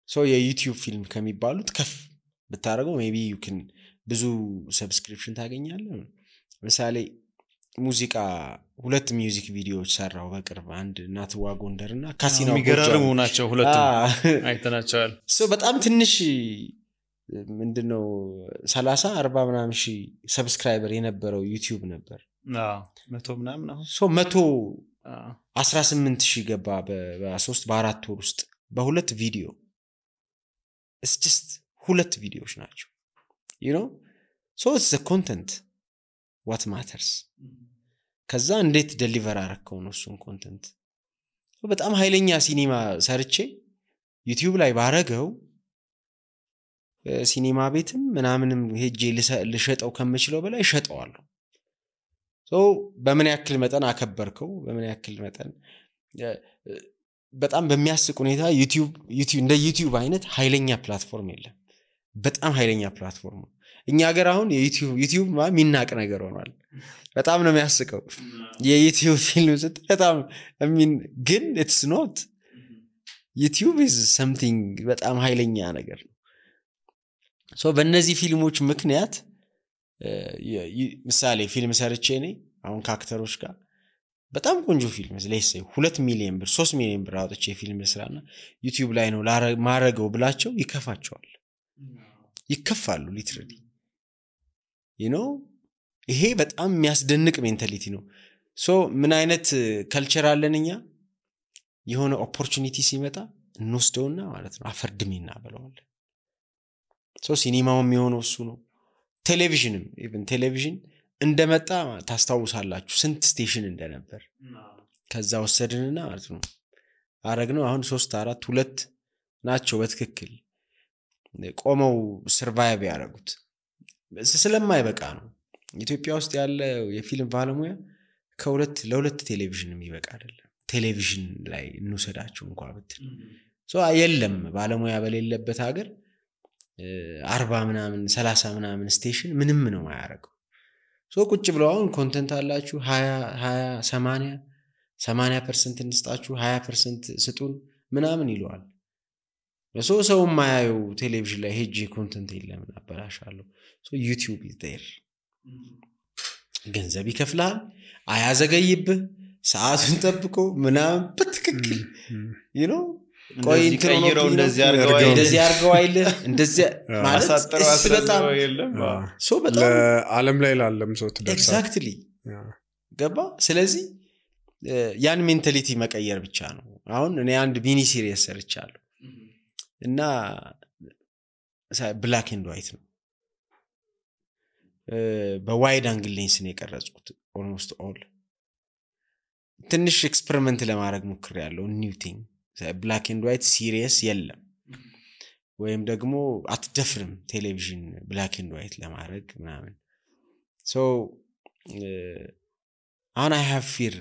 ሶ የዩቲዩብ ፊልም ከሚባሉት ከፍ ብታረገው ሜቢ you can ብዙ ሰብስክሪፕሽን ታገኛለህ ምሳሌ ሙዚቃ ሁለት ሚውዚክ ቪዲዮዎች ሰራው በቅርብ አንድ ናትዋ ጎንደርና ካሲናው የሚገራርሙ ናቸው ሁለቱም አይተናቸዋል ሶ በጣም ትንሽ ምንድነው 30 40 ምናምን ሺህ ሰብስክራይበር የነበረው ዩቲዩብ ነበር 100 ምናምን አሁን ሶ 118,000 ገባ በ3 በ4 ወር ውስጥ በሁለት ቪዲዮ it's just ሁለት ቪዲዮዎች ናቸው so it's the content what matters ከዛ እንዴት ዴሊቨር አረከው ነው እሱን ኮንተንት በጣም ኃይለኛ ሲኒማ ሰርቼ ዩቲዩብ ላይ ባረገው ሲኒማ ቤትም ምናምንም ሄጄ ልሸጠው ከመችለው በላይ ሸጠዋለሁ ሶ በምን ያክል መጠን አከበርከው በምን ያክል መጠን በጣም በሚያስቅ ሁኔታ ዩቲዩብ እንደ ዩቲዩብ አይነት ኃይለኛ ፕላትፎርም የለም በጣም ኃይለኛ ፕላትፎርም እኛ ሀገር አሁን ዩቲዩብ ሚናቅ ነገር ሆኗል በጣም ነው የሚያስቀው የዩቲዩብ ፊልም በጣም ግን it's not ዩቲዩብ is something በጣም ኃይለኛ ነገር ነው ሶ በእነዚህ ፊልሞች ምክንያት ምሳሌ ፊልም ሰርቼ ነኝ አሁን ከአክተሮች ጋር በጣም ቆንጆ ፊልም ለይሰይ 2 ሚሊዮን ብር 3 ሚሊዮን ብር አውጥቼ ፊልም ልስራና ዩቲዩብ ላይ ነው ማረገው ብላቸው ይከፋቸዋል ይከፋሉ ሊትራሊ ይሄ በጣም የሚያስደንቅ ሜንታሊቲ ነው ሶ ምን አይነት ካልቸር አለንኛ የሆነ ኦፖርቹኒቲ ሲመጣ እንወስደውና ማለት ነው አፈርድሜና ብለዋል ሶ ሲኒማው የሚሆነው እሱ ነው ቴሌቪዥንም ኢቭን ቴሌቪዥን እንደመጣ ታስታውሳላችሁ ስንት ስቴሽን እንደነበር ከዛ ወሰድንና ማለት ነው አረግነው አሁን 3 4 2 ናቸው በትክክል ቆመው ሰርቫይቭ ያደረጉት ስለማይበቃ ነው ኢትዮጵያ ውስጥ ያለ የፊልም ባለሙያ ለሁለት ቴሌቪዥን የሚበቃ አይደለም ቴሌቪዥን ላይ እንውሰዳቸው እንኳን ብትል የለም ባለሙያ በሌለበት ሀገር 40 ምናምን 30 ምናምን ስቴሽን ምንም ነው ማያረገው ቁጭ ብለው አሁን ኮንተንት አላችሁ 20 80% እንስጣችሁ 20% ስጡን ምናምን ይሏል ሰው ማያዩ ቴሌቪዥን ላይ ሄጂ ኮንተንት የለም አበላሻለሁ ዩቲዩብ is there ገንዘብ ይከፍላል አያዘገይብህ ሰዓቱን ጠብቆ ምናምን በትክክል ቆይ እንትሮው እንደዚህ አርገው አይል እንደዚህ ማለት በጣም በጣም ዓለም ላይ ላለም ሰው ተደርሳል ኤግዛክትሊ ገባ ስለዚህ ያን ሜንታሊቲ መቀየር ብቻ ነው አሁን እኔ አንድ ሚኒ ሲሪየስ ሰርቻለሁ እና ብላክ ኤንድ ዋይት ነው በዋይድ አንግል ሌንስ ነው የቀረጽኩት ኦልሞስት ኦል ትንሽ ኤክስፐሪመንት ለማድረግ ሞክሬያለሁ ኒው ቲንግ ብላክ ኤንድ ዋይት ሲሪየስ የለም ወይም ደግሞ አትደፍርም ቴሌቪዥን ብላክ ኤንድ ዋይት ለማድረግ ምናምን አሁን I have fear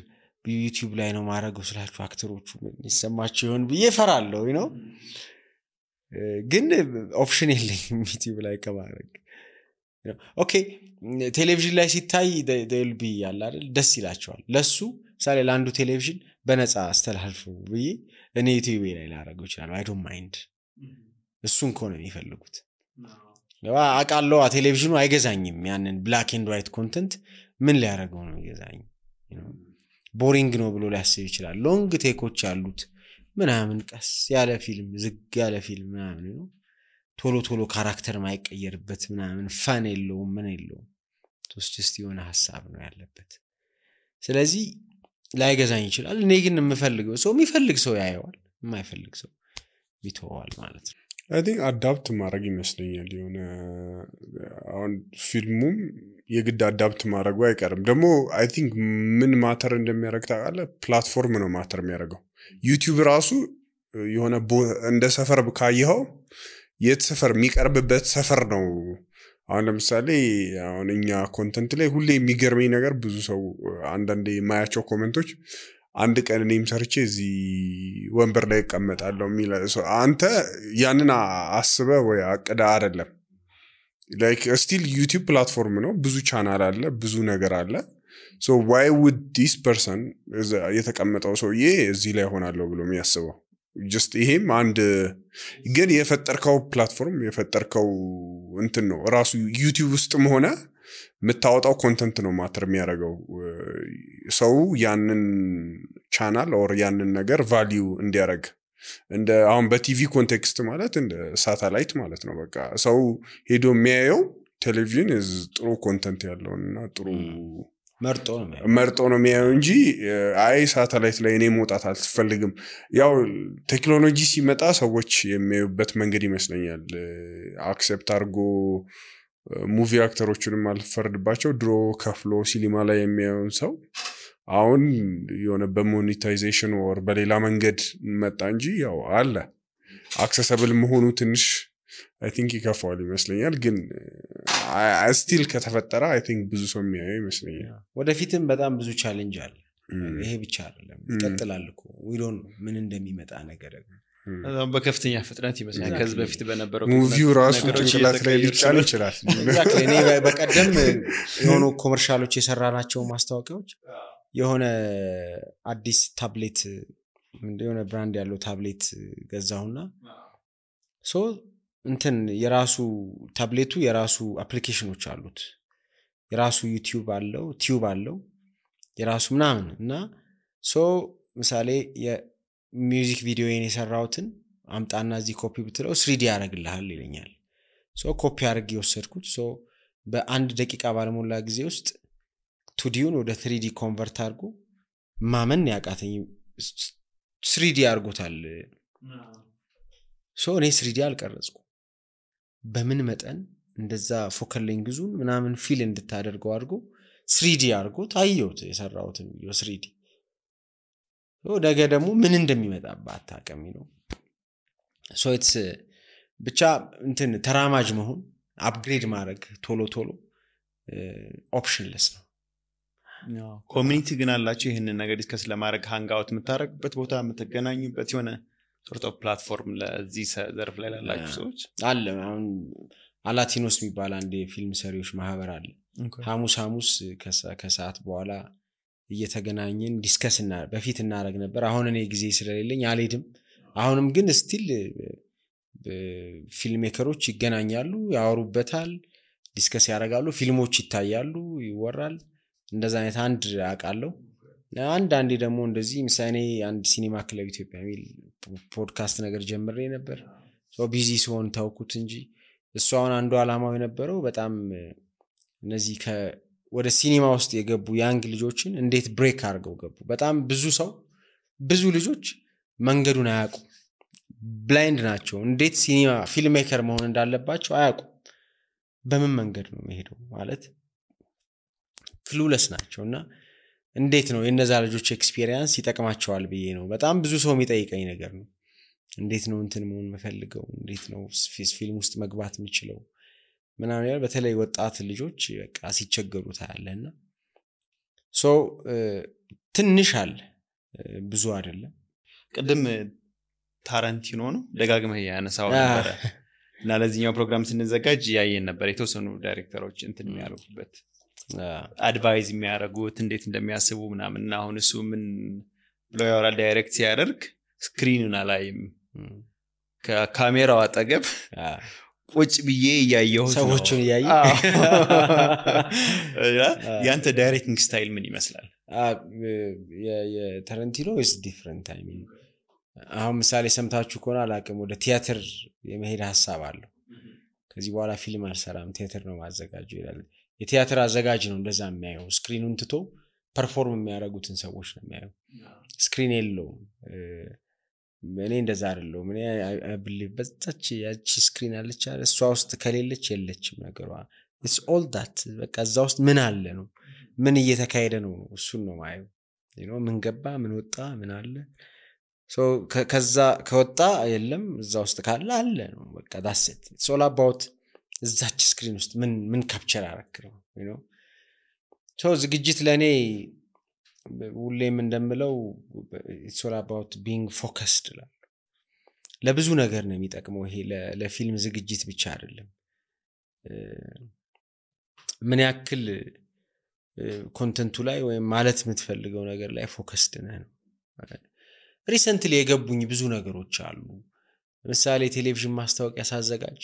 በዩቲዩብ ላይ ነው ማድረገው ስላችሁ አክተሮቹ ይሰማቸው ይሆን ብዬ ፈራለሁ ግን ኦፕሽን የለኝም ዩቲዩብ ላይ ከማድረግ ኦኬ ቴሌቪዥን ላይ ሲታይ they'll be ያለ አይደል ደስ ይላቸዋል ለሱ ምሳሌ ለአንዱ ቴሌቪዥን በነፃ አስተላልፉ ብዬ እኔ ዩቲዩብ ላይ ላደርገው ይችላል I don't mind እሱን ኮነ የሚፈልጉት አቃለው ቴሌቪዥኑ አይገዛኝም ያንን ብላክ ኤንድ ዋይት ኮንተንት ምን ሊያደርገው ነው ይገዛኝ ቦሪንግ ነው ብሎ ሊያስብ ይችላል ሎንግ ቴኮች አሉት ምናምን ቀስ ያለ ፊልም ዝግ ያለ ፊልም ምናምን ነው ቶሎ ካራክተር ማይቀየርበት ምናምን ፋን የለውም ምን የለውም just የሆነ ሐሳብ ነው ያለበት ስለዚህ ላይገዛኝ ይችላል እኔ ግን የምፈልገው ሰው የሚፈልግ ሰው ያየዋል የማይፈልግ ሰው ይተዋል ማለት ነው I think አዳፕት ማድረግ ይመስለኛል የሆነ አሁን ፊልሙም የግድ አዳፕት ማድረጉ አይቀርም ደግሞ I think ምን ማተር እንደሚያደርግ ታውቃለህ ፕላትፎርም ነው ማተር የሚያደርገው ዩቲዩብ ራሱ የሆነ እንደ ሰፈር ካየኸው የት ሰፈር የሚቀርብበት ሰፈር ነው አሁን ለምሳሌ አሁን እኛ ኮንተንት ላይ ሁሌ የሚገርመኝ ነገር ብዙ ሰው አንዳንዴ የማያቸው ኮሜንቶች አንድ ቀን እኔም ሰርቼ እዚህ ወንበር ላይ እቀመጣለሁ የሚል አንተ ያንን አስበ ወይ አቅዳ አይደለም like still YouTube platform ነው ብዙ ቻናል አለ ብዙ ነገር አለ so why would this person የተቀመጠው ሰውዬ እዚህ ላይ ሆናለሁ ብሎ የሚያስበው just ይሄም አንድ ግን የፈጠርከው ፕላትፎርም የፈጠርከው እንትን ነው ራሱ YouTube ውስጥም ሆነ መታወጣው ኮንተንት ነው ማተር የሚያደርገው ሰው ያንን ቻናል ኦር ያንን ነገር ቫልዩ እንዲያደርግ እንደ አሁን በቲቪ ኮንቴክስት ማለት እንደ ሳተላይት ማለት ነው በቃ ሰው ሄዶ የሚያየው ቴሌቪዥን ጥሩ ኮንተንት ያለውና ጥሩ መርጦ ነው የሚያየው እንጂ አይ ሳተላይት ላይ እኔ መውጣት አልፈልግም ያው ቴክኖሎጂ ሲመጣ ሰዎች የሚያዩበት መንገድ ይመስለኛል አክሰፕት አድርጎ ሙቪ አክተሮችንም አልፈርድባቸው ድሮ ከፍሎ ሲኒማ ላይ የሚያዩን ሰው አሁን የሆነ በሞኔታይዜሽን ወር በሌላ መንገድ መጣ እንጂ ያው አለ አክሰሰብል መሆኑ ትንሽ I think ይከፋዋል ይመስለኛል ግን still ከተፈጠረ I think ብዙ ሰው የሚያየው ይመስለኛል ወደፊትም በጣም ብዙ ቻሌንጅ አለ ይሄ ብቻ አይደለም ይቀጥላል እኮ we don't know ምን እንደሚመጣ ነገር በከፍተኛ ፍጥነት ይመስላል ከዚህ በፊት በነበረው ሙቪው ራሱ ጭንቅላት ላይ ሊጫን ይችላል እኔ በቀደም የሆኑ ኮመርሻሎች የሰራናቸው ማስታወቂያዎች የሆነ አዲስ ታብሌት የሆነ ብራንድ ያለው ታብሌት ገዛውና ሶ እንትን የራሱ ታብሌቱ የራሱ አፕሊኬሽኖች አሉት የራሱ ዩቲዩብ አለው ቲዩብ አለው የራሱ ምናምን እና ሶ ምሳሌ የሚውዚክ ቪዲዮዬን የሰራውትን አምጣና እዚህ ኮፒ ብትለው 3D ያደርግልሃል ይለኛል ሶ ኮፒ አድርጌ ወሰድኩት ሶ በአንድ ደቂቃ ባለሞላ ጊዜ ውስጥ 2Dውን ወደ 3D ኮንቨርት አድርጎ ማመን ያቃተኝ 3D አድርጎታል ሶ እኔ 3D አልቀረጽኩ በምን መጠን እንደዛ ፎከል ሌንግዙን ምናምን ፊል እንድታደርገው አድርጎ 3D አድርጎ ታየውት የሰራውትን ቪዲዮ 3D ነገ ደግሞ ምን እንደሚመጣባት ታቀሚ ነው ሶ ብቻ እንትን ተራማጅ መሆን አፕግሬድ ማድረግ ቶሎ ኦፕሽንለስ ነው። ኮሚኒቲ ግን አላችሁ ይህንን ነገር ዲስከስ ለማድረግ ሃንጋውት የምታደርጉበት ቦታ የምትገናኙበት የሆነ ሶርት ኦፍ ፕላትፎርም ለዚህ ዘርፍ ላይ ላላችሁ ሰዎች አለ? አሁን አላቲኖስ የሚባል አንድ የፊልም ሰሪዎች ማህበር አለ። ሐሙስ ከሰዓት በኋላ እየተገናኘን ዲስከስ በፊት እናደርግ ነበር። አሁን እኔ ጊዜ ስለሌለኝ አልሄድም። አሁንም ግን ስቲል ፊልም ሜከሮች ይገናኛሉ፣ ያወሩበታል፣ ዲስከስ ያደርጋሉ፣ ፊልሞች ይታያሉ፣ ይወራል። እንደዛ አይነት አንድ አውቃለሁ። አንዳንዴ ደግሞ እንደዚህ ምሳሌ አንድ ሲኒማ ክለብ ኢትዮጵያ የሚል ፖድካስት ነገር ጀምሬ ነበር። ቢዚ ሲሆን ታውኩት እንጂ እሱ አሁን አንዱ ዓላማው የነበረው በጣም እነዚህ ወደ ሲኒማ ውስጥ የገቡ ያንግ ልጆችን እንዴት ብሬክ አድርገው ገቡ። በጣም ብዙ ልጆች መንገዱን አያውቁ፣ ብላይንድ ናቸው። እንዴት ሲኒማ ፊልም ሜከር መሆን እንዳለባቸው አያውቁ። በምን መንገድ ነው የሚሄደው ማለት ክሉለስ ናቸውና እንዴት ነው የነዛ ልጆች ኤክስፒሪየንስ ይጠቅማቸዋል ብዬ ነው በጣም ብዙ ሰው የሚጠይቀኝ ነገር ነው። እንዴት ነው እንትን መሆን መፈልገው፣ እንዴት ነው ፊልም ውስጥ መግባት የምችለው ምናምን ያለ በተለይ ወጣት ልጆች በቃ ሲቸገሩ ታያለና ትንሽ አለ ብዙ አይደለም። ቅድም ታራንቲኖ ነው ደጋግመህ ያነሳው ነበር እና ለዚህኛው ፕሮግራም ስንዘጋጅ ያየን ነበር የተወሰኑ ዳይሬክተሮች እንትን የሚያደርጉበት አድቫይዝ የሚያደርጉት እንዴት እንደሚያስቡ ምናምን እና አሁን እሱ ምን ብሎ ያወራል ዳይሬክት ሲያደርግ ስክሪኑን አላይም ከካሜራው አጠገብ ቁጭ ብዬ እያየሁ ሰዎችን እያየ ያንተ ዳይሬክቲንግ ስታይል ምን ይመስላል? የታራንቲኖ is different I mean አሁን ምሳሌ ሰምታችሁ ከሆነ አላቅም ወደ ቲያትር የመሄድ ሐሳብ አለው። ከዚህ በኋላ ፊልም አልሰራም ቲያትር ነው ማዘጋጀው ይላል። የቲያትር አዘጋጅ ነው እንደዛ የሚያየው። ስክሪኑን ትቶ ፐርፎርም የሚያደርጉትን ሰዎች ነው የሚያየው። ስክሪን የለውም። እኔ እንደዛ አይደለም። እኔ አይብሊቭ በዛች ያቺ ስክሪን አለች አይደል? እሷ ውስጥ ከሌለች የለችም ነገሯ። it's all that በቃ እዛ ውስጥ ምን አለ ነው ምን እየተካሄደ ነው እሱን ነው ማየው። ምን ገባ ምን ወጣ ምን አለ ከዛ ከወጣ የለም እዛ ውስጥ ካለ አለ ነው በቃ that's it. it's all about እዛች ስክሪን ውስጥ ምን ካፕቸር አረክረው ዝግጅት ለኔ ሁሌም እንደምለው it's all about being focused ለብዙ ነገር ነው የሚጠቅመው። ይሄ ለፊልም ዝግጅት ብቻ አይደለም። ምን ያክል ኮንተንቱ ላይ ወይም ማለት የምትፈልገው ነገር ላይ ፎከስድ ነህ ነው። ሪሰንትሊ የገቡኝ ብዙ ነገሮች አሉ። ለምሳሌ ቴሌቪዥን ማስታወቂያ ሳዘጋጅ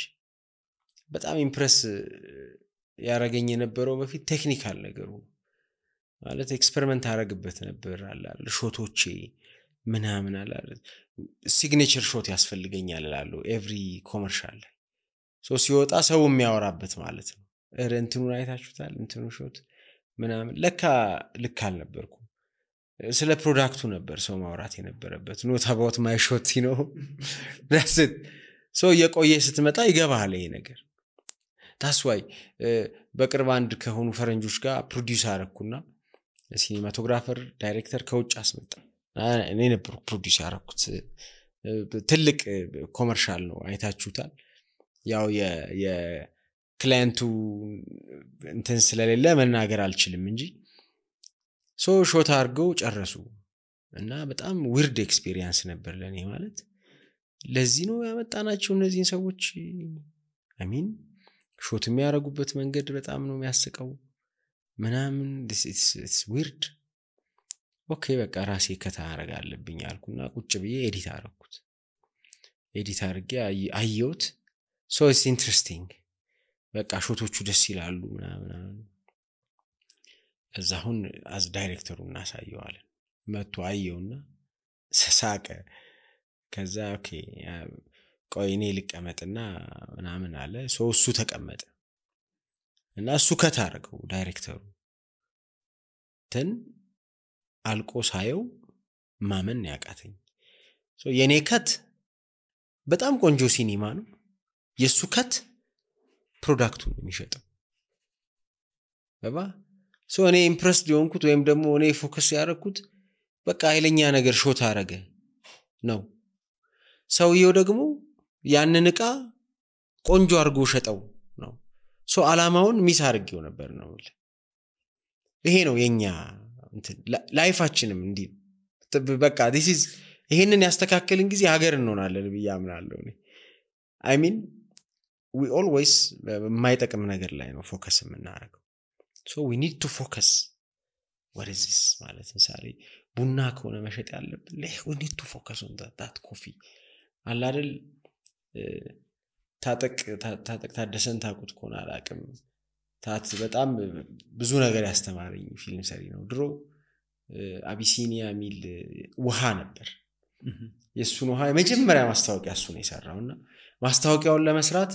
በጣም ኢምፕረስ ያረገኝ የነበረው በፊት ቴክኒካል ነገሩ ማለት ኤክስፐሪመንት አረግበት ነበር አላል ሾቶቼ ምናምን አላል ሲግኔቸር ሾት ያስፈልገኛል አላለው ኤቭሪ ኮመርሻል ሲወጣ ሰው የሚያወራበት ማለት ነው። እንትኑን አይታችሁታል እንትኑ ሾት ምናምን ለካ ልክ አልነበርኩ። ስለ ፕሮዳክቱ ነበር ሰው ማውራት የነበረበት not about my shot that's it የቆየ ስትመጣ ይገባሃል ይሄ ነገር። that's why በቅርብ አንድ ከሆኑ ፈረንጆች ጋር ፕሮዲዩስ አረኩና ሲኒማቶግራፈር ዳይሬክተር ከውጭ አስመጣ። እኔ ነበር ፕሮዲዩስ ያረኩት። ትልቅ ኮመርሻል ነው አይታችሁታል። ያው የክላይንቱ እንትን ስለሌለ መናገር አልችልም እንጂ ሾት አድርገው ጨረሱ እና በጣም ዊርድ ኤክስፒሪየንስ ነበር ለኔ። ማለት ለዚህ ነው ያመጣናቸው እነዚህን ሰዎች I mean ሾት የሚያረጉበት መንገድ በጣም ነው የሚያስቀው ምናምን it's weird ኦኬ በቃ ራሴ ከታረጋ አለብኝ አልኩና ቁጭ ብዬ ኤዲት አረኩት። ኤዲት አርጌ አየሁት it's interesting በቃ ሾቶቹ ደስ ይላሉ ምናምን እዛሁን አዝ ዳይሬክተሩ እናሳየዋለን። መጥቶ አየውና ሳቀ። ከዛ ኦኬ ቆይ እኔ ልቀመጥና ምናምን አለ። እሱ ተቀመጠ እና እሱ ከታረገው ዳይሬክተሩ አልቆ ሳየው ማመን ያቃተኝ። የኔ ከት በጣም ቆንጆ ሲኒማ ነው። የሱ ከት ፕሮዳክቱን የሚሸጠው እኔ ኢምፕረስድ የሆንኩት ወይም ደግሞ እኔ ፎከስ ያደረኩት በቃ ኃይለኛ ነገር ሾት አረገ ነው። ሰውየው ደግሞ ያንን ዕቃ ቆንጆ አርጎ ሸጠው ነው። ሶ አላማውን ሚስ አድርጌው ነበር ነው ይሄ ነው የኛ ላይፋችንም እንዲህ በቃ this is ይሄንን ያስተካከልን ጊዜ ሀገር እንሆናለን ብዬ አምናለሁ እኔ I mean we always የማይጠቅም ነገር ላይ ነው ፎከስ የምናደርገው so we need to focus what is this ማለት ምሳሌ ቡና ከሆነ መሸጥ ያለብን we need to focus on that coffee አለ አይደል ታጠቅ ታደሰን ታቁት ከሆነ አላቅም ታት በጣም ብዙ ነገር ያስተማረኝ ፊልም ሰሪ ነው ድሮ አቢሲኒያ ሚል ውሃ ነበር የሱን ውሃ የመጀመሪያ ማስታወቂያ እሱ ነው የሰራውና ማስታወቂያውን ለመስራት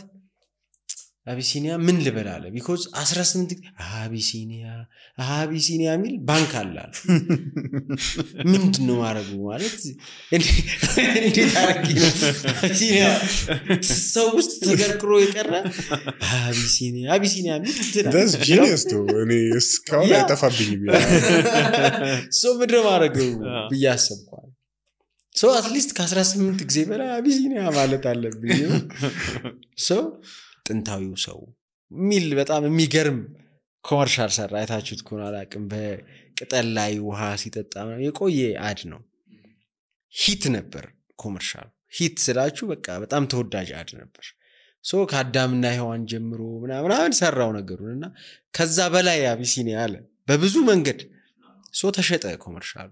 አቢሲኒያ ምን ልበላለ because 18 አቢሲኒያ ሚል ባንክ አላል ምንድነው ማረጉ ማለት እንዴት አርጊ ነው አቢሲኒያ ሰው ውስጥ ተገርክሮ የቀረ አቢሲኒያ ሚል that's genius too እኔ እስካሁን አይጠፋብኝም so ምድረ ማረጉ ብያሰብኳል so at least ከ18 ጊዜ በላይ አቢሲኒያ ማለት አለብኝ so ጥንታዊው ሰው ሚል በጣም የሚገርም ኮመርሻል ሰራ አይታችሁት ከሆነ አላቅም በቅጠል ላይ ውሃ ሲጠጣ የቆየ አድ ነው ሂት ነበር ኮመርሻል ሂት ስላችሁ በቃ በጣም ተወዳጅ አድ ነበር ሶ ከአዳምና ሔዋን ጀምሮ ምናምን ሰራው ነገሩንና ከዛ በላይ አቢሲኒያ አለ በብዙ መንገድ ሶ ተሸጠ ኮመርሻል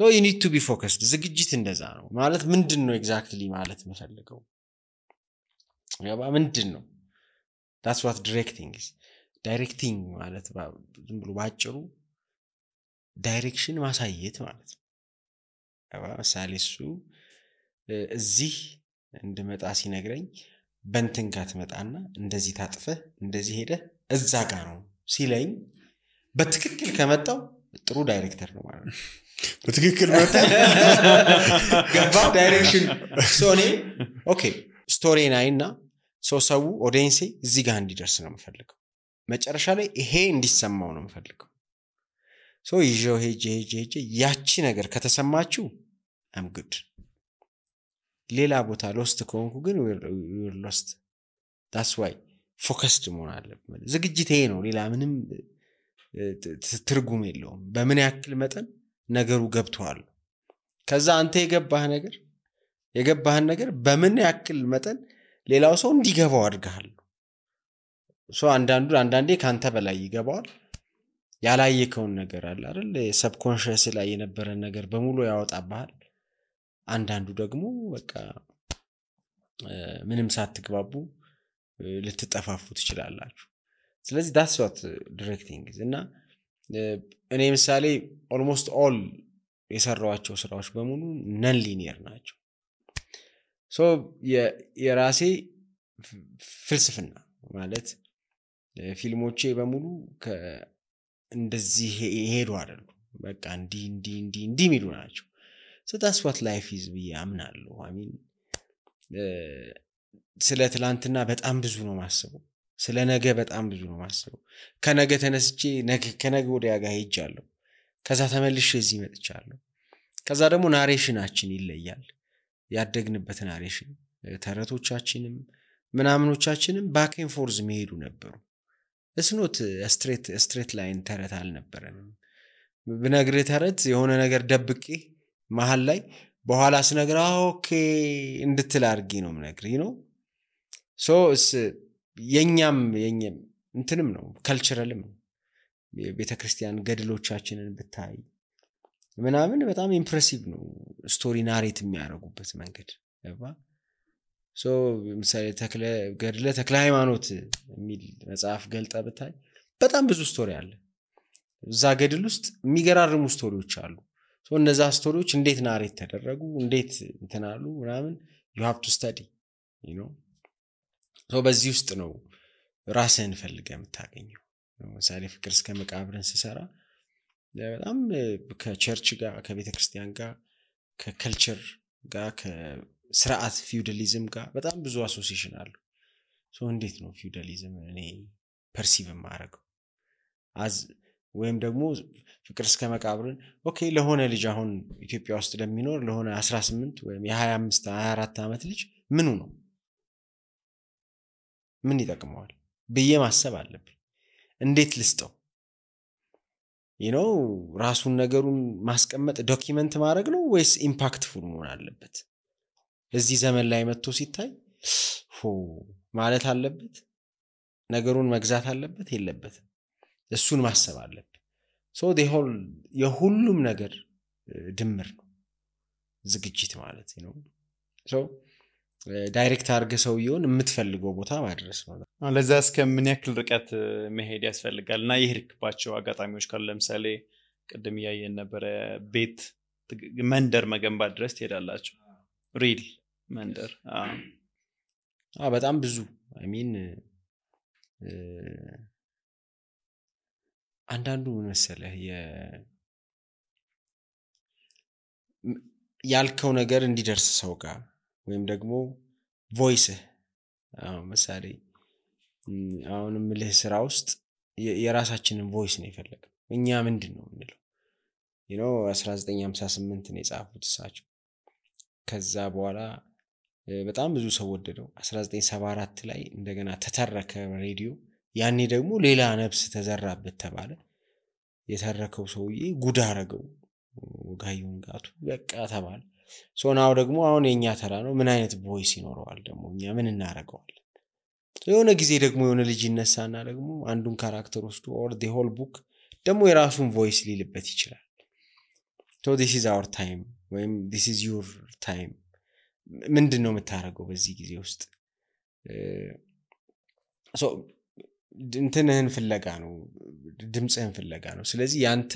so you need to be focused ዝግጅት እንደዛ ነው ማለት ምንድነው ኤግዛክትሊ ማለት መፈልገው ያባ ምንድነው that's what directing is directing ማለት ዝም ብሎ ባጭሩ ዳይሬክሽን ማሳየት ማለት ነው ያባ ሳሊሱ እዚህ እንድመጣ ሲነግረኝ በእንትን ጋር ትመጣና እንደዚህ ታጥፈህ እንደዚህ ሄደ እዛ ጋር ነው ሲለኝ በትክክል ከመጣው ጥሩ ዳይሬክተር ነው ማለት ነው በትክክል መጣ ገባ ዳይሬክሽን ሶኔ ኦኬ ስቶሪ ናይና ሰው ኦዲየንስ እዚህ ጋር እንዲደርስ ነው የምፈልገው መጨረሻ ላይ ይሄ እንዲሰማው ነው የምፈልገው ሶ ይዤው ሄጄ ያቺ ነገር ከተሰማችሁ I'm good ሌላ ቦታ ሎስት ከሆንኩ ግን we're lost that's why focused መሆን አለብን ዝግጅት ይሄ ነው ሌላ ምንም ትርጉም የለውም በምን ያክል መጠን ነገሩ ገብቷል ከዛ አንተ የገባህን ነገር በምን ያክል መጠን ሌላው ሰው እንዲገባው አድርጋል ሶ አንዳንዴ ካንተ በላይ ይገባዋል ያላየከውን ነገር አለ አይደል ሰብኮንሺየስ ላይ የነበረ ነገር በሙሉ ያወጣባል አንዳንዱ ደግሞ በቃ ምንም ሳትግባቡ ልትጠፋፉ ትችላላችሁ ስለዚህ that's what directing is እና እኔ ምሳሌ almost all የሰራዋቸው ስራዎች በሙሉ non linear ናቸው ሶ የራሴ ፍልስፍና ማለት ፊልሞቼ በሙሉ እንደዚህ ሄዱ አይደሉ በቃ እንዲ ሚሉ ናቸው so that's what life is ብዬ አምናለሁ I mean ስለ ትላንትና በጣም ብዙ ነው ማስበው ስለ ነገ በጣም ብዙ ነው ማስበው ከነገ ተነስቼ ከነገ ወዲያ ጋር ሄጃለሁ ከዛ ተመልሼ እዚህ መጥቻለሁ ከዛ ደግሞ ናሬሽናችን ይለያል ያደግንበት ናሬሽን ተረቶቻችንም ምናምኖቻችንም ባክ ኤንድ ፎርዝ መሄዱ ነበሩ it's not a straight line ተረት አልነበረንም ብነግርህ ተረት የሆነ ነገር ደብቄ መሃል ላይ በኋላ ስነግራ ኦኬ እንድትል አርጊ ነው ምነግርህ ነው ሶ የኛም እንትንም ነው ካልቸራልም ቤተክርስቲያን ገድሎቻችንን ብታይ ምናምን በጣም ኢምፕሬሲቭ ነው ስቶሪ ናሬት የሚያደርጉበት መንገድ ያባ ሶ ምሳሌ ገድለ ተክለ ሃይማኖት የሚል መጽሐፍ ገልጣ ብታይ በጣም ብዙ ስቶሪ አለ እዛ ገድል ውስጥ የሚገራርሙ ስቶሪዎች አሉ ሶ እነዛ ስቶሪዎች እንዴት ናሬት ተደረጉ እንዴት እንትናሉ ምናምን you have to study you know ሶ በዚህ ውስጥ ነው ራስህን ፈልገህ የምታገኘው ምሳሌ ፍቅር እስከ መቃብርን ሲሰራ በጣም ከቸርች ጋር ከቤተክርስቲያን ጋር ከከልቸር ጋር ከስርዓት ፊውዳሊዝም ጋር በጣም ብዙ አሶሲዬሽን አሉ ሶ እንዴት ነው ፊውዳሊዝም እኔ ፐርሲቭ ማረገው ወይም ደግሞ ፍቅር እስከ መቃብርን ኦኬ ለሆነ ልጅ አሁን ኢትዮጵያ ውስጥ ለሚኖር ለሆነ 18 ወይም የ25 24 አመት ልጅ ምኑ ነው ምን ይጠቅመዋል ብዬ ማሰብ አለብኝ። እንዴት ልስጠው ራሱን ነገሩን ማስቀመጥ ዶክመንት ማድረግ ነው ወይስ ኢምፓክትፉል መሆን አለበት? እዚህ ዘመን ላይ መጥቶ ሲታይ ማለት አለበት፣ ነገሩን መግዛት አለበት የለበትም? እሱን ማሰብ አለበት። የሁሉም ነገር ድምር ነው ዝግጅት ማለት ነው። ዳይሬክት አድርገህ ሰውየውን የምትፈልገው ቦታ ማድረስ ነው። ለዛ እስከምን ያክል ርቀት መሄድ ያስፈልጋል? እና የሄድክባቸው አጋጣሚዎች ካሉ ለምሳሌ ቅድም እያየን ነበረ ቤት መንደር መገንባት ድረስ ትሄዳላችሁ? ሪል መንደር በጣም ብዙ አንዳንዱ መሰለህ ያልከው ነገር እንዲደርስ ሰው ጋር ወይም ደግሞ ቮይስህ ምሳሌ አሁንም ልህ ስራ ውስጥ የራሳችንን ቮይስ ነው የፈለገው። እኛ ምንድነው እንለው 1958 ነው የጻፉት እሳቸው። ከዛ በኋላ በጣም ብዙ ሰው ወደደው። 1974 ላይ እንደገና ተተረከ ሬዲዮ። ያኔ ደግሞ ሌላ ነፍስ ተዘራበት ተባለ። የተረከው ሰውዬ ጉድ አረገው ጋዩን ጋቱ በቃ ተባለ። ሶናው ደግሞ አሁን የኛ ተራ ነው። ምን አይነት ቮይስ ይኖረዋል ደግሞ? እኛ ምን እናረጋዋለን? የሆነ ጊዜ ደግሞ የሆነ ልጅ ይነሳና ደግሞ አንዱን ካራክተር ወስዶ or the whole book ደግሞ የራሱን ቮይስ ሊልበት ይችላል። so this is our time ወይም this is your time። ምንድነው የምታረገው በዚህ ጊዜ ውስጥ? እንትንህን ፍለጋ ነው፣ ድምጽህን ፍለጋ ነው። ስለዚህ ያንተ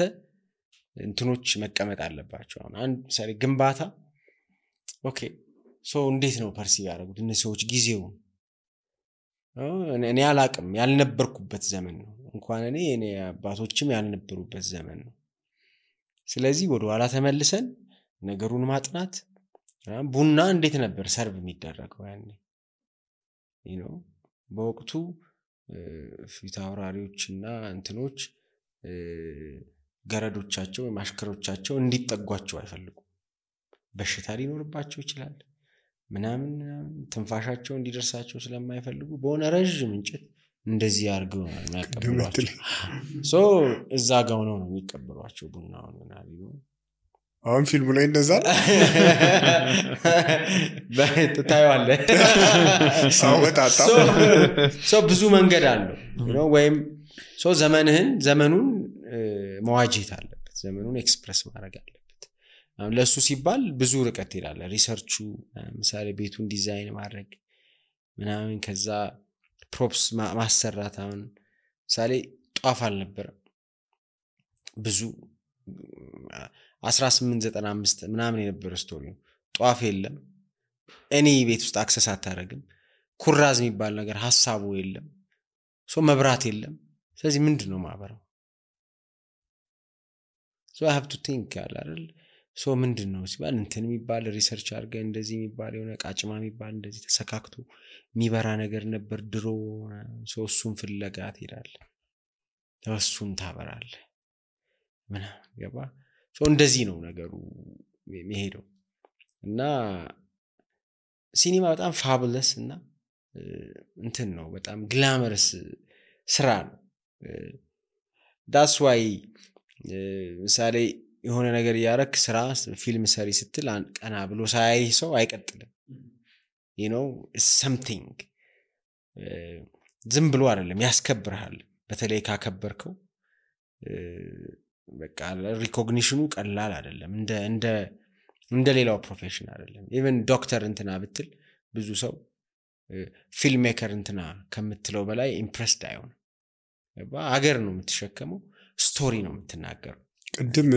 እንትኖች መቀመጥ አለባቸው። አሁን አንድ ምሳሌ ግንባታ ኦኬ እንዴት ነው ፐርሲቭ ያደረጉት እነዚህ ሰዎች ጊዜውን? እኔ አላቅም፣ ያልነበርኩበት ዘመን ነው። እንኳን እኔ አባቶችም ያልነበሩበት ዘመን ነው። ስለዚህ ወደ ኋላ ተመልሰን ነገሩን ማጥናት። ቡና እንዴት ነበር ሰርቭ የሚደረገው ያኔ? በወቅቱ ፊት አውራሪዎችና እንትኖች ገረዶቻቸው ማሽከሮቻቸው እንዲጠጓቸው አይፈልጉም። በሽታ ሊኖርባቸው ይችላል ምናምን ትንፋሻቸው እንዲደርሳቸው ስለማይፈልጉ በሆነ ረጅም እንጨት እንደዚህ አድርገው ነው የሚያቀብሏቸው። እዛ ጋር ነው የሚቀበሏቸው ቡናውን ምናምን። አሁን ፊልሙ ላይ እንደዛ ታየዋለህ። ብዙ መንገድ አለው ወይም ዘመኑን መዋጀት አለበት፣ ዘመኑን ኤክስፕረስ ማድረግ አለበት። ለሱ ሲባል ብዙ ርቀት ይላል ሪሰርቹ። ምሳሌ ቤቱን ዲዛይን ማድረግ ምናምን፣ ከዛ ፕሮፕስ ማሰራት። አሁን ምሳሌ ጧፍ አልነበረም ብዙ 1895 ምናምን የነበረ ስቶሪ ነው። ጧፍ የለም፣ እኔ ቤት ውስጥ አክሰስ አታረግም፣ ኩራዝ የሚባል ነገር ሐሳቡ የለም፣ መብራት የለም። ስለዚህ ምንድነው ማበራው? I have to think አይደል? ምንድነው ሲባል እንትን የሚባል ሪሰርች አድርገ እንደዚህ የሚባል የሆነ ቃጭማ የሚባል እንደዚህ ተሰካክቶ የሚበራ ነገር ነበር ድሮ። እሱን ፍለጋ ትሄዳለህ፣ እሱን ታበራለህ ምናምን ገባ። እንደዚህ ነው ነገሩ የሚሄደው። እና ሲኒማ በጣም ፋቡለስ እና እንትን ነው፣ በጣም ግላመረስ ስራ ነው። that's why ምሳሌ የሆነ ነገር ያረክ ስራ ፊልም ሰሪ ስትል ቀና ብሎ ሳያይ ሰው አይቀጥልም። something ዝም ብሎ አይደለም፣ ያስከብርሃል። በተለይ ካከበርከው በቃ ሪኮግኒሽኑ ቀላል አይደለም፣ እንደ ሌላው ፕሮፌሽን አይደለም። ኢቭን ዶክተር እንትና ብትል ብዙ ሰው ፊልም ሜከር እንትና ከምትለው በላይ ኢምፕሬስድ አይሆንም። አገር ነው የምትሸከመው፣ ስቶሪ ነው የምትናገረው። ቅድም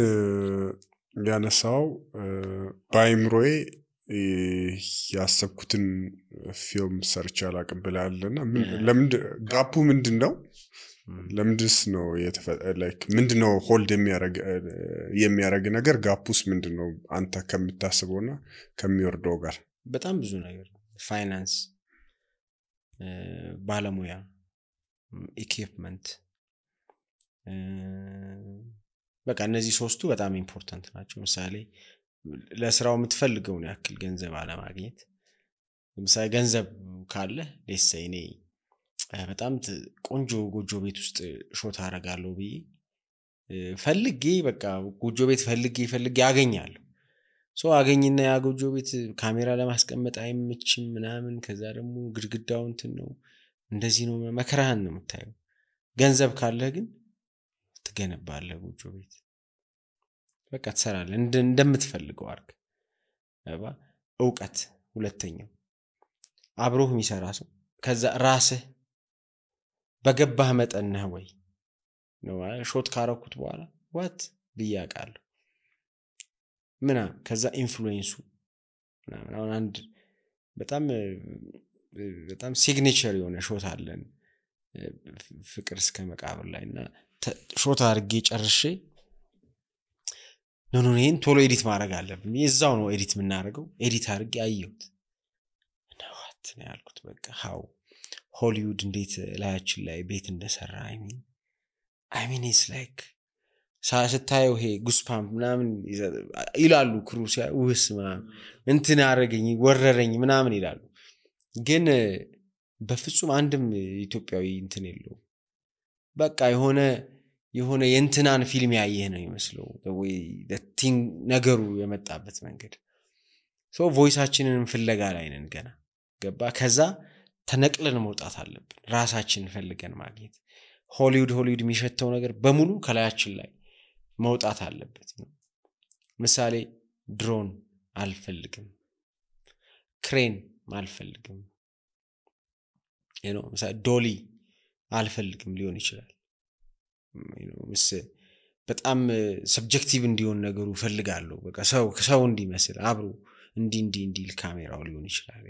ያነሳው ባይምሮዬ ያሰብኩትን ፊልም ሰርች አላቀብላለና ጋፑ ምንድነው? ለምንድስ ነው ምንድነው ሆልድ የሚያረግ ነገር? ጋፑስ ምንድነው አንተ ከምታስበውና ከሚወርደው ጋር? በጣም ብዙ ነገር፣ ፋይናንስ፣ ባለሙያ፣ ኢኩዊፕመንት፣ በቃ እነዚህ ሶስቱ በጣም ኢምፖርታንት ናቸው። ምሳሌ ለስራው የምትፈልገውን ያክል ገንዘብ አለማግኘት። ምሳሌ ገንዘብ ካለ ለሰይኔ በጣም ቆንጆ ጎጆ ቤት ውስጥ ሾት አደርጋለሁ ብዬ ፈልጌ በቃ ጎጆ ቤት ፈልጌ አገኛለሁ። አገኝና ያ ጎጆ ቤት ካሜራ ለማስቀመጥ አይመችም ምናምን። ከዛ ደግሞ ግድግዳው እንትን ነው እንደዚህ ነው፣ መከራህን ነው የምታየው። ገንዘብ ካለህ ግን ትገነባለህ ጎጆ ቤት፣ በቃ ትሰራለህ እንደምትፈልገው አድርግ። እውቀት ሁለተኛው አብሮህ የሚሰራ ሰው። ከዛ ራስህ በገባህ መጠን ነህ ወይ ነው ሾት ካረኩት በኋላ ዋት ብያቃለሁ ምናምን። ከዛ ኢንፍሉዌንሱ ምናምን። አሁን አንድ በጣም ሲግኔቸር የሆነ ሾት አለን ፍቅር እስከ መቃብር ላይ እና ሾት አድርጌ ጨርሼ ይሄን ቶሎ ኤዲት ማድረግ አለብኝ። እዛው ነው ኤዲት የምናደርገው። ኤዲት አድርጌ አየሁት እና ዋት ነው ያልኩት። በቃ ሃው ሆሊውድ እንዴት ላያችን ላይ ቤት እንደሰራ I mean it's like ስታየው ይሄ ጉስፓምፕ ምናምን ይላሉ ክሩሲያ ውስማ እንትን አረገኝ ወረረኝ ምናምን ይላሉ። ግን በፍጹም አንድም ኢትዮጵያዊ እንትን የለው። በቃ የሆነ የእንትናን ፊልም ያየህ ነው የሚመስለው ወይ ነገሩ የመጣበት መንገድ። ቮይሳችንን ፍለጋ ላይ ነን ገና ገባ። ከዛ ተነቅለን መውጣት አለብን፣ ራሳችንን ፈልገን ማግኘት። ሆሊውድ የሚሸተው ነገር በሙሉ ከላያችን ላይ መውጣት አለበት። ምሳሌ ድሮን አልፈልግም፣ ክሬን አልፈልግም፣ ምሳሌ ዶሊ አልፈልግም ሊሆን ይችላል። በጣም ሰብጀክቲቭ እንዲሆን ነገሩ ፈልጋለሁ። በቃ ሰው እንዲመስል አብሮ እንዲል ካሜራው ሊሆን ይችላል።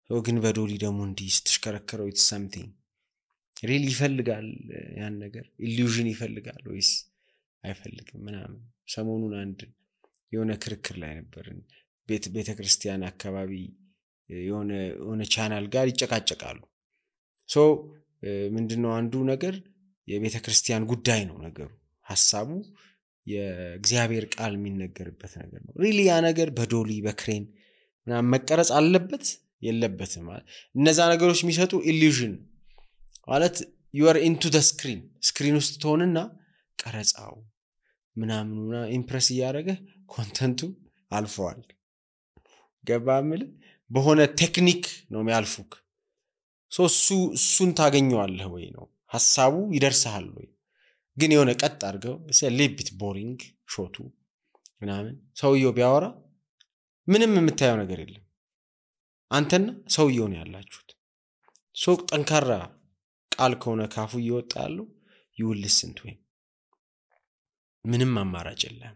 ግን በዶሊ ደግሞ እንዲህ ስትሽከረከረው it's something really ይፈልጋል። ያን ነገር ኢሉዥን ይፈልጋል ወይስ አይፈልግም ምናምን። ሰሞኑን አንድ የሆነ ክርክር ላይ ነበርን። ቤተክርስቲያን አካባቢ የሆነ ቻናል ጋር ይጨቃጨቃሉ። ምንድነው አንዱ ነገር የቤተክርስቲያን ጉዳይ ነው ነገሩ፣ ሐሳቡ የእግዚአብሔር ቃል የሚነገርበት ነገር ነው። ሪሊ ያ ነገር በዶሊ በክሬን ምናምን መቀረጽ አለበት የለበትም ማለት እነዛ ነገሮች የሚሰጡ ኢሉዥን ማለት you are into the screen ውስጥ ትሆንና ቀረጻው ምናምኑና ኢምፕረስ ያደረገ ኮንተንቱ አልፈዋል። ገባምል በሆነ ቴክኒክ ነው የሚያልፉክ። እሱን ታገኘዋለህ ወይ ነው ሐሳቡ ይደርሳል ወይ? ግን የሆነ ቀጥ አድርገው ሌቢት ቦሪንግ ሾቱ ምናምን ሰውየው ቢያወራ ምንም የምታየው ነገር የለም። አንተና ሰውየው ነው ያላችሁት። ጠንካራ ቃል ከሆነ ካፉ ይወጣሉ you will listen to him። ምንም አማራጭ የለም።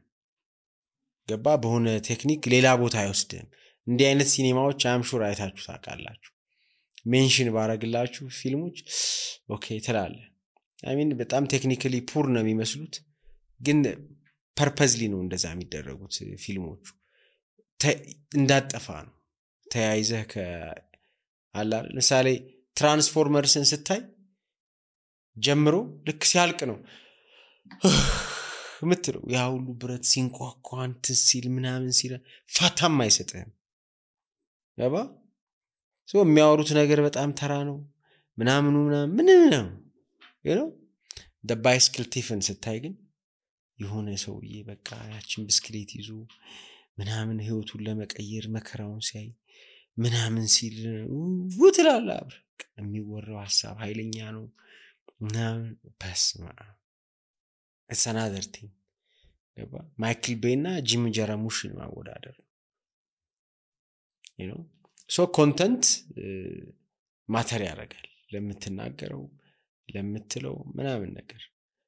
ገባ በሆነ ቴክኒክ ሌላ ቦታ አይወስድም። እንዲህ አይነት ሲኒማዎች አምሹር አይታችሁ ታውቃላችሁ። ሜንሽን ባረግላችሁ ፊልሞች ኦኬ ትላለ። I mean በጣም ቴክኒካሊ ፑር ነው የሚመስሉት፣ ግን ፐርፐዝሊ ነው እንደዛ የሚደረጉት ፊልሞቹ። እንዳጠፋ ነው ተያይዘህ ከአላል ምሳሌ ትራንስፎርመርስን ስታይ ጀምሮ ልክ ሲያልቅ ነው ምትለው። ያ ሁሉ ብረት ሲንቋቋ እንትን ሲል ምናምን ሲል ፋታም አይሰጥህም። ገባ የሚያወሩት ነገር በጣም ተራ ነው ምናምን ነው the bicycle ቲፍን ስታይ ግን የሆነ ሰውዬ በቃ ያችን ብስክሌት ይዞ ምናምን ህይወቱን ለመቀየር መከራውን ሲያይ ምናምን ሲል ውትላላ የሚወራው ሐሳብ ኃይለኛ ነው ምናምን። በስማ it's another thing። ገባ ማይክል ቤይና ጂም ጀራሙሽን ማወዳደር ኮንተንት ማተር ያደርጋል ለምትናገረው ለምትለው ምናምን ነገር።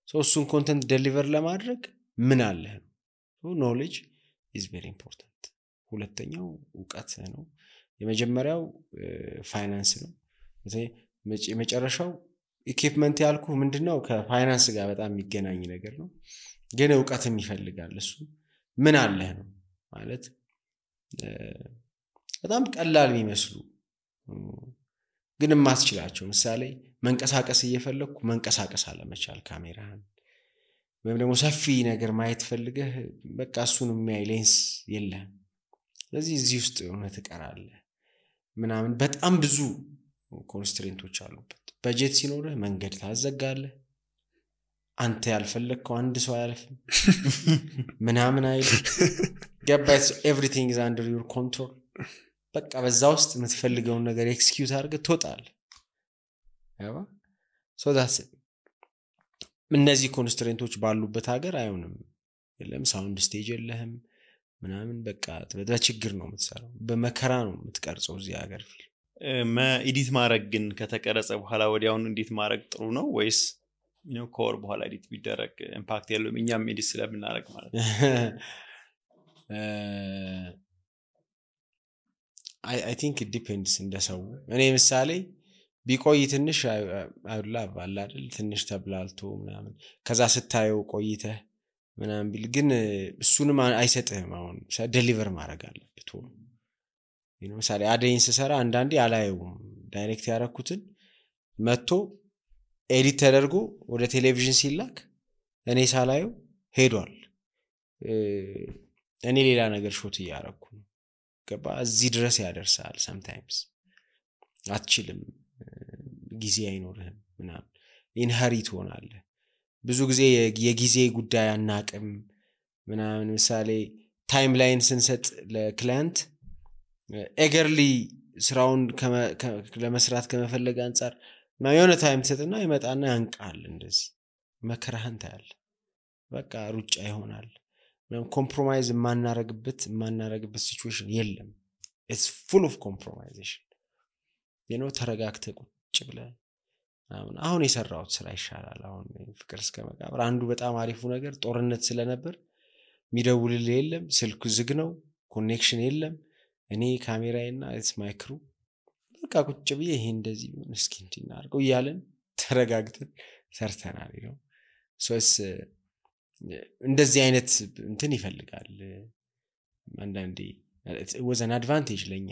እሱን ኮንተንት ዴሊቨር ለማድረግ ምን አለ ኖሌጅ is very important። ሁለተኛው ዕውቀት ነው። የመጀመሪያው ፋይናንስ ነው። የመጨረሻው ኢኩዊፕመንት ያልኩ ምንድነው ከፋይናንስ ጋር በጣም የሚገናኝ ነገር ነው፣ ግን ዕውቀትም ይፈልጋል። እሱ ምን አለ ነው ማለት በጣም ቀላል የሚመስሉ ግን ማስችላቸው። ምሳሌ መንቀሳቀስ እየፈለኩ መንቀሳቀስ አለመቻል ካሜራን፣ ወይም ደግሞ ሰፊ ነገር ማየት ፈልገህ በቃ እሱን የሚያይ ሌንስ የለም። ስለዚህ እዚህ ውስጥ ሆነ ትቀራለህ ምናምን። በጣም ብዙ ኮንስትሬንቶች አሉበት በጀት ሲኖርህ መንገድ ታዘጋለህ አንተ ያልፈለግከው አንድ ሰው አያልፍም ምናምን አይል ገባስ everything is under your control በቃ በዛ ውስጥ የምትፈልገውን ነገር ኤክስኪዩት አድርገህ ትወጣለህ ያባ so that's it እነዚህ ኮንስትሬንቶች ባሉበት ሀገር አይሆንም የለም ሳውንድ ስቴጅ የለህም ምናምን በቃ በችግር ነው የምትሰራው በመከራ ነው የምትቀርጸው እዚህ ሀገር ፊልም ኤዲት ማድረግ ግን ከተቀረጸ በኋላ ወዲያውኑ እንዴት ማድረግ ጥሩ ነው ወይስ ኮር በኋላ ኤዲት ቢደረግ ኢምፓክት የለውም እኛም ኤዲት ስለምናደርግ ማለት ነው I think it depends እንደሰው እኔ ምሳሌ ቢቆይ ትንሽ አይውላ ባላ አይደል ትንሽ ተብላልቶ ምናምን ከዛ ስታየው ቆይተህ ምናምን ቢል ግን እሱንም አይሰጥህም አሁን ዴሊቨር ማድረግ አለበት ምሳሌ አደይን ስሰራ አንዳንዴ አላየውም ዳይሬክት ያረኩትን መጥቶ ኤዲት ተደርጎ ወደ ቴሌቪዥን ሲላክ እኔ ሳላየው ሄዷል እኔ ሌላ ነገር ሾት ያረኩ ገባ እዚህ ድረስ ያደርሳል sometimes አትችልም ጊዜ አይኖርህም ምናምን ኢንሄሪት ሆናለህ ብዙ ጊዜ የጊዜ ጉዳይ አናቅም ምናምን ምሳሌ ታይምላይን ስንሰጥ ለክላይንት ኤገርሊ ስራውን ለመስራት ከመፈለግ አንፃር የሆነ ታይም ተሰጥና ይመጣና ያንቃል እንደዚህ መከራህን ታያል በቃ ሩጫ ይሆናል ኮምፕሮማይዝ ማናረግበት ሲቹዌሽን የለም it's full of compromisation ተረጋግተ ቁጭ ብለህ አሁን የሰራውት ስራ ይሻላል አሁን ፍቅር እስከ መቃብር አንዱ በጣም አሪፉ ነገር ጦርነት ስለነበር ሚደውልልህ የለም ስልኩ ዝግ ነው ኮኔክሽን የለም እኔ ካሜራዬና it's my crew በቃ ቁጭ ብዬ ይሄ እንደዚህ እስኪ እንድናርገው ይያለን ተረጋግተን ሰርተናል so እንደዚህ አይነት እንትን ይፈልጋል አንዳንዴ it was an advantage ለኛ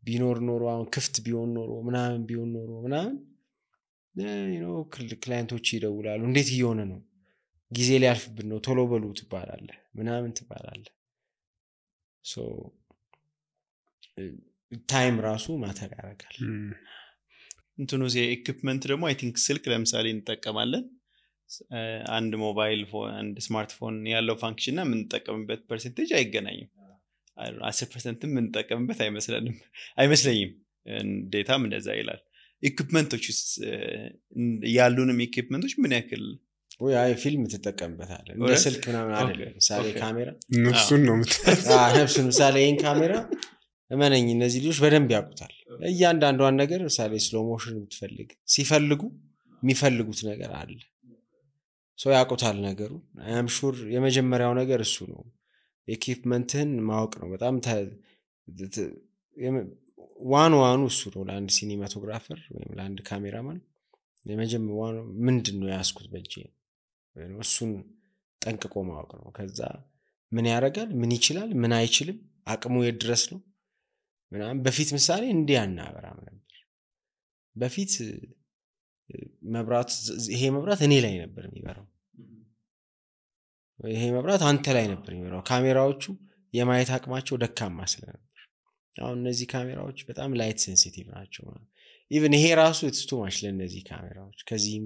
ቢኖር ኖሮ አሁን ክፍት ቢሆን ኖሮ ምናምን ክላይንቶች ይደውላሉ እንዴት እየሆነ ነው ጊዜ ሊያልፍብን ነው ቶሎ በሉ ትባላለህ ምናምን ትባላለህ so ታይም ራሱ ማተር ያደርጋል እንትኑ ኢኩዊፕመንት ደግሞ አይ ቲንክ ስልክ ለምሳሌ እንጠቀማለን አንድ ሞባይል ፎን አንድ ስማርትፎን ያለው ፋንክሽን እና የምንጠቀምበት ፐርሰንቴጅ አይገናኝም 10% የምንጠቀምበት አይመስለኝም ዴታም እንደዛ ይላል ኢኩዊፕመንቶች ያሉንም ኢኩዊፕመንቶች ምን ያክል ወይ ፊልም ተጠቀምበታለህ እንደ ስልክ ምናምን አይደለም ምሳሌ ካሜራ ነፍሱን ነው ነፍሱን ምሳሌ ይሄን ካሜራ እመነኝ እነዚህ ልጆች በደንብ ያውቁታል እያንዳንዷን ነገር ምሳሌ ስሎ ሞሽን ብትፈልግ ሲፈልጉ የሚፈልጉት ነገር አለ ሶ ያውቁታል ነገሩ አይ አም ሹር የመጀመሪያው ነገር እሱ ነው ኢኩዊፕመንትን ማወቅ ነው በጣም ዋኑ እሱ ነው ለአንድ ሲኒማቶግራፈር ወይም ለአንድ ካሜራማን የመጀመሪያው ምንድነው ያስኩት በእጄ እሱን ጠንቅቆ ማወቅ ነው ከዛ ምን ያደርጋል ምን ይችላል ምን አይችልም አቅሙ የድረስ ነው ምናምን በፊት ምሳሌ እንዲያናበራም ነበር በፊት መብራት ይሄ መብራት እኔ ላይ ነበር የሚበራው ይሄ መብራት አንተ ላይ ነበር የሚበራው ካሜራዎቹ የማየት አቅማቸው ደካማ ስለነበር አሁን እነዚህ ካሜራዎች በጣም ላይት ሴንሲቲቭ ናቸው ኢቭን ይሄ ራሱ it's too much ለነዚህ ካሜራዎች ከዚህም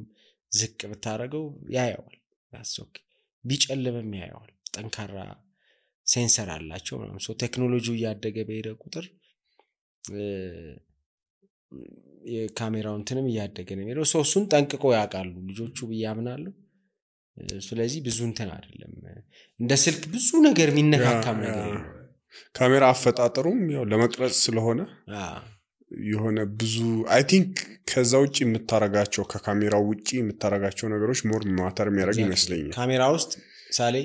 ዝቅ ብታረገው ያያዋል ያስወክ ቢጨልምም ያያዋል ጠንካራ ሴንሰር አላቸው ማለት ነው ቴክኖሎጂው ያደገ በሄደ ቁጥር የካሜራውን እንትንም ያደገ ነው የሚለው እሱን ጠንቅቆ ያውቃሉ ልጆቹ በያምናሉ ስለዚህ ብዙ እንትን አይደለም እንደ ስልክ ብዙ ነገር የሚነካካም ነገር ነው ካሜራ አፈጣጠሩም ያው ለመቅረጽ ስለሆነ የሆነ ብዙ አይ ቲንክ ከዛ ውጪ የምታረጋቸው ከካሜራው ውጪ የምታረጋቸው ነገሮች ሞር ማተር የሚያደርግ ይመስለኛል ካሜራ ውስጥ ሳሌ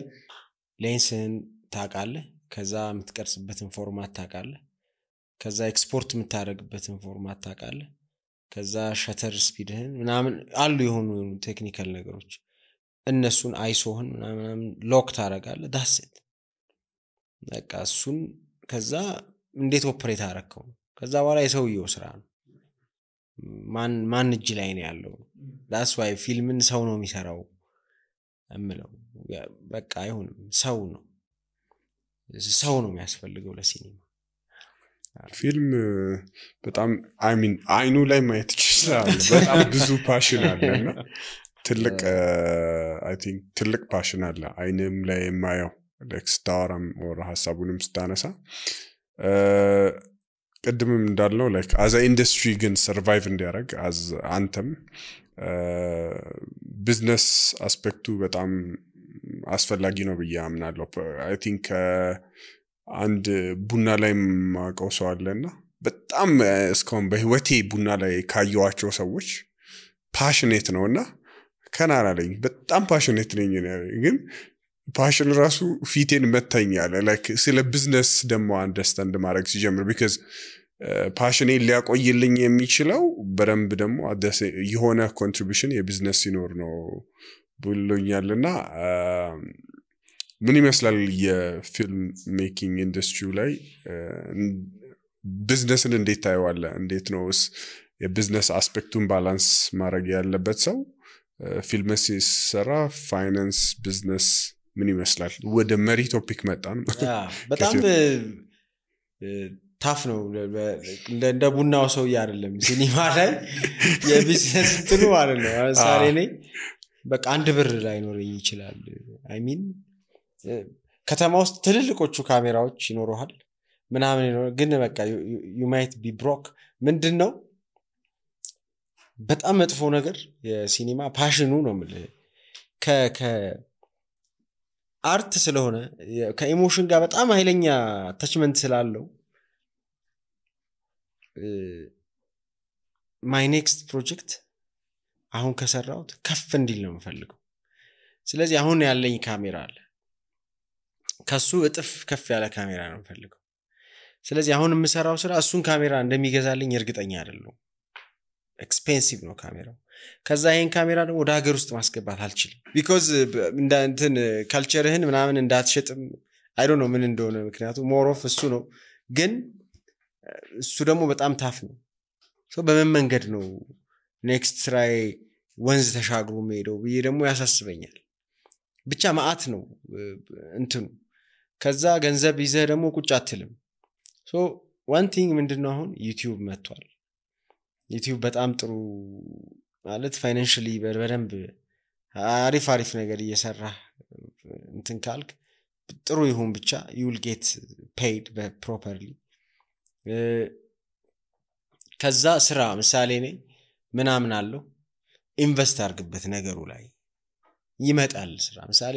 ሌንስን ታውቃለህ ከዛ የምትቀርጽበትን ፎርማት ታውቃለህ ከዛ ኤክስፖርት የምታደርግበትን ፎርማት ታውቃለህ ከዛ ሸተር ስፒድህን ምናምን አሉ የሆኑ ቴክኒካል ነገሮች እነሱን አይሶህን ምናምን ሎክ ታደርጋለህ ዳስት በቃ እሱን ከዛ እንዴት ኦፕሬት አደረከው ከዛ በኋላ የሰውየው ስራ ነው ማን እጅ ላይ ነው ያለው that's why ፊልምን ሰው ነው የሚሰራው እምለው በቃ አይሆንም ሰው ነው የሚያስፈልገው ለሲኒማ ፊልም በጣም አይኑ ላይ ማየት ይችላል በጣም ብዙ ፓሽን አለና ትልቅ አይ ቲንክ ትልቅ ፓሽን አለ አይንም ላይ የማየው ለክስታራም ወራ ሐሳቡንም ስታነሳ ቀድምም እንዳለው ላይክ አዝ ኢንደስትሪ ግን ሰርቫይቭ እንዲያደርግ አዝ አንተም ቢዝነስ አስፔክቱ በጣም አስፈላጊ ነው ብዬ አምናለሁ አይ ቲንክ አንድ ቡና ላይ ማቀው ሰው አለና በጣም እስካሁን በህይወቴ ቡና ላይ ካየዋቸው ሰዎች ፓሽኔት ነውና ከናራ ላይ በጣም ፓሽኔት ነኝ ግን ፓሽን ራሱ ፊቴን መታኛለ ላይክ ስለ ቢዝነስ ደሞ አንደርስታንድ ማድረግ ሲጀምር because ፓሽኔ ሊያቆይልኝ የሚችለው በደንብ ደሞ የሆነ ኮንትሪቢዩሽን የቢዝነስ ሲኖር ነው ብሎኛልና ምን ይመስላል የፊልም ሜኪንግ ኢንደስትሪው ላይ ቢዝነስን እንዴት ታየዋለ እንዴት ነውስ የቢዝነስ አስፔክቱን ባላንስ ማድረግ ያለበት ሰው ፊልም ሲሰራ ፋይናንስ ቢዝነስ ምን ይመስላል ወደ መሪ ቶፒክ መጣን በጣም ታፍ ነው እንደ ቡናው ሰው አይደለም ሲኒማ ላይ የቢዝነስ ጥሩ አይደለም ሳሬ ነኝ በቃ አንድ ብር ላይ ኖርኝ ይችላል አይ ሚን ከተማ ውስጥ ትልልቆቹ ካሜራዎች ይኖሩሃል ምናምን ግን በቃ you might be broke ምንድነው በጣም መጥፎ ነገር የሲኒማ ፓሽኑ ነው ማለት ከ አርት ስለሆነ ከኢሞሽን ጋር በጣም ኃይለኛ አታችመንት ስላለው my next project አሁን ከሰራውት ከፍ እንዲል ነው የምፈልገው ስለዚህ አሁን ያለኝ ካሜራ አለ ከሱ እጥፍ ከፍ ያለ ካሜራ ነው የምፈልገው ስለዚህ አሁን የምሰራው ስራ እሱን ካሜራ እንደሚገዛልኝ እርግጠኛ አይደለም ኤክስፔንሲቭ ነው ካሜራው ከዛ ይሄን ካሜራ ደግሞ ወደ ሀገር ውስጥ ማስገባት አልችልም because እንትን ካልቸርህን ምናምን እንዳትሸጥም I don't know ምን እንደሆነ ምክንያቱም more of እሱ ነው ግን እሱ ደግሞ በጣም ታፍ ነው ሶ በምን መንገድ ነው ኔክስት ስራይ ወንዝ ተሻግሮ ሄደው ብዬ ደግሞ ያሳስበኛል ብቻ ማአት ነው እንትኑ ከዛ ገንዘብ ይዘህ ደግሞ ቁጭ አትልም ሶ one thing ምንድነው አሁን YouTube መጥቷል YouTube በጣም ጥሩ ማለት ፋይናንሻሊ በደንብ አሪፍ ነገር እየሰራ እንትን ካልክ ጥሩ ይሁን ብቻ you will get paid properly ከዛ ስራ ምሳሌ ነኝ ምናምን አለው ኢንቨስት አድርግበት ነገሩ ላይ ይመጣል ስራ ምሳሌ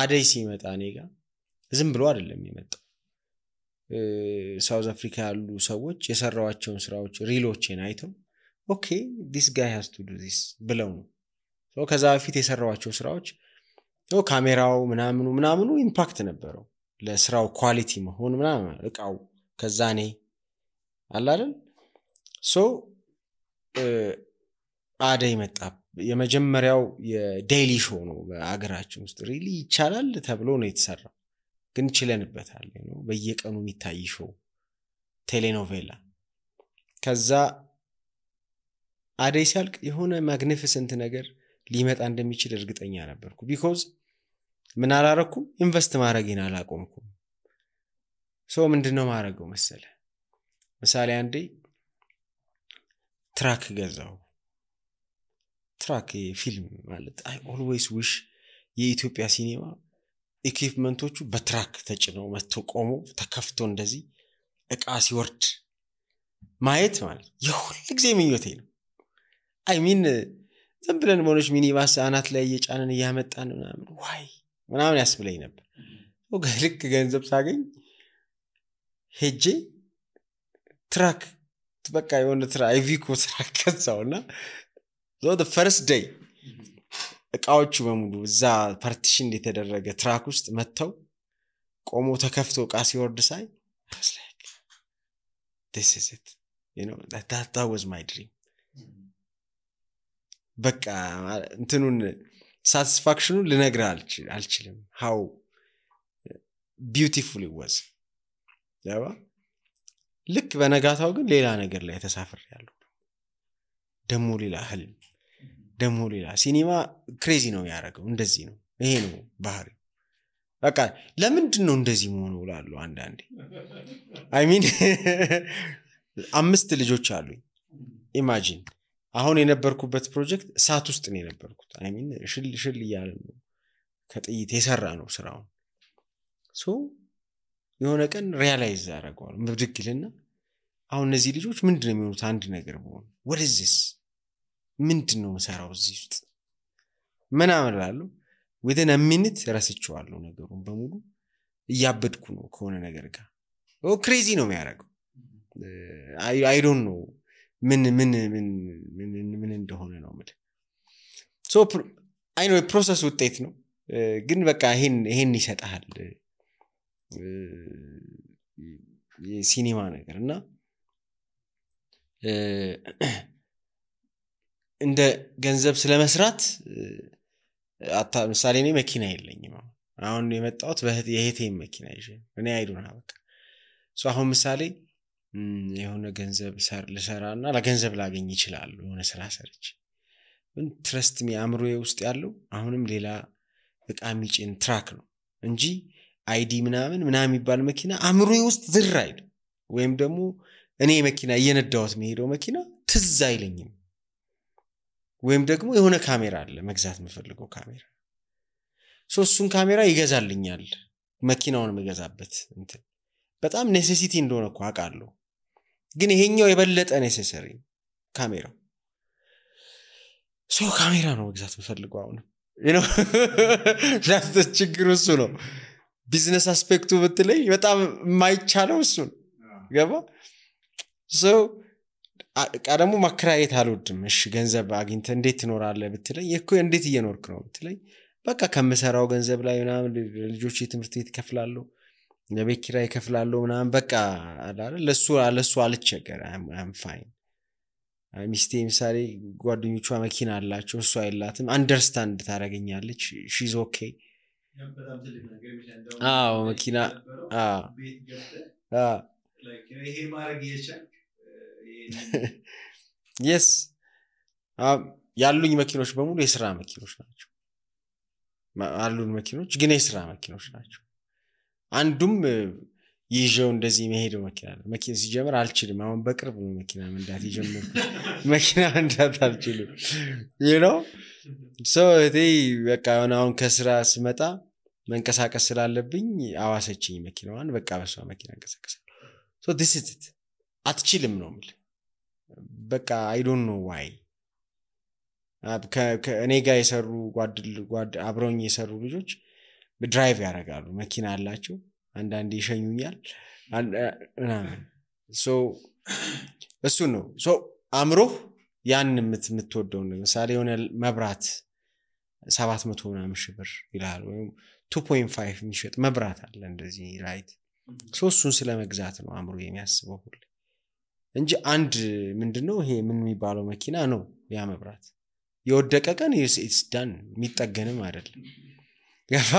አደይ ሲመጣ እኔጋ ዝም ብሎ አይደለም ይመጣው ሳውዝ አፍሪካ ያሉ ሰዎች የሰራዋቸውን ስራዎች ሪሎችን አይተው ኦኬ this guy has to do this ብለው ነው ሶ ከዛ በፊት የሰራዋቸው ስራዎች ካሜራው ምናምኑ ኢምፓክት ነበረው ለስራው ኳሊቲ መሆን ምናምን እቃው ከዛ ነኝ አላለም ሶ አደይ መጣ የመጀመሪያው የዴይሊ ሾው ነው በአገራችን ውስጥ ሪሊ ይቻላል ተብሎ ነው የተሰራው ግን ችለንበታል ነው በየቀኑ የሚታይ ሾው ቴሌኖቬላ ከዛ አደይ ሲያልቅ የሆነ ማግኒፊሰንት ነገር ሊመጣ እንደሚችል እርግጠኛ ነበርኩ because ምን አላረኩም ኢንቨስት ማድረግን አላቆምኩም ሶ ምንድነው ማድረገው መሰለ ምሳሌ አንዴ ትራክ ገዛው ትራክ ፊልም ማለት I always wish የኢትዮጵያ ሲኒማ ኢኩዊፕመንቶቹ በትራክ ተጭነው መጥተው ቆሞ ተከፍቶ እንደዚህ እቃ ሲወርድ ማየት ማለት የሁሉ ጊዜ ምኞቴ ነው I mean ዝም ብለን ሞኖች ሚኒባስ አናት ላይ እየጫነን ያመጣን ምናምን ያስብለኝ ነበር ወገልክ ገንዘብ ሳገኝ ሄጄ ትራክ በቃ የሆነ አይቪኮ ትራክ ከዛውና the first day እቃዎቹ በሙሉ እዛ ፓርቲሽን የተደረገ ትራክ ውስጥ መተው ቆሞ ተከፍቶ እቃ ሲወርድ ሳይ I was like this is it you know that was my dream በቃ እንትኑን satisfaction ልነግርህ አልችልም how beautiful it was ያባ ልክ በነጋታው ግን ሌላ ነገር ላይ ተሳፍሬያለሁ ደሞ ሌላ ህልም ደሞ ሌላ ሲኒማ ክሬዚ ነው ያደረገው እንደዚህ ነው ይሄ ነው ባህሪ በቃ ለምንድን ነው እንደዚህ መሆኑ እላለሁ አንዳንዴ አይ ሚን 5 ልጆች አሉኝ ኢማጂን አሁን የነበርኩበት ፕሮጀክት እሳት ውስጥ ነው የነበርኩት አይ ሚን ሽል እያለ ነው ከጥይት የሰራ ነው ስራው ሶ የሆነ ቀን ሪያላይዝ አደረገዋል ምድግልና አሁን እነዚህ ልጆች ምንድነው የሚሆኑት አንድ ነገር በሆነ what is this ምንድነው መሰራው እዚህ ውስጥ ምን አመላለሁ within a minute ረስቼዋለሁ ነገሩን በሙሉ እያበድኩ ነው ከሆነ ነገር ጋር ክሬዚ ነው የሚያደርገው I don't know ምን እንደሆነ ነው ማለት ሶ አይ ኖ ፕሮሰስ ውጤት ነው ግን በቃ ይሄን ይሰጣል የሲኒማ ነገርና እንደ ገንዘብ ስለመስራት ምሳሌ እኔ መኪና የለኝም አሁን የመጣሁት የሄቴ መኪና ይዤ እኔ አይዱና በቃ ሶ አሁን ምሳሌ የሆነ ገንዘብ ልሰራና ለገንዘብ ላገኝ ይችላል የሆነ ስራ ሰርች ግን ትረስት ሚ አምሮዬ ውስጥ ያለው አሁንም ሌላ በቃ ሚጭን ትራክ ነው እንጂ አይዲ ምናምን የሚባል መኪና አምሮዬ ውስጥ ዝር አይል ወይም ደግሞ እኔ መኪና እየነዳሁት የሚሄደው መኪና ትዝ አይለኝም ወይም ደግሞ የሆነ ካሜራ አለ መግዛት የምፈልገው ካሜራ ሶስቱን ካሜራ ይገዛልኛል መኪናውን መገዛበት እንትን በጣም ኔሴሲቲ እንደሆነ እኮ አውቃለሁ ግን ይሄኛው የበለጠ ኔሴሰሪ ካሜራው ሶ ካሜራ ነው መግዛት የምፈልገው አሁን ዳስ ችግሩ እሱ ነው ቢዝነስ አስፔክቱ ብትለኝ በጣም የማይቻለው እሱ ነው ገባ ሶ ቀደሙ ማከራየት አልወድም እሺ ገንዘብ አግኝተ እንዴት ትኖራለህ ብትለኝ እኮ እንዴት እየኖርክ ነው ብትለኝ በቃ ከምሰራው ገንዘብ ላይ ምናምን ልጆች የትምህርት ቤት ከፍላለሁ ለቤት ኪራይ ከፍላለሁ ምናምን በቃ አይደል ለሱ አልቸገር I'm fine ሚስቴ ምሳሌ ጓደኞቿ መኪና አላቸው እሱ አይላትም አንደርስታንድ ታረጋኛለች she's okay በጣም ትልቅ ነገር ይችላል መኪና ቤት ገብተ like ይሄ ማድረግ ይቻላል yes ያሉኝ መኪኖች በሙሉ የሥራ መኪኖች ናቸው አሉን መኪኖች ግን የሥራ መኪኖች ናቸው አንዱም ይዤው እንደዚህ መሄደው መኪና ሲጀምር አልችልም አሁን በቅርብ ነው መኪና መንዳት ይጀምርኩት መኪና መንዳት አልችልም you know so በቃ አሁን ከስራ ስመጣ መንቀሳቀስ ስላለብኝ አዋሰችኝ መኪናዋን በቃ በሷ መኪና እንቀሳቀሳለሁ so this is it አትችልም ነው ማለት በቃ I don't know why ከእኔ ጋር የሰሩ ጓድ አብረውኝ የሰሩ ልጆች ድራይቭ ያደርጋሉ መኪና አላቸው አንዳንዴ ይሸኙኛል so እሱ ነው so አምሮ ያን የምትወደው ለምሳሌ የሆነ መብራት 700 ምናምን ሺህ ብር ይላል ወይም 2.5 የሚሸጥ መብራት አለ እንደዚህ ራይት so እሱን ስለመግዛት ነው አምሮ የሚያስበው ሁሉ እንጂ አንድ ምንድነው ይሄ ምን የሚባለው መኪና ነው ያ መብራት የወደቀ ቀን it's done የሚጠገንም አይደለም ገፋ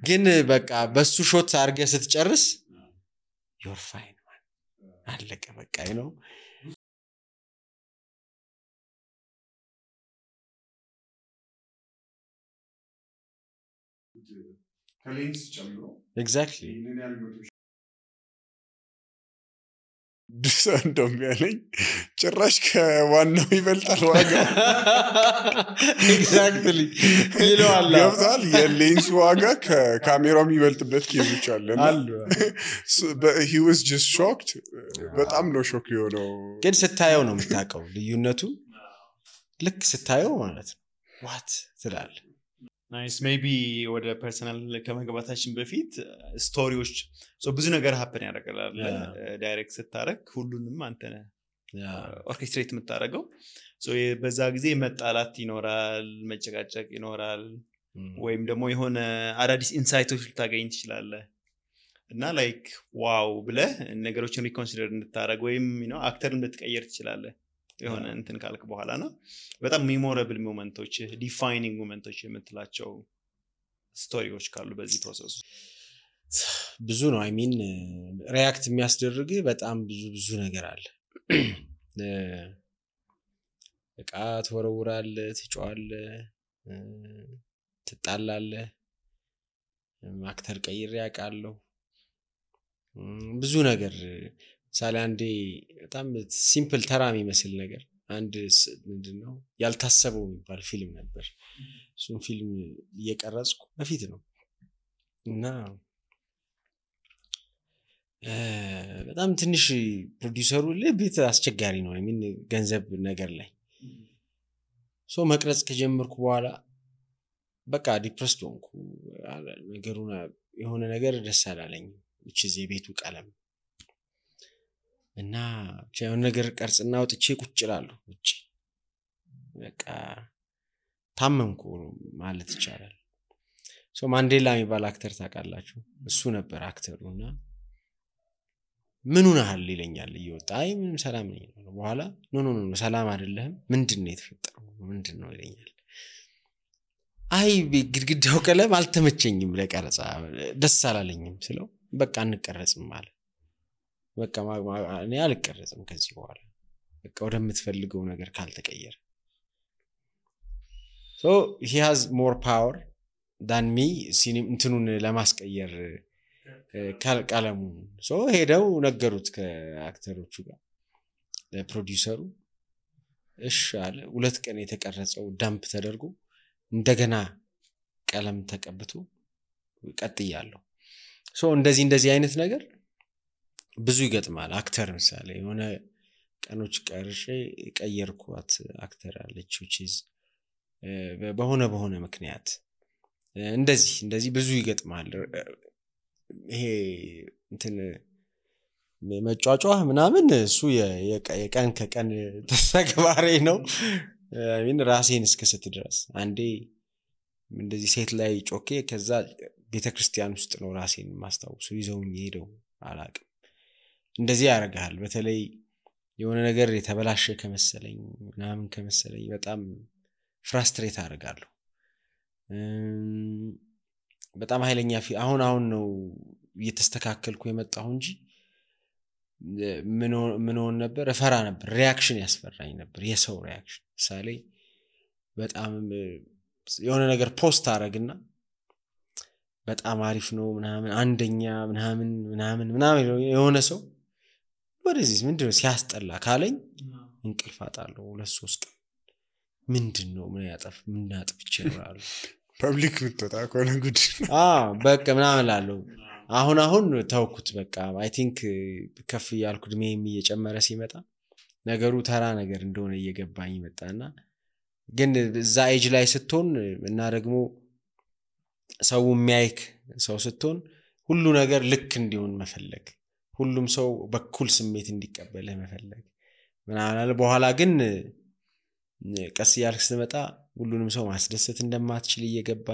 ግን በቃ በሱ ሾት አርገ ስትጨርስ you're fine man አለቀ በቃ ነው ከሌንስ ጨምሮ exactly እንደም ያለኝ ጭራሽ ከዋናው ይበልጣል ዋጋ exactly ይለዋል ያውታል የሌንስ ዋጋ ከካሜራው የሚበልጥበት ኬዞች አለ but he was just shocked በጣም ነው ሾክ የሆነው ግን ስታየው ነው የምታውቀው ልዩነቱ ልክ ስታየው ማለት ነው what ትላለህ ናይስ ሜቢ ወደ ፐርሰናል ከመግባታችን በፊት ስቶሪዎች ብዙ ነገር ሀፕን ያደርጋል ዳይሬክት ስታረክ ሁሉንም አንተ ነህ ኦርኬስትሬት የምታረገው በዛ ጊዜ መጣላት ይኖራል መጨቃጨቅ ይኖራል ወይም ደግሞ የሆነ አዳዲስ ኢንሳይቶች ልታገኝ ትችላለህ እና ላይክ ዋው ብለህ ነገሮችን ሪኮንሲደር እንድታረግ ወይም አክተር እንድትቀየር ትችላለህ የሆነ እንትን ካልክ በኋላና በጣም ሜሞራብል ሞመንቶች ዲፋይኒንግ ሞመንቶች የምትላቸው ስቶሪዎች ካሉ በዚህ ፕሮሰስ ብዙ ነው አይ ሚን ሪአክት የሚያስደርግ በጣም ብዙ ነገር አለ በቃ ተወረውራል ትጫዋል ትጣላለህ አክተር ቀይሬ ያውቃለሁ ብዙ ነገር ሳለ አንዴ በጣም ሲምፕል ተራ የሚመስል ነገር አንድ ምንድነው ያልታሰበው የሚባል ፊልም ነበር እሱን ፊልም እየቀረጽኩ በፊት ነው እና በጣም ትንሽ ፕሮዲዩሰሩ ለቤት አስቸጋሪ ነው አይሚን ገንዘብ ነገር ላይ ሶ መቅረጽ ከጀመርኩ በኋላ በቃ ዲፕረስድ ሆንኩ ነገሩና የሆነ ነገር ደስ አላለኝ which is የቤቱ ቀለም እና የሆነ ነገር ቀርጽና ወጥቼ ቁጭ እላለሁ ውጪ በቃ ታመምኩ ማለት ይቻላል ሶ ማንዴላ የሚባል አክተር ታውቃላችሁ እሱ ነበር አክተሩና ምን ሆነሃል ይለኛል እየወጣ አይ ምንም ሰላም ነኝ በኋላ ኖ ሰላም አይደለም ምንድነው የተፈጠረው ምንድነው ይለኛል አይ ግድግዳው ቀለም አልተመቸኝም ለቀረጻ ደስ አላለኝም ስለው በቃ እንቀረጽም ማለት በቃ እኔ አልቀረጽም ከዚህ በኋላ በቃ ወደምትፈልገው ነገር ካልተቀየረ so he has more power than me ሲኒም እንትኑን ለማስቀየር ቀለሙ so ሄደው ነገሩት ከአክተሮቹ ጋር ለፕሮዲዩሰሩ እሺ አለ 2 ቀን የተቀረጸው ዳምፕ ተደርጎ እንደገና ቀለም ተቀብቶ ቀጥያለሁ so እንደዚህ አይነት ነገር ብዙ ይገጥማል አክተር ምሳሌ የሆነ ቀኖች ቀርጬ ቀየርኳት አክተር አለች which is በሆነ ምክንያት እንደዚህ ብዙ ይገጥማል ይሄ እንትን መጫጫው ምናምን እሱ የቀን ከቀን ተሰግባሬ ነው አይሚን ራሴን እስከሰት ድረስ አንዴ እንደዚህ ሴት ላይ ጮኬ ከዛ ቤተክርስቲያን ውስጥ ነው ራሴን ማስተዋወሱ ይዘውኝ ሄደው አላቅም እንደዚህ ያረጋል በተለይ የሆነ ነገር የተበላሸ ከመሰለኝ ምናምን ከመሰለኝ በጣም ፍራስትሬት አደርጋለሁ በጣም ኃይለኛ አሁን ነው እየተስተካከልኩ የመጣሁ እንጂ ምን ሆነ ነበር ፈራ ነበር ሪአክሽን ያስፈራኝ ነበር የሰው ሪአክሽን ሳሌ በጣም የሆነ ነገር ፖስት አረግና በጣም አሪፍ ነው ምናምን አንደኛ ምናምን የሆነ ሰው ወደዚህ ምንድነው ሲያስጠላ ካለኝ እንቅልፍ አጣለሁ 2-3 ቀን ምንድነው ምን ያጠፍቼ ነው ፐብሊክ ምትጣ ኮነ ጉድ በቃ ምናምን ላለው አሁን ተውኩት በቃ አይ ቲንክ ከፍ ያልኩ ድሜም እየጨመረ ሲመጣ ነገሩ ተራ ነገር እንደሆነ እየገባኝ መጣና ግን እዛ ኤጅ ላይ ስትሆን እና ደግሞ ሰው የሚያይክ ሰው ስትሆን ሁሉ ነገር ልክ እንዲሆን መፈለግ ሁሉም ሰው በኩል ስሜት እንዲቀበል መፈለግ ምናምን በኋላ ግን ቀስ ያልክ ስትመጣ ሁሉንም ሰው ማስደሰት እንደማትችል እየገባ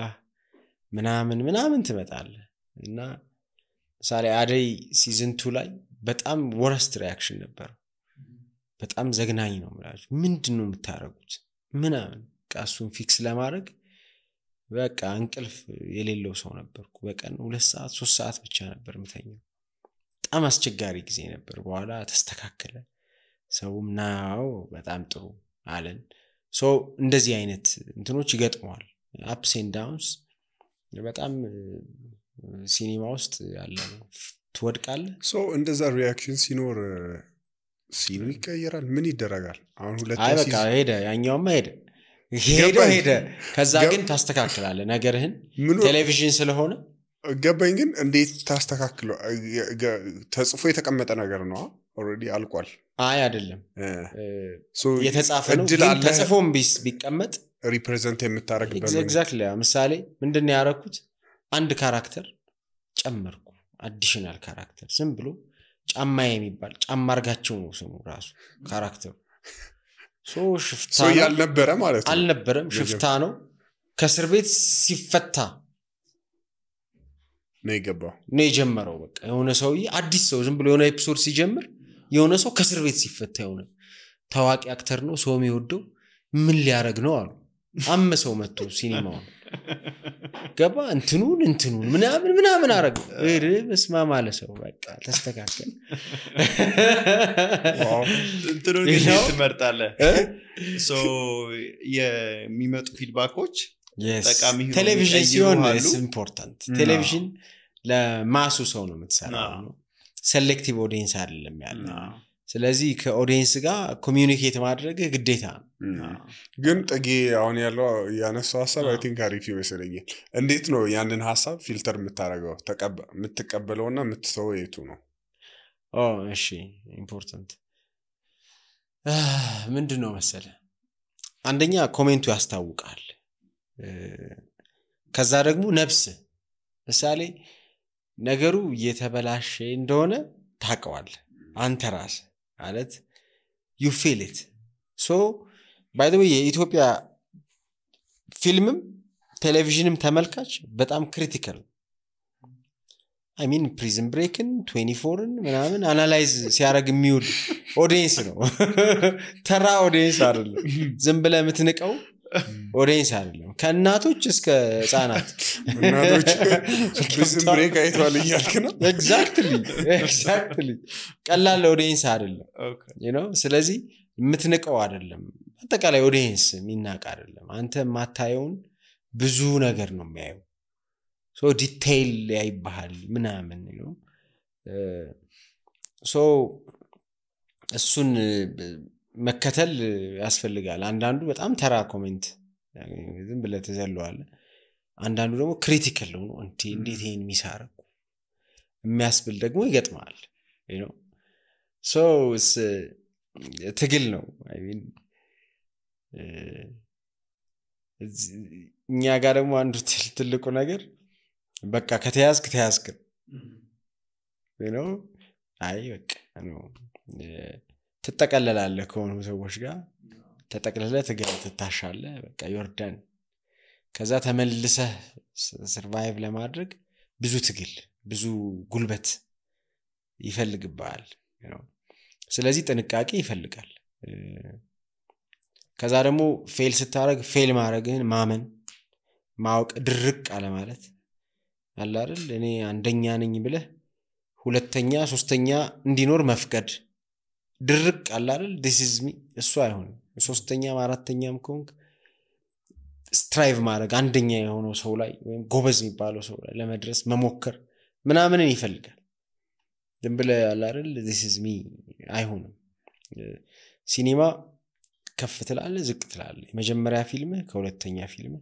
ምናምን ትመጣለህ እና ሳሪ አደይ ሲዝን 2 ላይ በጣም ወረስት ሪአክሽን ነበር በጣም ዘግናኝ ነው ማለት ምንድነው የምታረጉት ምናምን ቃሱን ፊክስ ለማድረግ በቃ እንቅልፍ የሌለው ሰው ነበርኩ በቀን 2 ሰዓት 3 ሰዓት ብቻ ነበር ምተኛው በጣም አስቸጋሪ ጊዜ ነበር በኋላ ተስተካከለ ሰውም ናው በጣም ጥሩ አለን ሶ እንደዚህ አይነት እንትኖች ይገጥመዋል አፕስ ኤንድ ዳውንስ በጣም ሲኒማ ውስጥ ያለ ነው ትወድቃለህ ሶ እንደዛ ሪአክሽን ሲኖር ሲኑ ይቀየራል ምን ይደረጋል አሁን ሁለት አይ በቃ ሄደ ያኛውማ ሄደ ከዛ ግን ታስተካክላለህ ነገርህን ቴሌቪዥን ስለሆነ ገባኝ ግን እንዴት ታስተካክለው ተጽፎ የተቀመጠ ነገር ነው ኦሬዲ አልቋል አይ አይደለም የተጻፈ ነው ግን ተጽፎም ቢቀመጥ ሪፕሬዘንት የምታረግበት ኤግዛክትሊ ምሳሌ ምንድነው ያረኩት አንድ ካራክተር ጨመርኩ አዲሽናል ካራክተር ዝም ብሎ ጫማ የሚባል ጫማ አርጋቸው ነው ስሙ ራሱ ካራክተሩ ሶ ሽፍታ ሶ ያልነበረ ማለት ነው አልነበረም ሽፍታ ነው ከስር ቤት ሲፈታ ነው የጀመረው በቃ የሆነ ሰውዬ አዲስ ሰው ዝም ብሎ የሆነ ኤፒሶድ ሲጀምር የሆነ ሰው ከስር ቤት ሲፈታ የሆነ ታዋቂ አክተር ነው ሰው የሚወደው ምን ሊያረግ ነው አሉ አመሰው መጥቶ ሲኒማው ገባ እንትኑን ምናምን አረግ በስማ ማለት ሰው በቃ ተስተካከለ እንትኑን ትመርጣለህ ሶ የሚመጡ ፊድባኮች ጠቃሚ ሆኖ ቴሌቪዥን ሲሆን ይቀይሩሃሉ። is important ቴሌቪዥን ለማሱ ሰው ነው የምትሰራው ነው ሴሌክቲቭ ኦዲየንስ አይደለም ያለው ስለዚህ ከኦዲየንስ ጋር ኮሚዩኒኬት ማድረግ ግዴታ ነው ግን ጥጌ አሁን ያለው ያነሳው ሐሳብ አይ ቲንክ አሪፍ ይመስለኛል እንዴት ነው ያንን ሐሳብ ፊልተር የምታረጋው የምትቀበለውና የምትተወው የቱ ነው እሺ ኢምፖርታንት ምንድነው መሰለ አንደኛ ኮሜንቱ ያስታውቃል ከዛ ደግሞ ነፍስ ምሳሌ ነገሩ እየተበላሸ እንደሆነ ታቀዋል አንተ ራስ ማለት you feel it so by the way የኢትዮጵያ ፊልምም ቴሌቪዥንም ተመልካች በጣም ክሪቲካል I mean prison break-ን 24ን ምናምን አናላይዝ ሲያደርግ የሚውል ኦዲየንስ ነው ተራ ኦዲየንስ አይደለም ዝም ብለህ የምትንቀው ኦዲየንስ አይደለም ከእናቶች እስከ ህፃናት እናቶች prison break አይተዋል እያልክ ነው exactly ቀላል ኦዲየንስ አይደለም you know ስለዚህ የምትንቀው አይደለም አጠቃላይ ኦዲየንስ የሚናቅ አይደለም አንተ ማታየውን ብዙ ነገር ነው የሚያየው so detail ያይባል ምናምን ነው so እሱን መከተል ያስፈልጋል አንዳንዱ በጣም ተራ ኮሜንት ዝም ብለህ ተዘለዋል አንዳንዱ ደግሞ ክሪቲካል ነው እንዴት ይሄን ሚሳረቁ የሚያስብል ደግሞ ይገጥማል you know so ትግል ነው I mean እኛ ጋር ደግሞ አንዱ ትልቁ ነገር በቃ ከተያዝክ you know አይ በቃ ነው ትጠቀለላለህ ከሆኑ ሰዎች ጋር ተጠቅለለህ ትታሻለህ በቃ ዮርዳን ከዛ ተመልሰህ ሰርቫይቭ ለማድረግ ብዙ ትግል ብዙ ጉልበት ይፈልግባል you know ስለዚህ ጥንቃቄ ይፈልጋል ከዛ ደግሞ ፌል ስታረግ ፌል ማድረግህን ማመን ማወቅ ድርቅ አለ ማለት አለ አይደል እኔ አንደኛ ነኝ ብለህ ሁለተኛ ሶስተኛ እንዲኖር መፍቀድ ድርቅ አለ አይደል this is me እሱ አይሆንም ሶስተኛም አራተኛም ኮንክ ስትራይቭ ማድረግ አንደኛ የሆነው ሰው ላይ ወይም ጎበዝ የሚባለው ሰው ላይ ለመድረስ መሞከር ምናምንን ይፈልጋል ዝም ብለህ አለ አይደል this is me አይሆንም ሲኒማ ከፍ ትላለህ ዝቅ ትላለህ የመጀመሪያ ፊልም ከሁለተኛ ፊልም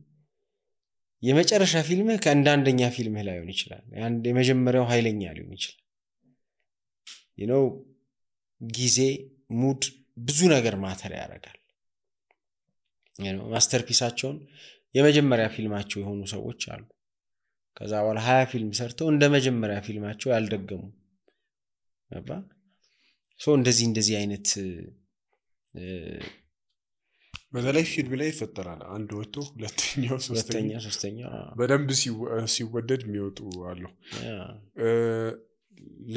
የመጨረሻ ፊልም ከአንደኛ ፊልም ላይ ሆነ ይችላል የመጀመሪያው ኃይለኛ ሊሆን ይችላል you know ጊዜ ሙድ ብዙ ነገር ማተር ያደርጋል you know ማስተርፒሳቸውን የመጀመሪያ ፊልማቸው የሆኑ ሰዎች አሉ ከዛ በኋላ 20 ፊልም ሰርተው እንደ መጀመሪያ ፊልማቸው ያልደገሙ አባ ሶ እንደዚህ አይነት በተለይ ፊልም ላይ ይፈጠራል አንድ ወጥቶ ሁለተኛው ሶስተኛው በደንብ ሲወደድ የሚወጡ አሉ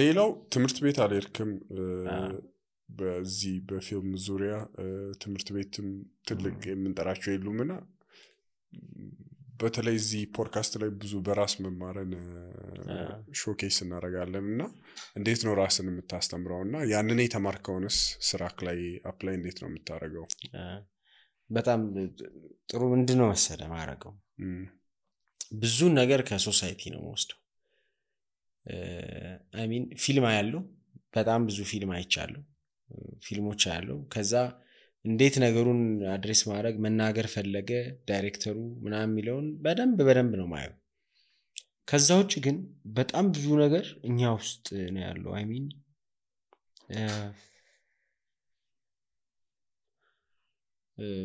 ሌላው ትምህርት ቤት አልሄድክም በዚህ በፊልም ዙሪያ ትምህርት ቤትም ትልቅ የምንጠራቸው የሉምና በተለይ እዚህ ፖድካስት ላይ ብዙ በራስ መማርን ሾኬስ እናደርጋለንና እንዴት ነው ራስን የምታስተምረውና ያንን የተማርከውንስ ስራክ ላይ አፕላይ እንዴት ነው የምታረጋው በጣም ጥሩ ምንድነው መሰለ ማረጋው ብዙ ነገር ከሶሳይቲ ነው ወስደው I mean ፊልም ያለው በጣም ብዙ ፊልም አይቻለሁ ፊልሞች ያለው ከዛ እንዴት ነገሩን አድሬስ ማድረግ መናገር ፈለገ ዳይሬክተሩ ምናምን የሚለውን በደንብ ነው ማየው ከዛ ውጭ ግን በጣም ብዙ ነገር እኛ ውስጥ ነው ያለው I mean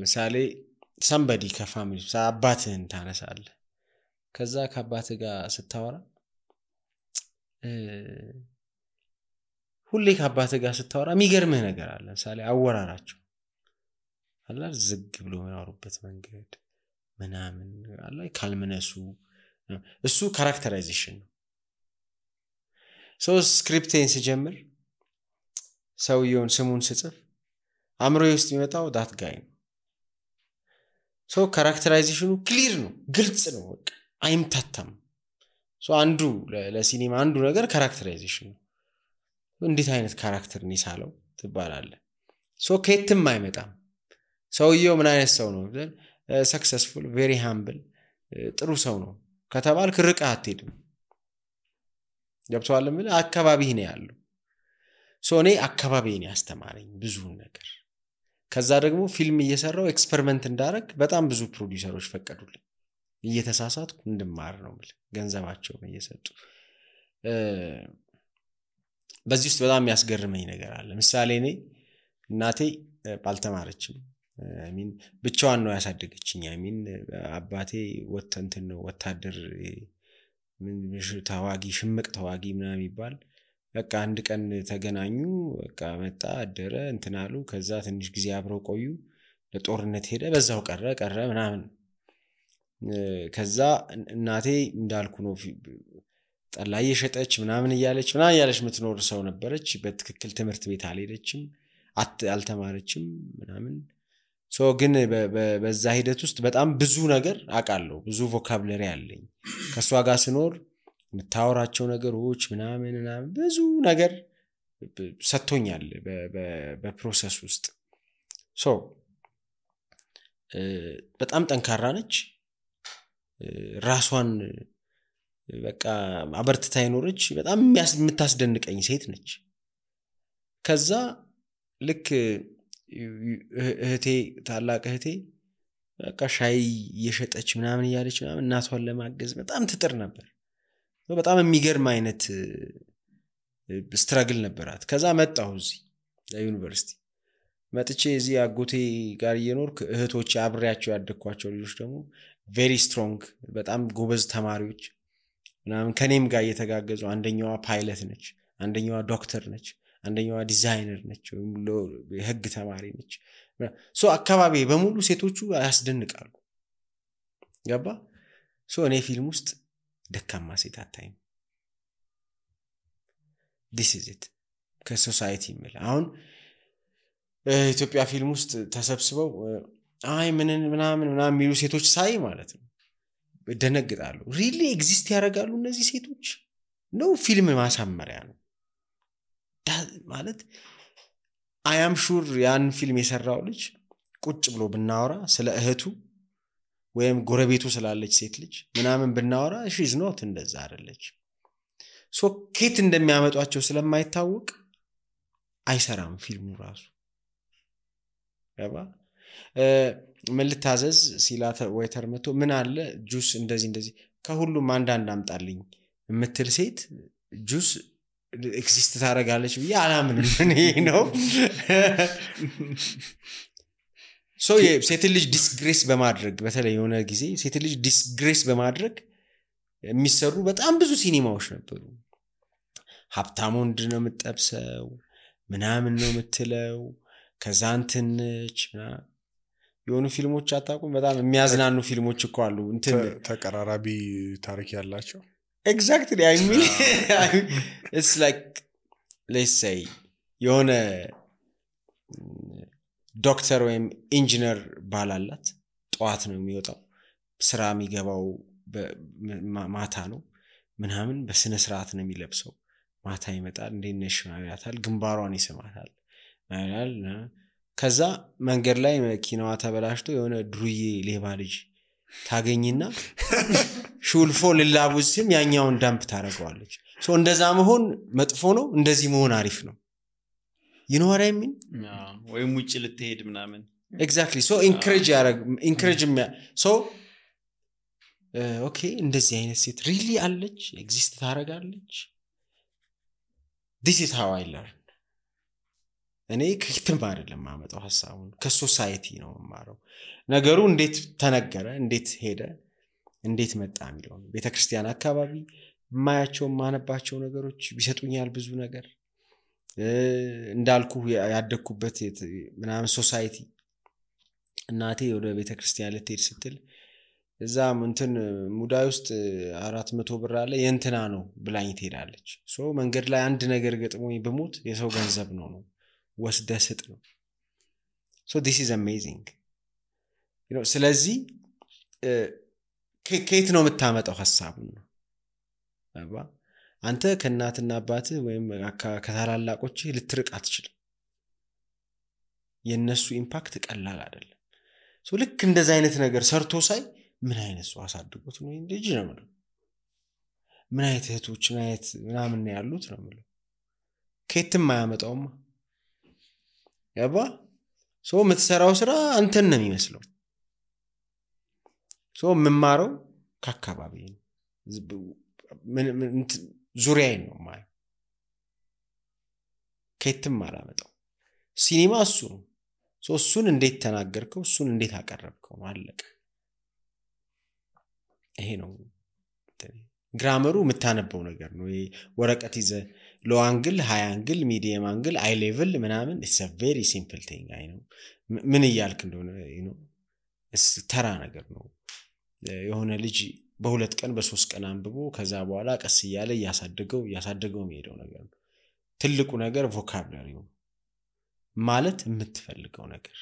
ምሳሌ somebody ከፋሚሊ አባትህን ታነሳለህ ከዛ ከአባትህ ጋር ስታወራ ሁሌ ከአባትህ ጋር ስታወራ የሚገርምህ ነገር አለ ምሳሌ አወራራቸው አላ ዝግ ብሎ ያወሩበት መንገድ ምናምን አላ ካልመነሱ እሱ ካራክተራይዜሽን ነው ሶ ስክሪፕቴን ሲጀምር ሰውየውን ስሙን ስጽፍ አምሮዬ ውስጥ የሚመጣው ዳት ጋይ ነው ሶ ካራክተራይዜሽኑ ክሊር ነው ግልጽ ነው በቃ አይምታታም ሶ አንዱ ለሲኒማ አንዱ ነገር ካራክተራይዜሽን ነው እንዴት አይነት ካራክተር ነው ይሳለው ትባላለህ ሶ ከየትም አይመጣም ሰውየው ምን አይነት ሰው ነው ሰክሰስፉል ቬሪ ሃምብል ጥሩ ሰው ነው ከተባልክ ርቀህ አትሄድም ገብቶሃል ምን አካባቢህ ነው ያለው እኔ አካባቢዬን ያስተማረኝ ብዙ ነገር ከዛ ደግሞ ፊልም እየሰራው ኤክስፐሪመንት እንዳረግ በጣም ብዙ ፕሮዲዩሰሮች ፈቀዱልኝ እየተሳሳትኩ እንድማር ነው ማለት ገንዘባቸውን እየሰጡ በዚህ ውስጥ በጣም ያስገርመኝ ነገር አለ ምሳሌ እኔ እናቴ ባልተማረችም ብቻዋን ነው ያሳደገችኝ አባቴ ነው ወታደር ታዋጊ ሽምቅ ታዋጊ ምናምን ይባል በቃ አንድ ቀን ተገናኙ በቃ መጣ አደረ እንትናሉ ከዛ ትንሽ ጊዜ አብረው ቆዩ ለጦርነት ሄደ በዛው ቀረ ምናምን ከዛ እናቴ እንዳልኩ ነው ጠላ እየሸጠች ምናምን እያለች ምትኖር ሰው ነበረች በትክክል ትምህርት ቤት አልሄደችም አልተማረችም ምናምን ግን በዛ ሂደት ውስጥ በጣም ብዙ ነገር አቃለሁ ብዙ ቮካብለሪ አለኝ ከሷ ጋር ስኖር ምታወራቸው ነገሮች ምናምን ብዙ ነገር ሰጥቶኛል በፕሮሰስ ውስጥ በጣም ጠንካራ ነች ራሷን በቃ አበርትታ ይኖርች በጣም የምታስደንቀኝ ሴት ነች ከዛ ልክ እህቴ ታላቅ እህቴ በቃ ሻይ እየሸጠች ምናምን እያለች ምናምን እናቷን ለማገዝ በጣም ትጥር ነበር በጣም የሚገርም አይነት ስትራግል ነበራት ከዛ መጣሁ እዚህ ለዩኒቨርሲቲ መጥቼ እዚህ አጎቴ ጋር እየኖርኩ እህቶች አብሬያቸው ያደግኳቸው ልጆች ደግሞ ቬሪ ስትሮንግ በጣም ጎበዝ ተማሪዎች ምናምን ከኔም ጋር እየተጋገዙ አንደኛዋ ፓይለት ነች አንደኛዋ ዶክተር ነች አንደኛዋ ዲዛይነር ነች የህግ ተማሪ ነች አካባቢ በሙሉ ሴቶቹ ያስደንቃሉ ገባ እኔ ፊልም ውስጥ ደካማ ሴት አታይም this is it ከሶሳይቲ የሚል አሁን ኢትዮጵያ ፊልም ውስጥ ተሰብስበው ምናምን የሚሉ ሴቶች ሳይ ማለት ነው ደነግጣሉ ሪሊ ኤግዚስት ያደርጋሉ እነዚህ ሴቶች ነው ፊልም ማሳመሪያ ነው ማለት I am sure ያን ፊልም የሰራው ልጅ ቁጭ ብሎ ብናወራ ስለ እህቱ ወይም ጎረቤቱ ስላለች ሴት ልጅ ምናምን ብናወራ she is not እንደዛ አይደለች ኬት እንደሚያመጧቸው ስለማይታወቅ አይሰራም ፊልሙ ራሱ ያባ ምን ልታዘዝ ሲላተ ዌተር መቶ ምን አለ ጁስ እንደዚህ ከሁሉም አንዳንድ አምጣልኝ የምትል ሴት ጁስ ኤክሲስት ታረጋለች ብዬ አላምንም እኔ ነው ሴት ልጅ ዲስግሬስ በማድረግ በተለይ የሆነ ጊዜ ሴት ልጅ ዲስግሬስ በማድረግ የሚሰሩ በጣም ብዙ ሲኒማዎች ነበሩ ሀብታም ወንድ ነው የምትጠብሰው ምናምን ነው የምትለው ከዛንትንች የሆኑ ፊልሞች አታውቁም በጣም የሚያዝናኑ ፊልሞች እኮ አሉ ተቀራራቢ ታሪክ ያላቸው exactly I mean it's like let's say የሆነ ዶክተር ወይም ኢንጂነር ባላላት ጧት ነው የሚወጣው ስራ የሚገባው ማታ ነው ምናምን በስነ ስርዓት ነው የሚለብሰው ማታ ይመጣል እንደነሽ ያታል ግንባሯን ይስማታል አይላል ከዛ መንገድ ላይ መኪናዋ ተበላሽቶ የሆነ ድሩዬ ሌባ ልጅ ታገኝና ሹልፎ ለላቡስም ያኛውን ዳምፕ ታረጋዋለች እንደዛ መሆን መጥፎ ነው እንደዚህ መሆን አሪፍ ነው you know what I mean ወይም ውጭ ልትሄድ ምናምን exactly encourage okay እንደዚህ አይነት ሴት really አለች exist ታረጋለች this is how I learn እኔ ከክትም አይደለም ማመጣው ሐሳቡን ከሶሳይቲ ነው ማረው ነገሩ እንዴት ተነገረ እንዴት ሄደ እንዴት መጣ የሚለው ቤተክርስቲያን አካባቢ ማያቸው ማነባቸው ነገሮች ቢሰጡኛል ብዙ ነገር እንዳልኩ ያደኩበት ምናምን ሶሳይቲ እናቴ ወደ ቤተክርስቲያን ልትሄድ ስትል እዛም እንትን ሙዳይ ውስጥ 400 ብር አለ የእንትና ነው ብላኝ ትሄዳለች መንገድ ላይ አንድ ነገር ገጥሞኝ በሞት የሰው ገንዘብ ነው ወስደ ስጥ ነው this is amazing you know ስለዚህ ከየት ነው የምታመጣው ሐሳቡን ነው አባ አንተ ከናትና አባት ወይም ከታላላቆች ልትርቅ አትችልም የነሱ ኢምፓክት ቀላል አይደለም ልክ እንደዛ አይነት ነገር ሰርቶ ሳይ ምን አይነት ሰው አሳድጎት ነው ልጅ ነው የምለው። ምን አይነት እህቶች ምን አይነት ምናምን ነው ያሉት ነው የምለው። ከየትም አያመጣውማ ያባ ሰው የምትሰራው ስራ አንተን ነው የሚመስለው። ሰው የምማረው ከአካባቢ ነው ዙሪያዬን ነው ማለት ከየትም አላመጣው። ሲኒማ እሱ ነው። እሱን እንዴት ተናገርከው እሱን እንዴት አቀረብከው አለቀ። ይሄ ነው ግራመሩ የምታነበው ነገር ነው። ይሄ ወረቀት ይዘ ሎ አንግል ሃይ አንግል ሚዲየም አንግል አይ ሌቭል ምናምን it's a very simple thing አይ ነው ምን ይያልክ እንደሆነ ተራ ነገር ነው። የሆነ ልጅ በሁለት ቀን በሶስት ቀን አንብቦ ከዛ በኋላ ቀስ እያለ ያሳደገው የሚሄደው ነገር ነው። ትልቁ ነገር ቮካብላሪ ነው ማለት የምትፈልገው ነገር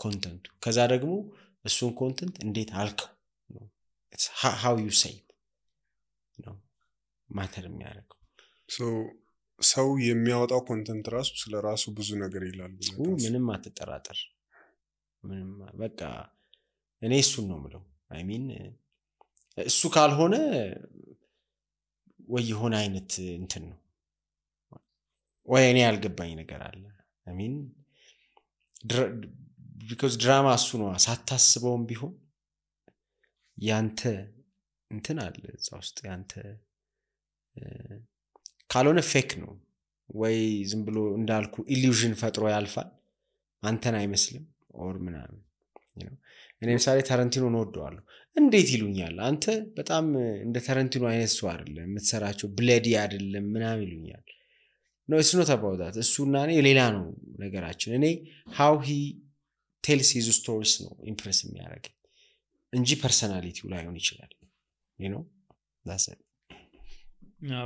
ኮንተንቱ ከዛ ደግሞ እሱን ኮንተንት እንዴት አልከው ነው it's how you say ነው ማተር የሚያደርገው። ሰው የሚያወጣው ኮንተንት ራሱ ስለራሱ ብዙ ነገር ይላል። ምንም አትጠራጠር። ምንም በቃ እኔ እሱን ነው የምለው። አይ ሚን እሱ ካልሆነ ወይ የሆነ አይነት እንትን ነው ወይ እኔ ያልገባኝ ነገር አለ። አይ ሚን because ድራማ እሱ ነው ሳታስበውም ቢሆን ያንተ እንትን አለ እዛ ውስጥ ያንተ ካልሆነ ፌክ ነው ወይ ዝም ብሎ እንዳልኩ ኢሉዥን ፈጥሮ ያልፋል አንተን አይመስልም ኦር ምናምን እኔ ምሳሌ ታረንቲኖ ነው ወደዋለሁ እንዴት ይሉኛል አንተ በጣም እንደ ታረንቲኖ አይነት ሰው አይደለም የምትሰራቸው ብለዲ አይደለም ምናምን ይሉኛል። no it's not about that እሱና እኔ ሌላ ነው ነገራችን። እኔ how he tells his stories ነው ኢምፕረስ የሚያደርገኝ እንጂ ፐርሰናሊቲው ላይሆን ይችላል you know that's it።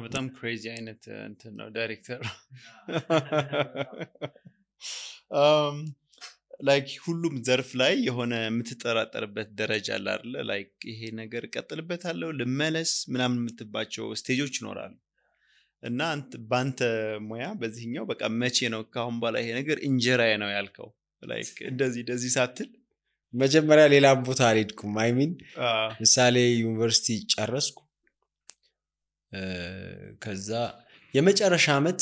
በጣም ክሬዚ አይነት እንትን ነው ዳይሬክተር like ሁሉም ዘርፍ ላይ የሆነ የምትጠራጠርበት ደረጃ አለ አይደል? like ይሄ ነገር ቀጥልበታለሁ ልመለስ ምናምን የምትባቸው ስቴጆች ይኖራሉ። እና ባንተ ሙያ በዚህኛው በቃ መቼ ነው ካሁን በኋላ ይሄ ነገር እንጀራዬ ነው ያልከው? like እንደዚህ ሳትል መጀመሪያ ሌላ ቦታ አልሄድኩም። አይ ሚን ምሳሌ ዩኒቨርሲቲ ጨረስኩ። ከዛ የመጨረሻ አመት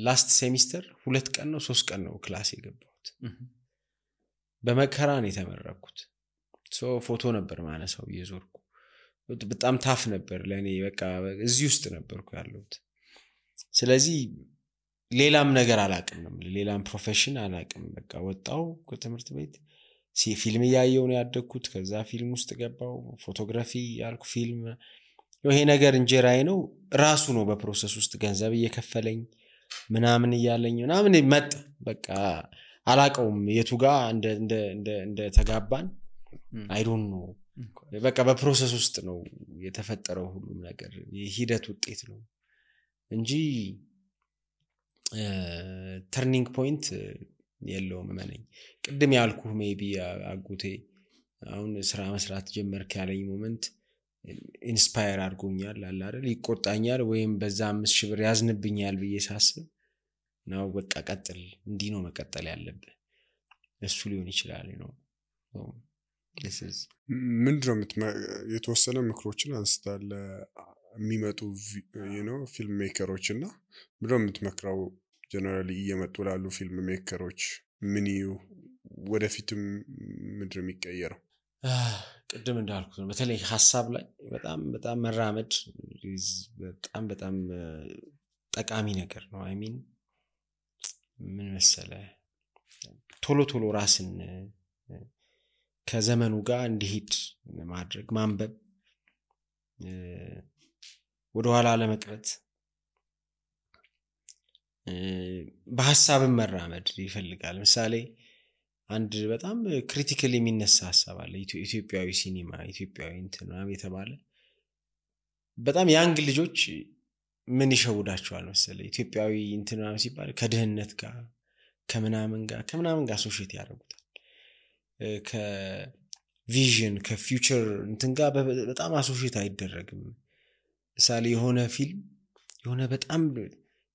ላስት ሴሚስተር 2 ቀን ነው 3 ቀን ነው ክላስ የገባሁት። በመከራ ነው የተመረኩት። ፎቶ ነበር ማነሳው እየዞርኩ በጣም ታፍ ነበር ለኔ። በቃ እዚህ ውስጥ ነበርኩ ያለሁት። ስለዚህ ሌላም ነገር አላቅም ነው ሌላም ፕሮፌሽን አላቅም። በቃ ወጣው ከትምህርት ቤት ፊልም ያየው ነው ያደግኩት። ከዛ ፊልም ውስጥ ገባው ፎቶግራፊ ያልኩ ፊልም ይሄ ነገር እንጀራዬ ነው ራሱ ነው። በፕሮሰስ ውስጥ ገንዘብ እየከፈለኝ ምናምን እያለኝ ምናምን መጣ። በቃ አላቀውም የቱ ጋር እንደ ተጋባን አይ ዶንት ኖ። በቃ በፕሮሰስ ውስጥ ነው የተፈጠረው ሁሉም ነገር የሂደት ውጤት ነው እንጂ ተርኒንግ ፖይንት የለውም። ማለኝ ቅድም ያልኩህ ሜቢ አጉቴ አሁን ስራ መስራት ጀመርክ ያለኝ ሞመንት ኢንስፓየር አድርጎኛል አለ አይደል? ይቆጣኛል ወይም በዛ 5000 ብር ያዝንብኛል ብዬ ሳስብ ነው በቃ ቀጥል እንዲህ ነው መቀጠል ያለብህ እሱ ሊሆን ይችላል ነው። this is ምንድነው የተወሰነ ምክሮችን አንስታለ የሚመጡ ፊልም ሜከሮችና ምንድነው የምትመክረው ጀነራሊ እየመጡ ላሉ ፊልም ሜከሮች ምን ወደፊትም ምንድነው የሚቀየረው? ቅድም እንዳልኩት ነው በተለይ ሐሳብ ላይ በጣም መራመድ በጣም ጠቃሚ ነገር ነው። አይ ሚን ምን መሰለ ቶሎ ራስን ከዘመኑ ጋር እንዲሄድ ማድረግ ማንበብ ወደ ኋላ ለመቅረት በሐሳብም መራመድ ይፈልጋል። ምሳሌ አንድ በጣም ክሪቲካሊ የሚነሳ ሐሳብ አለ። ኢትዮጵያዊ ሲኒማ ኢትዮጵያዊ እንትን ነው የተባለ በጣም ያንግ ልጆች ምን ይሸውዳቸዋል መሰለኝ ኢትዮጵያዊ እንትን ነው ሲባል ከድህነት ጋር ከምናምን ጋር አሶሺየት ያደርጉታል። ከቪዥን ከፊውቸር እንትን ጋር በጣም አሶሺየት አይደረግም። ምሳሌ የሆነ ፊልም የሆነ በጣም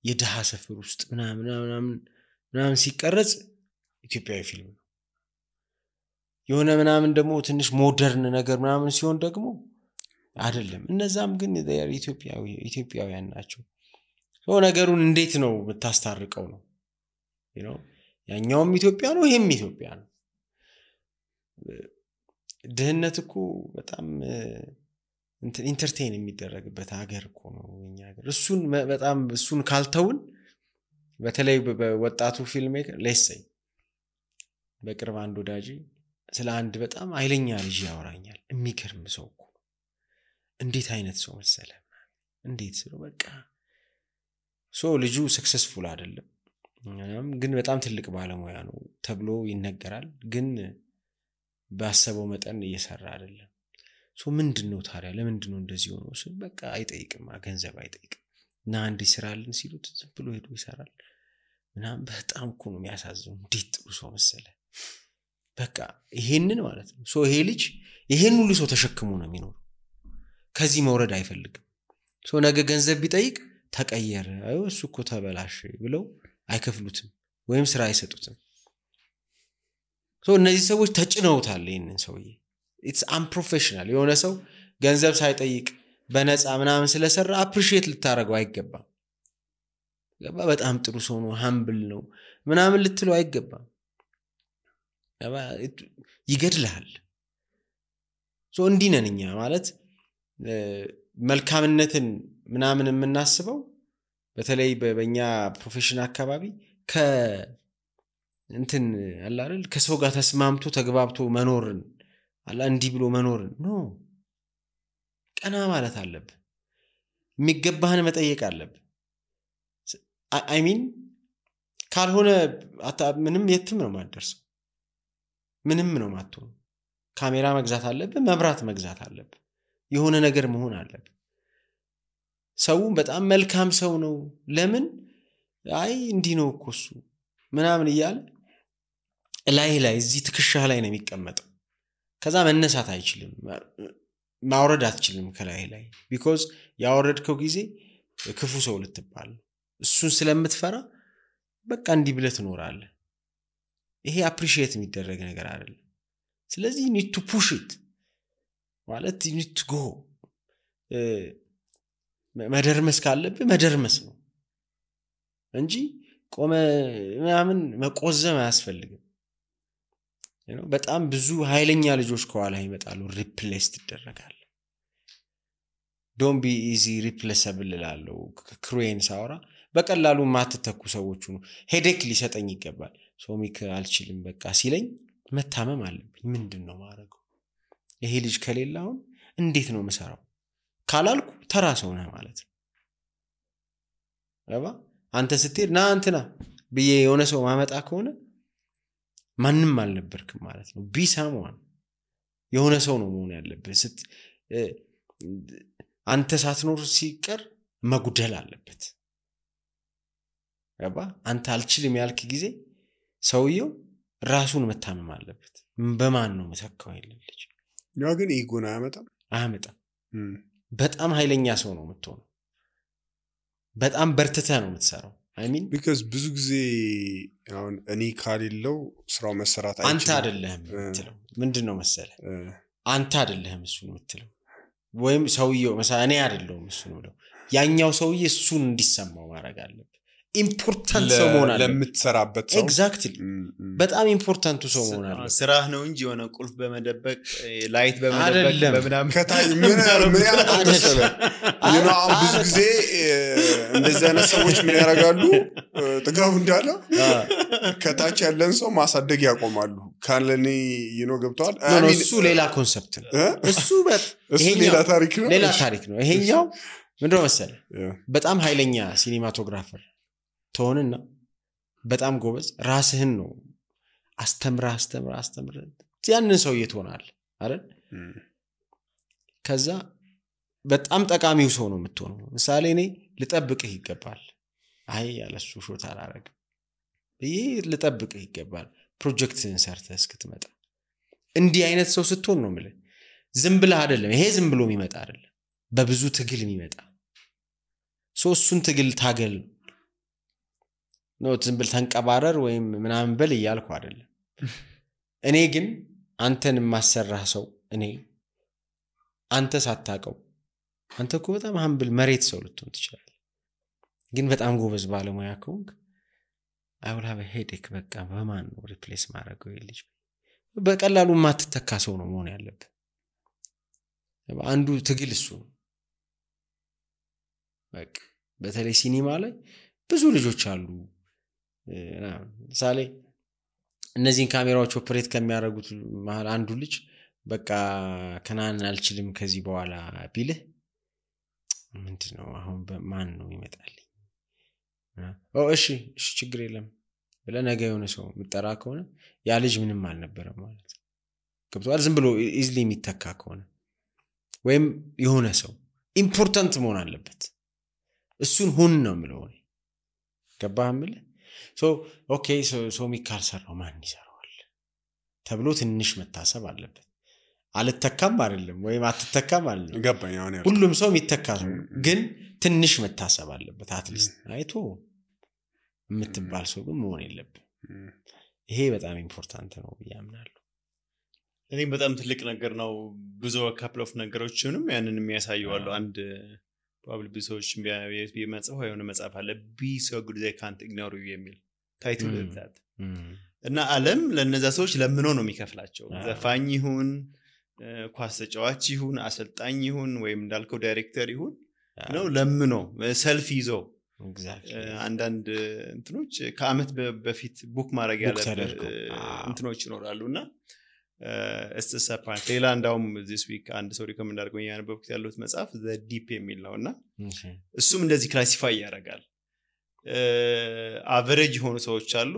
የደሃ ሰፈር ውስጥ ምናምን ሲቀረጽ ኢትዮጵያዊ ፊልም ነው። የሆነ ምናምን ደግሞ ትንሽ ሞደርን ነገር ምናምን ሲሆን ደግሞ አይደለም እነዛም ግን ኢትዮጵያውያን ናቸው ነገሩን እንዴት ነው የምታስታርቀው ነው ያኛውም ኢትዮጵያ ነው ይሄም ኢትዮጵያ ነው ድህነት እኮ በጣም ኢንተርቴይን የሚደረግበት ሀገር እኮ ነው እኛ ሀገር እሱን ካልተውን በተለይ በወጣቱ ፊልም ሜከር ለሰይ በቅርብ አንድ ወዳጅ ስለ አንድ በጣም ኃይለኛ ልጅ ያወራኛል የሚገርም ሰው እኮ እንዴት አይነት ሰው መሰለ እንዴት ነው በቃ ልጁ ሰክሰስፉል አይደለም ግን በጣም ትልቅ ባለሙያ ነው ተብሎ ይነገራል ግን ባሰበው መጠን እየሰራ አይደለም ምንድነው ታዲያ ለምንድነው እንደዚህ ሆኖ በቃ አይጠይቅም ገንዘብ አይጠይቅም እና አንድ ይሰራልን ሲሉት ዝም ብሎ ሄዶ ይሰራል ምናም በጣም እኮ ነው የሚያሳዝነው እንዴት ጥሩ ሰው መሰለ በቃ ይሄንን ማለት ነው ይሄ ልጅ ይሄን ሁሉ ሰው ተሸክሞ ነው የሚኖር ከዚህ መውረድ አይፈልግም ነገ ገንዘብ ቢጠይቅ ተቀየረ እሱ እኮ ተበላሽ ብለው አይከፍሉትም ወይም ስራ አይሰጡትም እነዚህ ሰዎች ተጭነውታል ይሄንን ሰውዬ it's unprofessional የሆነ ሰው ገንዘብ ሳይጠይቅ በነፃ ምናምን ስለሰራ አፕሪሺየት ልታረገው አይገባም በጣም ጥሩ ሰው ነው ሃምብል ነው ምናምን ልትለው አይገባም ይገድልሃል እንዲነንኛ ማለት መልካምነትን ምናምን የምናስበው በተለይ በእኛ ፕሮፌሽናል አካባቢ እንትን አለ አይደል ከሰው ጋር ተስማምቶ ተግባብቶ መኖርን አላ እንዲህ ብሎ መኖርን ነው ቀና ማለት አለበት የሚገባህን መጠየቅ አለበት አይ ሚን ካልሆነ ምንም የትም ነው ማደርሰው ምንም ነው ማጥተው ካሜራ መግዛት አለበት መብራት መግዛት አለበት የሆነ ነገር መሆን አለበት ሰው በጣም መልካም ሰው ነው ለምን አይ እንዲህ ነው እኮ እሱ ምናምን ይያል ላይ እዚህ ትክሻህ ላይ ነው የሚቀመጠው ከዛ መነሳት አይችልም ማውረድ አትችልም ከላይ because ያወረድከው ጊዜ ክፉ ሰው ልትባል እሱን ስለምትፈራ በቃ እንዲህ ብለህ ትኖራለህ ይሄ አፕሪሺየት የሚደረግ ነገር አይደለም ስለዚህ you need to push it ማለት you need to go መደርመስ ካለብህ መደርመስ ነው እንጂ ቆመ ምናምን መቆዘም አያስፈልግም በጣም ብዙ ኃይለኛ ልጆች ከኋላ ይመጣሉ ሪፕሌስ ይደረጋል don't be easy replaceable ላለው ክሩዌን ሳውራ በቀላሉ ማትተኩ ሰዎች ነው ሄዴክ ሊሰጠኝ ይገባል ሶሚክ አልችልም በቃ ሲለኝ መታመም አለብኝ ምንድነው ማረገው ይሄ ልጅ ከሌላው እንዴት ነው መሰራው ካላልኩ ተራ ሰው ነህ ማለት ነው አንተ ስትሄድ ና አንተና በየ የሆነ ሰው ማመጣ ከሆነ ማንንም አልነበርክም ማለት ነው ቢሳሙን የሆነ ሰው ነው መሆን ያለበት አንተ ሳትኖር ሲቀር መጉደል አለበት አንተ አልችልም ያልክ ጊዜ ሰውየው ራሱን መታመም አለበት በማን ነው መተካው ይልልኝ ያ ግን ኢጎና አያመጣም በጣም ኃይለኛ ሰው ነው የምትሆነው በጣም በርትተህ ነው የምትሰራው I mean because ብዙ ጊዜ አሁን እኔ ካሌለው ስራው መሰራት አይችልም አንተ አይደለህም የምትለው ምንድነው መሰለ አንተ አይደለህም እሱ ነው የምትለው ወይም ሰውየው መሰለ እኔ አይደለሁም እሱ ነው ያኛው ሰውዬ እሱን እንዲሰማው ማድረግ አለበት ኢምፖርታንት ሰው መሆን አለበት ለምትሰራበት ሰው ኤግዛክትሊ በጣም ኢምፖርታንት ሰው መሆን አለበት ስራህ ነው እንጂ የሆነ ቁልፍ በመደበቅ ላይት በመደበቅ በመናም ከታይ ምን ያደርጋሉ ብዙ ጊዜ እንደዚህ አይነት ሰዎች ምን ያደርጋሉ ጥጋው እንዳለ ከታች ያለን ሰው ማሳደግ ያቆማሉ ካለኔ ገብቷል እሱ ሌላ ኮንሰፕት ነው እሱ ሌላ ታሪክ ነው ይሄኛው ምንድነው መሰለ በጣም ኃይለኛ ሲኒማቶግራፈር ተሆንና በጣም ጎበዝ ራስህን ነው አስተምራ ያንን ሰው ይተሆናል አይደል ከዛ በጣም ጠቃሚው ሰው ነው የምትሆነው ምሳሌ እኔ ልጠብቅህ ይገባል አይ ያለሱ ሾት አላረግ ይሄ ልጠብቅህ ይገባል ፕሮጀክትን ሰርተህ እስክትመጣ እንዲህ አይነት ሰው ስትሆን ነው ማለት ዝም ብለህ አይደለም ይሄ ዝም ብሎ የሚመጣ አይደለም በብዙ ትግል የሚመጣ ሶስቱን ትግል ታገል ነው ዝም ብለህ ተንቀባረር ወይም ምናምን በል ይያልኩ አይደለም እኔ ግን አንተን ማሰራህ ሰው እኔ አንተ ሳታቀው አንተ እኮ በጣም humble መሬት ሰው ልትሆን ትችላለህ ግን በጣም ጎበዝ ባለሙያ ከሆንክ I will have a headache በቃ በማን ነው ሪፕሌስ ማድረገው ይልጅ በቀላሉ ማትተካ ሰው ነው መሆን ያለበት አንዱ ትግል እሱ በቃ በተለይ ሲኒማ ላይ ብዙ ልጆች አሉ ለምሳሌ እነዚህን ካሜራዎች ኦፕሬት ከሚያደርጉት መሃል አንዱ ልጅ በቃ ከናን አልችልም ከዚህ በኋላ ቢልህ ምንድነው አሁን በማን ነው ይመጣልኝ እሺ ችግር የለም ብለህ ነገ የሆነ ሰው ምጠራ ከሆነ ያ ልጅ ምንም አልነበረም ማለት ገብቷል ዝም ብሎ ኢዝሊ የሚተካ ከሆነ ወይም የሆነ ሰው ኢምፖርታንት መሆን አለበት እሱን ሁን ነው የምለው ገባህ ምለ ኦኬ ሶ ሚካል ሰራው ማን ይሰራዋል ተብሎ ትንሽ መታሰብ አለበት አልተካም አይደለም ወይም አትተካም አይደለም ገባኝ አሁን ሁሉም ሰው የሚተካ ነው ግን ትንሽ መታሰብ አለበት አትሊስት አይቶ የምትባል ሰው ግን መሆን የለብም ይሄ በጣም ኢምፖርታንት ነው ያምናለሁ እኔ በጣም ትልቅ ነገር ነው ብዙ ካፕል ኦፍ ነገሮችንም ያንን የሚያሳየው አንድ ፕሮባብሊ ብዙዎች ቢመጽፈው የሆነ መጽሐፍ አለ be so good they can't ignore you የሚል ታይትል ዛት እና ዓለም ለነዛ ሰዎች ለምኖ ነው የሚከፍላቸው ዘፋኝ ይሁን ኳስ ተጫዋች ይሁን አሰልጣኝ ይሁን ወይም እንዳልከው ዳይሬክተር ይሁን ነው ለምኖ ሰልፍ ይዞ አንዳንድ እንትኖች ከአመት በፊት ቡክ ማድረግ ያለበት እንትኖች ይኖራሉና ሌላ እንዳውም this week አንድ ሰው ሪኮመንድ አድርጎኝ ያነበብኩት ያለው መጽሐፍ the deep የሚል ነውና እሱም እንደዚህ ክላሲፋይ ያደርጋል አቨሬጅ ሆኑ ሰዎች አሉ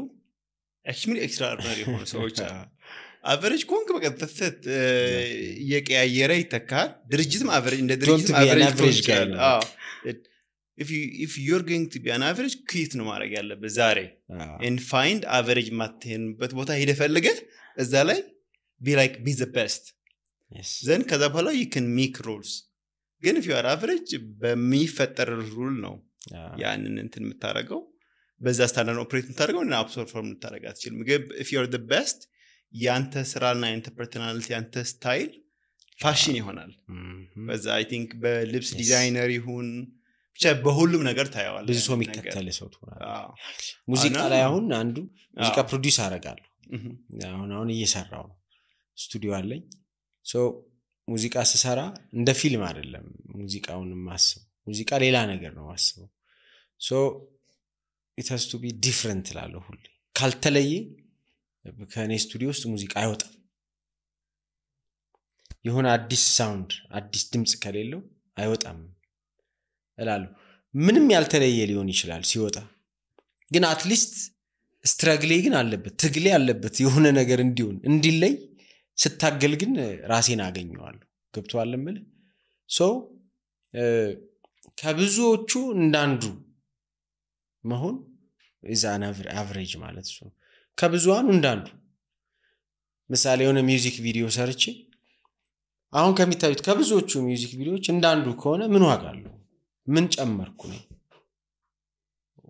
actually extraordinary ሆኑ ሰዎች አሉ አቨሬጅ ኮንክ በቃ ተፈት የቀያየረ ይተካል ድርጅትም አቨሬጅ እንደ ድርጅት አቨሬጅ ጋር if you're going to be an average quit ነው ማድረግ ያለበት ዛሬ and find average ማትሄንበት ቦታ ሄደ ፈልገ እዛ ላይ be the best then ከዛ በኋላ you can make rules ግን if you are average በሚፈጠር ሩል ነው ያንን እንትን የምታረገው በዛ ስታንዳርድ ኦፕሬት የምታረገው እና አብሶርም የምታረጋ አትችልም if you are the best ያንተ ስራና ያንተ ፐርሰናሊቲ ያንተ ስታይል ፋሽን ይሆናል በዛ I think በልብስ ዲዛይነር ይሁን ብቻ በሁሉም ነገር ታያዋል ብዙ ሰው የሚከተል ሰው ትሆናለህ ሙዚቃ ላይ አሁን አንዱ ሙዚቃ ፕሮዲዩስ አደርጋለሁ አሁን እየሰራው ነው ስቱዲዮ አለኝ ሙዚቃ ስሰራ እንደ ፊልም አይደለም ሙዚቃውን ማስብ ሙዚቃ ሌላ ነገር ነው ማስበው it has to be different ላለው ሁሉ ካልተለየ ከኔ ስቱዲዮ ውስጥ ሙዚቃ አይወጣም የሆነ አዲስ ሳውንድ አዲስ ድምጽ ከሌለው አይወጣም እላለሁ ምንም ያልተለየ ሊሆን ይችላል ሲወጣ ግን አትሊስት ስትራግሌ ግን አለበት ትግሌ አለበት የሆነ ነገር እንዲሆን እንዲለይ ስታገል ግን ራሴን አገኘዋለሁ ገብቷል ማለት ከብዙዎቹ እንዳንዱ መሆን is an average ማለት ነው ከብዙዋኑ እንዳንዱ ምሳሌ የሆነ ሚውዚክ ቪዲዮ ሰርቼ አሁን ከሚታዩት ከብዙዎቹ ሚውዚክ ቪዲዮዎች እንዳንዱ ከሆነ ምን ዋጋ አለው ምን ጨመርኩ ነው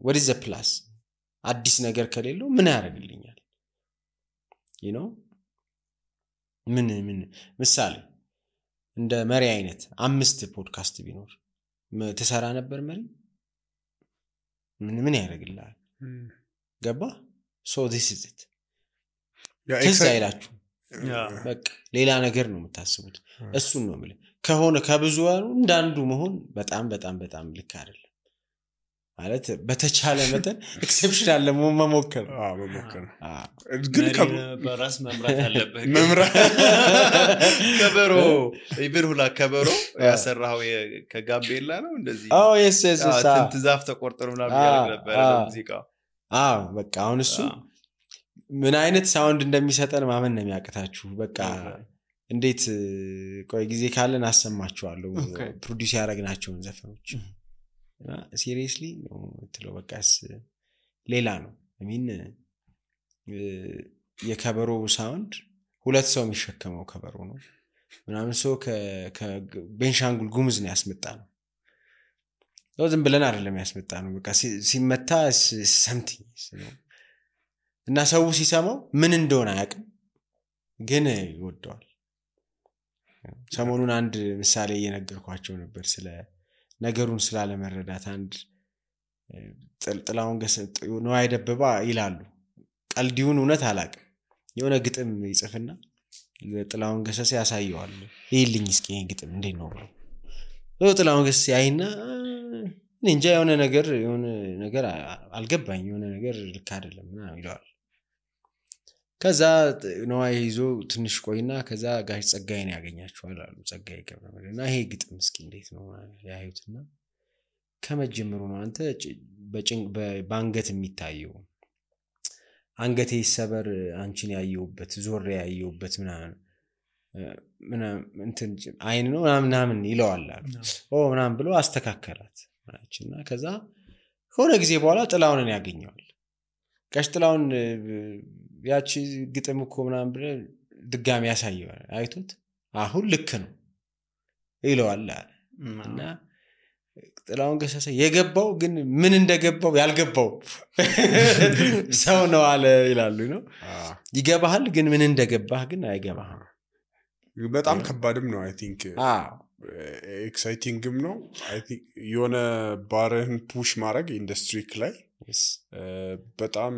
what is the plus አዲስ ነገር ከሌለው ምን ያደርግልኛል you know ምን ምሳሌ እንደ መሪ አይነት 5 ፖድካስት ቢኖር ተሰራ ነበር መሪ ምን ያደርግልሃል ገባ so this is it ተዛይላችሁ በቃ ሌላ ነገር ነው የምታስቡት እሱን ነው ማለት ከሆነ ከብዙዋኑ እንዳንዱ መሆን በጣም በጣም በጣም ልክ አይደለም ማለት በተቻለ መጠን ኤክሰፕሽናል ለመሞከር ግን በራስ መምራት አለበት ከበሮ ይብርሁላ ከበሮ ያሰራው ከጋቤላ ነው እንደዚህ yes ትዛፍ ተቆርጠሩ ምናምን ያደርግ ነበር ሙዚቃው በቃ አሁን እሱ ምን አይነት ሳውንድ እንደሚሰጠን ማመን ነው የሚያቀታችሁ በቃ እንዴት ቆይ ጊዜ ካለን አሰማችኋለሁ ፕሮዲዩስ ያደረግናቸውን ዘፈኖች ሲሪየስሊ ነው ትለው በቃስ ሌላ ነው የከበሮ ሳውንድ ሁለት ሰው የሚሸከመው ከበሮ ነው ምናምን ሰው ከቤንሻንጉል ጉሙዝ ነው ያስመጣነው ዝም ብለን አይደለም ያስመጣነው በቃ ሲመታ something እና ሰው ሲሰማው ምን እንደሆነ አያውቅም ግን ይወደዋል። ሰሞኑን አንድ ምሳሌ እየነገርኳቸው ነበር ስለ ነገሩን ስላለመረዳት። አንድ ጥላውን ገሰሰ ነው አይደበባ ይላሉ። ቀልዲውን እውነት አላቅም። የሆነ ግጥም ይጽፍና ጥላውን ገሰሰ ያሳየዋል። ይልኝ እስኪ ይሄን ግጥም እንዴት ነው ብሎ ጥላውን ገሰሰ ያይና እንጃ የሆነ ነገር አልገባኝ፣ የሆነ ነገር ልክ አይደለም ምናምን ይለዋል። ከዛ ነው ይዞ ትንሽ ቆይና ከዛ ጋሽ ጸጋዬን ያገኛቸዋል አሉ። ጸጋዬ ገብረመድህንና ይሄ ግጥም እስኪ እንዴት ነው ያዩትና ከመጀመሩ ነው አንተ በአንገት የሚታየው አንገቴ ይሰበር አንቺን ያየውበት ዞሬ ያየውበት ምናምን እንትን አይን ነው ምናምን ይለዋል አሉ። ምናምን ብሎ አስተካከላት ማለችና ከዛ ሆነ ጊዜ በኋላ ጥላውንን ያገኘዋል። ጋሽ ጥላውን ያቺ ግጥም እኮ ምናምን ብለ ድጋሚ ያሳየዋል። አይቶት አሁን ልክ ነው ይለዋል አለ። እና ጥላውን ገሰሰ የገባው ግን ምን እንደገባው ያልገባው ሰው ነው አለ ይላሉ ነው። ይገባሃል ግን ምን እንደገባህ ግን አይገባህም። በጣም ከባድም ነው። አይ ቲንክ ኤክሳይቲንግም ነው። አይ ቲንክ የሆነ ባርህን ፑሽ ማድረግ ኢንዱስትሪክ ላይ በጣም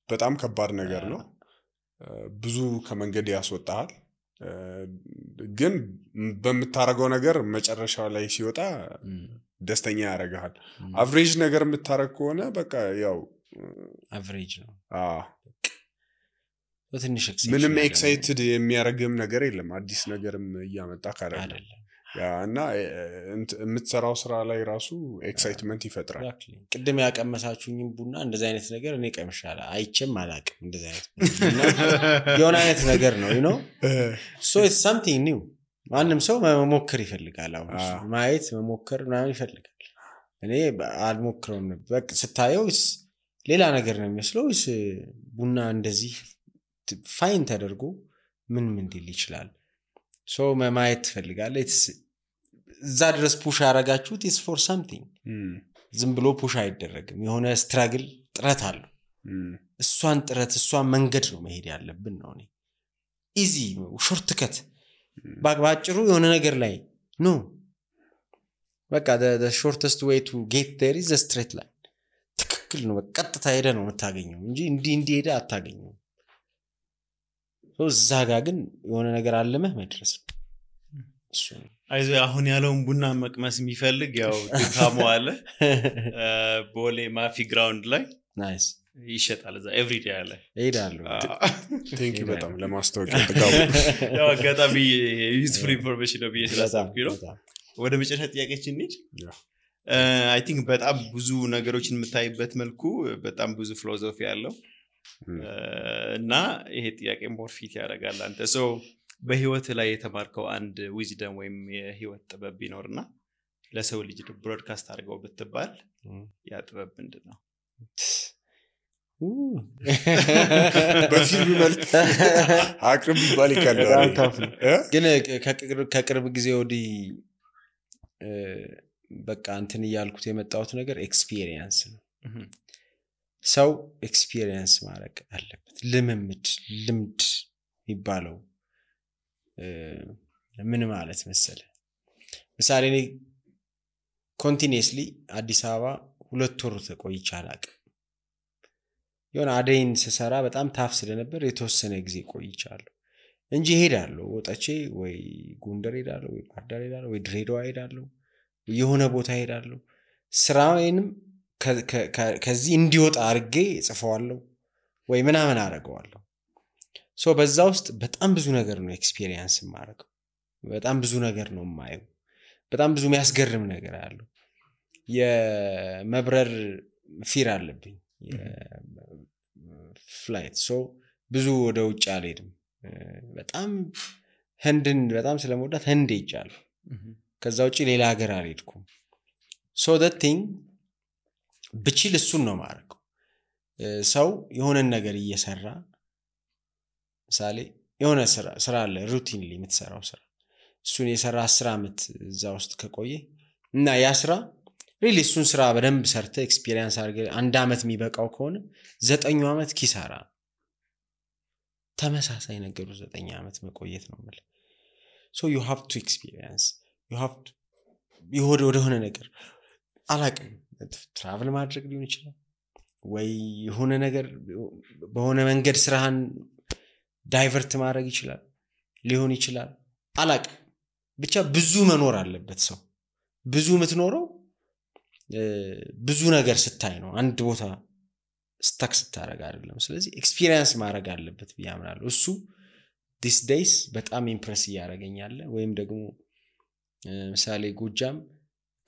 በጣም ከባድ ነገር ነው። ብዙ ከመንገድ ያስወጣሃል። ግን በምታረገው ነገር መጨረሻው ላይ ሲወጣ ደስተኛ ያደርግሃል። አቨሬጅ ነገር የምታረግ ከሆነ በቃ ያው አቨሬጅ ነው። ምንም ኤክሳይትድ የሚያደርግም ነገር የለም። አዲስ ነገርም እያመጣ አይደለም። እና የምትሰራው ስራ ላይ ራሱ ኤክሳይትመንት ይፈጥራል። ቅድም ያቀመሳችሁኝም ቡና እንደዚህ አይነት ነገር እኔ ቀምሻለሁ አይቼም አላቅም። እንደዚህ አይነት የሆነ አይነት ነገር ነው you know so it's something new። ማንም ሰው መሞከር ይፈልጋል። አሁን ማየት መሞከር ምናምን ይፈልጋል። እኔ አልሞክረውም ነበር። በቃ ስታየው ሌላ ነገር ነው የሚመስለው። ቡና እንደዚህ ፋይን ተደርጎ ምን ሊል ይችላል? ሶ ማየት ትፈልጋለህ። እዛ ድረስ ፑሽ ያረጋችሁት is for something። ዝም ብሎ ፑሽ አይደረግም። የሆነ ስትራግል ጥረት አለው። እሷን መንገድ ነው መሄድ ያለብን ነው። እኔ ኢዚ ሾርት ከት ባጭሩ የሆነ ነገር ላይ ኖ በቃ the shortest way to get there is a straight line። ትክክል ነው። ቀጥታ ሄደ ነው የምታገኘው እንጂ እንዲህ ሄደ አታገኘው። እዛ ጋር ግን የሆነ ነገር አለመህ መድረስ እሱ አይዞ አሁን ያለውን ቡና መቅመስ የሚፈልግ ያው ድካሙ አለ። ቦሌ ማፊ ግራውንድ ላይ ናይስ ይሸጣል። እዛ ኤቭሪ ዴይ አለ። እሄዳለሁ። ቴንክ ዩ በጣም ለማስታወቂያ ተጋቡ። ያው አጋጣሚ ዩዝፉል ኢንፎርሜሽን ነው ብዬ ነው። ወደ መጨረሻ ጥያቄችን እንሂድ። አይ ቲንክ በጣም ብዙ ነገሮችን የምታይበት መልኩ በጣም ብዙ ፊሎሶፊ ያለው እና ይሄ ጥያቄ ሞር ፊት ያደርጋል። አንተ ሶ በህይወት ላይ የተማርከው አንድ ዊዝደም ወይም የህይወት ጥበብ ቢኖርና ለሰው ልጅ ብሮድካስት አድርገው ብትባል ያ ጥበብ ምንድነው? በፊልም መልክ አቅርብ ይባል ይካላል። ግን ከቅርብ ጊዜ ወዲህ በቃ እንትን እያልኩት የመጣሁት ነገር ኤክስፒሪየንስ ነው። ሰው ኤክስፒሪየንስ ማድረግ አለበት። ልምድ የሚባለው ምን ማለት መሰለ? ምሳሌ እኔ ኮንቲኒየስሊ አዲስ አበባ 2 ወር ተቆይቼ አላቅም። የሆነ አደይን ስሰራ በጣም ታፍ ስለነበር የተወሰነ ጊዜ ቆይቻለሁ እንጂ ሄዳለሁ። ወጣቼ ወይ ጎንደር ሄዳለሁ ወይ ባህር ዳር ሄዳለሁ ወይ ድሬዳዋ ሄዳለሁ የሆነ ቦታ ሄዳለሁ። ስራዬንም ከዚህ እንዲወጣ አርጌ ጽፈዋለሁ ወይ ምናምን አረጋዋለሁ። ሶ በዛ ውስጥ በጣም ብዙ ነገር ነው ኤክስፒሪየንስ ማረጋው። በጣም ብዙ ነገር ነው ማየው። በጣም ብዙ የሚያስገርም ነገር አለው። የመብረር ፊር አለብኝ ፍላይት። ሶ ብዙ ወደ ውጭ አልሄድም። በጣም ህንድን በጣም ስለምወዳት ህንድ ሄጃለሁ። ከዛ ውጪ ሌላ ሀገር አልሄድኩም። ሶ that thing ብችል እሱን ነው ማረጋው። ሰው የሆነ ነገር እየሰራ ምሳሌ የሆነ ስራ አለ ሩቲንሊ የምትሰራው ስራ እሱን የሰራ 10 አመት እዛ ውስጥ ከቆየ እና ያ ስራ ሪሊ እሱን ስራ በደንብ ሰርተ ኤክስፒሪየንስ አድርገ 1 አመት የሚበቃው ከሆነ 9 አመት ኪሳራ። ተመሳሳይ ነገር 9 ዓመት መቆየት ነው ማለት so you have to experience you have to ወደሆነ ነገር አላቅም ትራቭል ማድረግ ሊሆን ይችላል ወይ የሆነ ነገር በሆነ መንገድ ስራህን ዳይቨርት ማድረግ ይችላል ሊሆን ይችላል አላቅም ብቻ ብዙ መኖር አለበት ሰው ብዙ የምትኖረው ብዙ ነገር ስታይ ነው አንድ ቦታ ስታክ ስታረጋ አይደለም ስለዚህ ኤክስፒሪየንስ ማድረግ አለበት ቢያምራል እሱ these days በጣም ኢምፕረስ ያደርገኛል ወይም ደግሞ ምሳሌ ጎጃም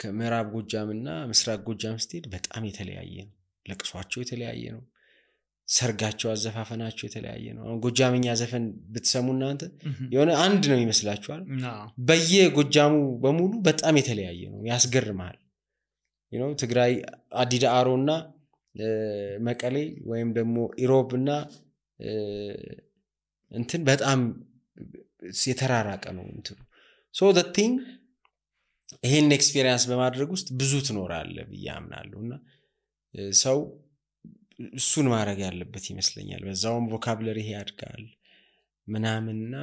ከምዕራብ ጎጃምና ምስራቅ ጎጃም ስትሄድ በጣም የተለያየ ነው ለቅሷቸው የተለያየ ነው ሰርጋቸው አዘፋፈናቸው የተለያየ ነው አሁን ጎጃምኛ ዘፈን ብትሰሙና አንተ የሆነ አንድ ነው ይመስላችኋል በየጎጃሙ በሙሉ በጣም የተለያየ ነው ያስገርማል ትግራይ አዲዳአሮና መቀሌ ወይም ደግሞ ኢሮብና እንትን በጣም የተራራቀ ነው እንትን so the thing ይሄን ኤክስፒሪየንስ በማድረግ ውስጥ ብዙ ትኖራለህ በያምናለሁና ሰው እሱን ማድረግ ያለበት ይመስለኛል በዛውም ቮካቡላሪ ያድጋል ምናምንና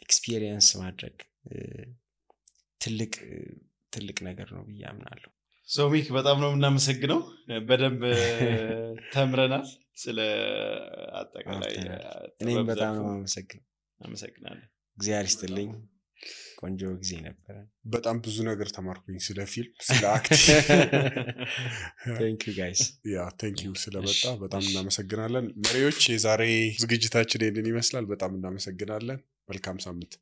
ኤክስፒሪየንስ ማድረግ ትልቅ ነገር ነው በያምናለሁ ሶሚክ በጣም ነው እናመሰግነው በደንብ ተምረናል ስለ አጠቃላይ እኔም በጣም ነው አመሰግናለሁ እግዚአብሔር ይስጥልኝ ቆንጆ ጊዜ ነበር በጣም ብዙ ነገር ተማርኩኝ ስለ ፊልም ስለ አክት thank you guys thank you ስለመጣ በጣም እናመሰግናለን መሪዎች የዛሬ ዝግጅታችን ይሄንን ይመስላል በጣም እናመሰግናለን መልካም ሳምንት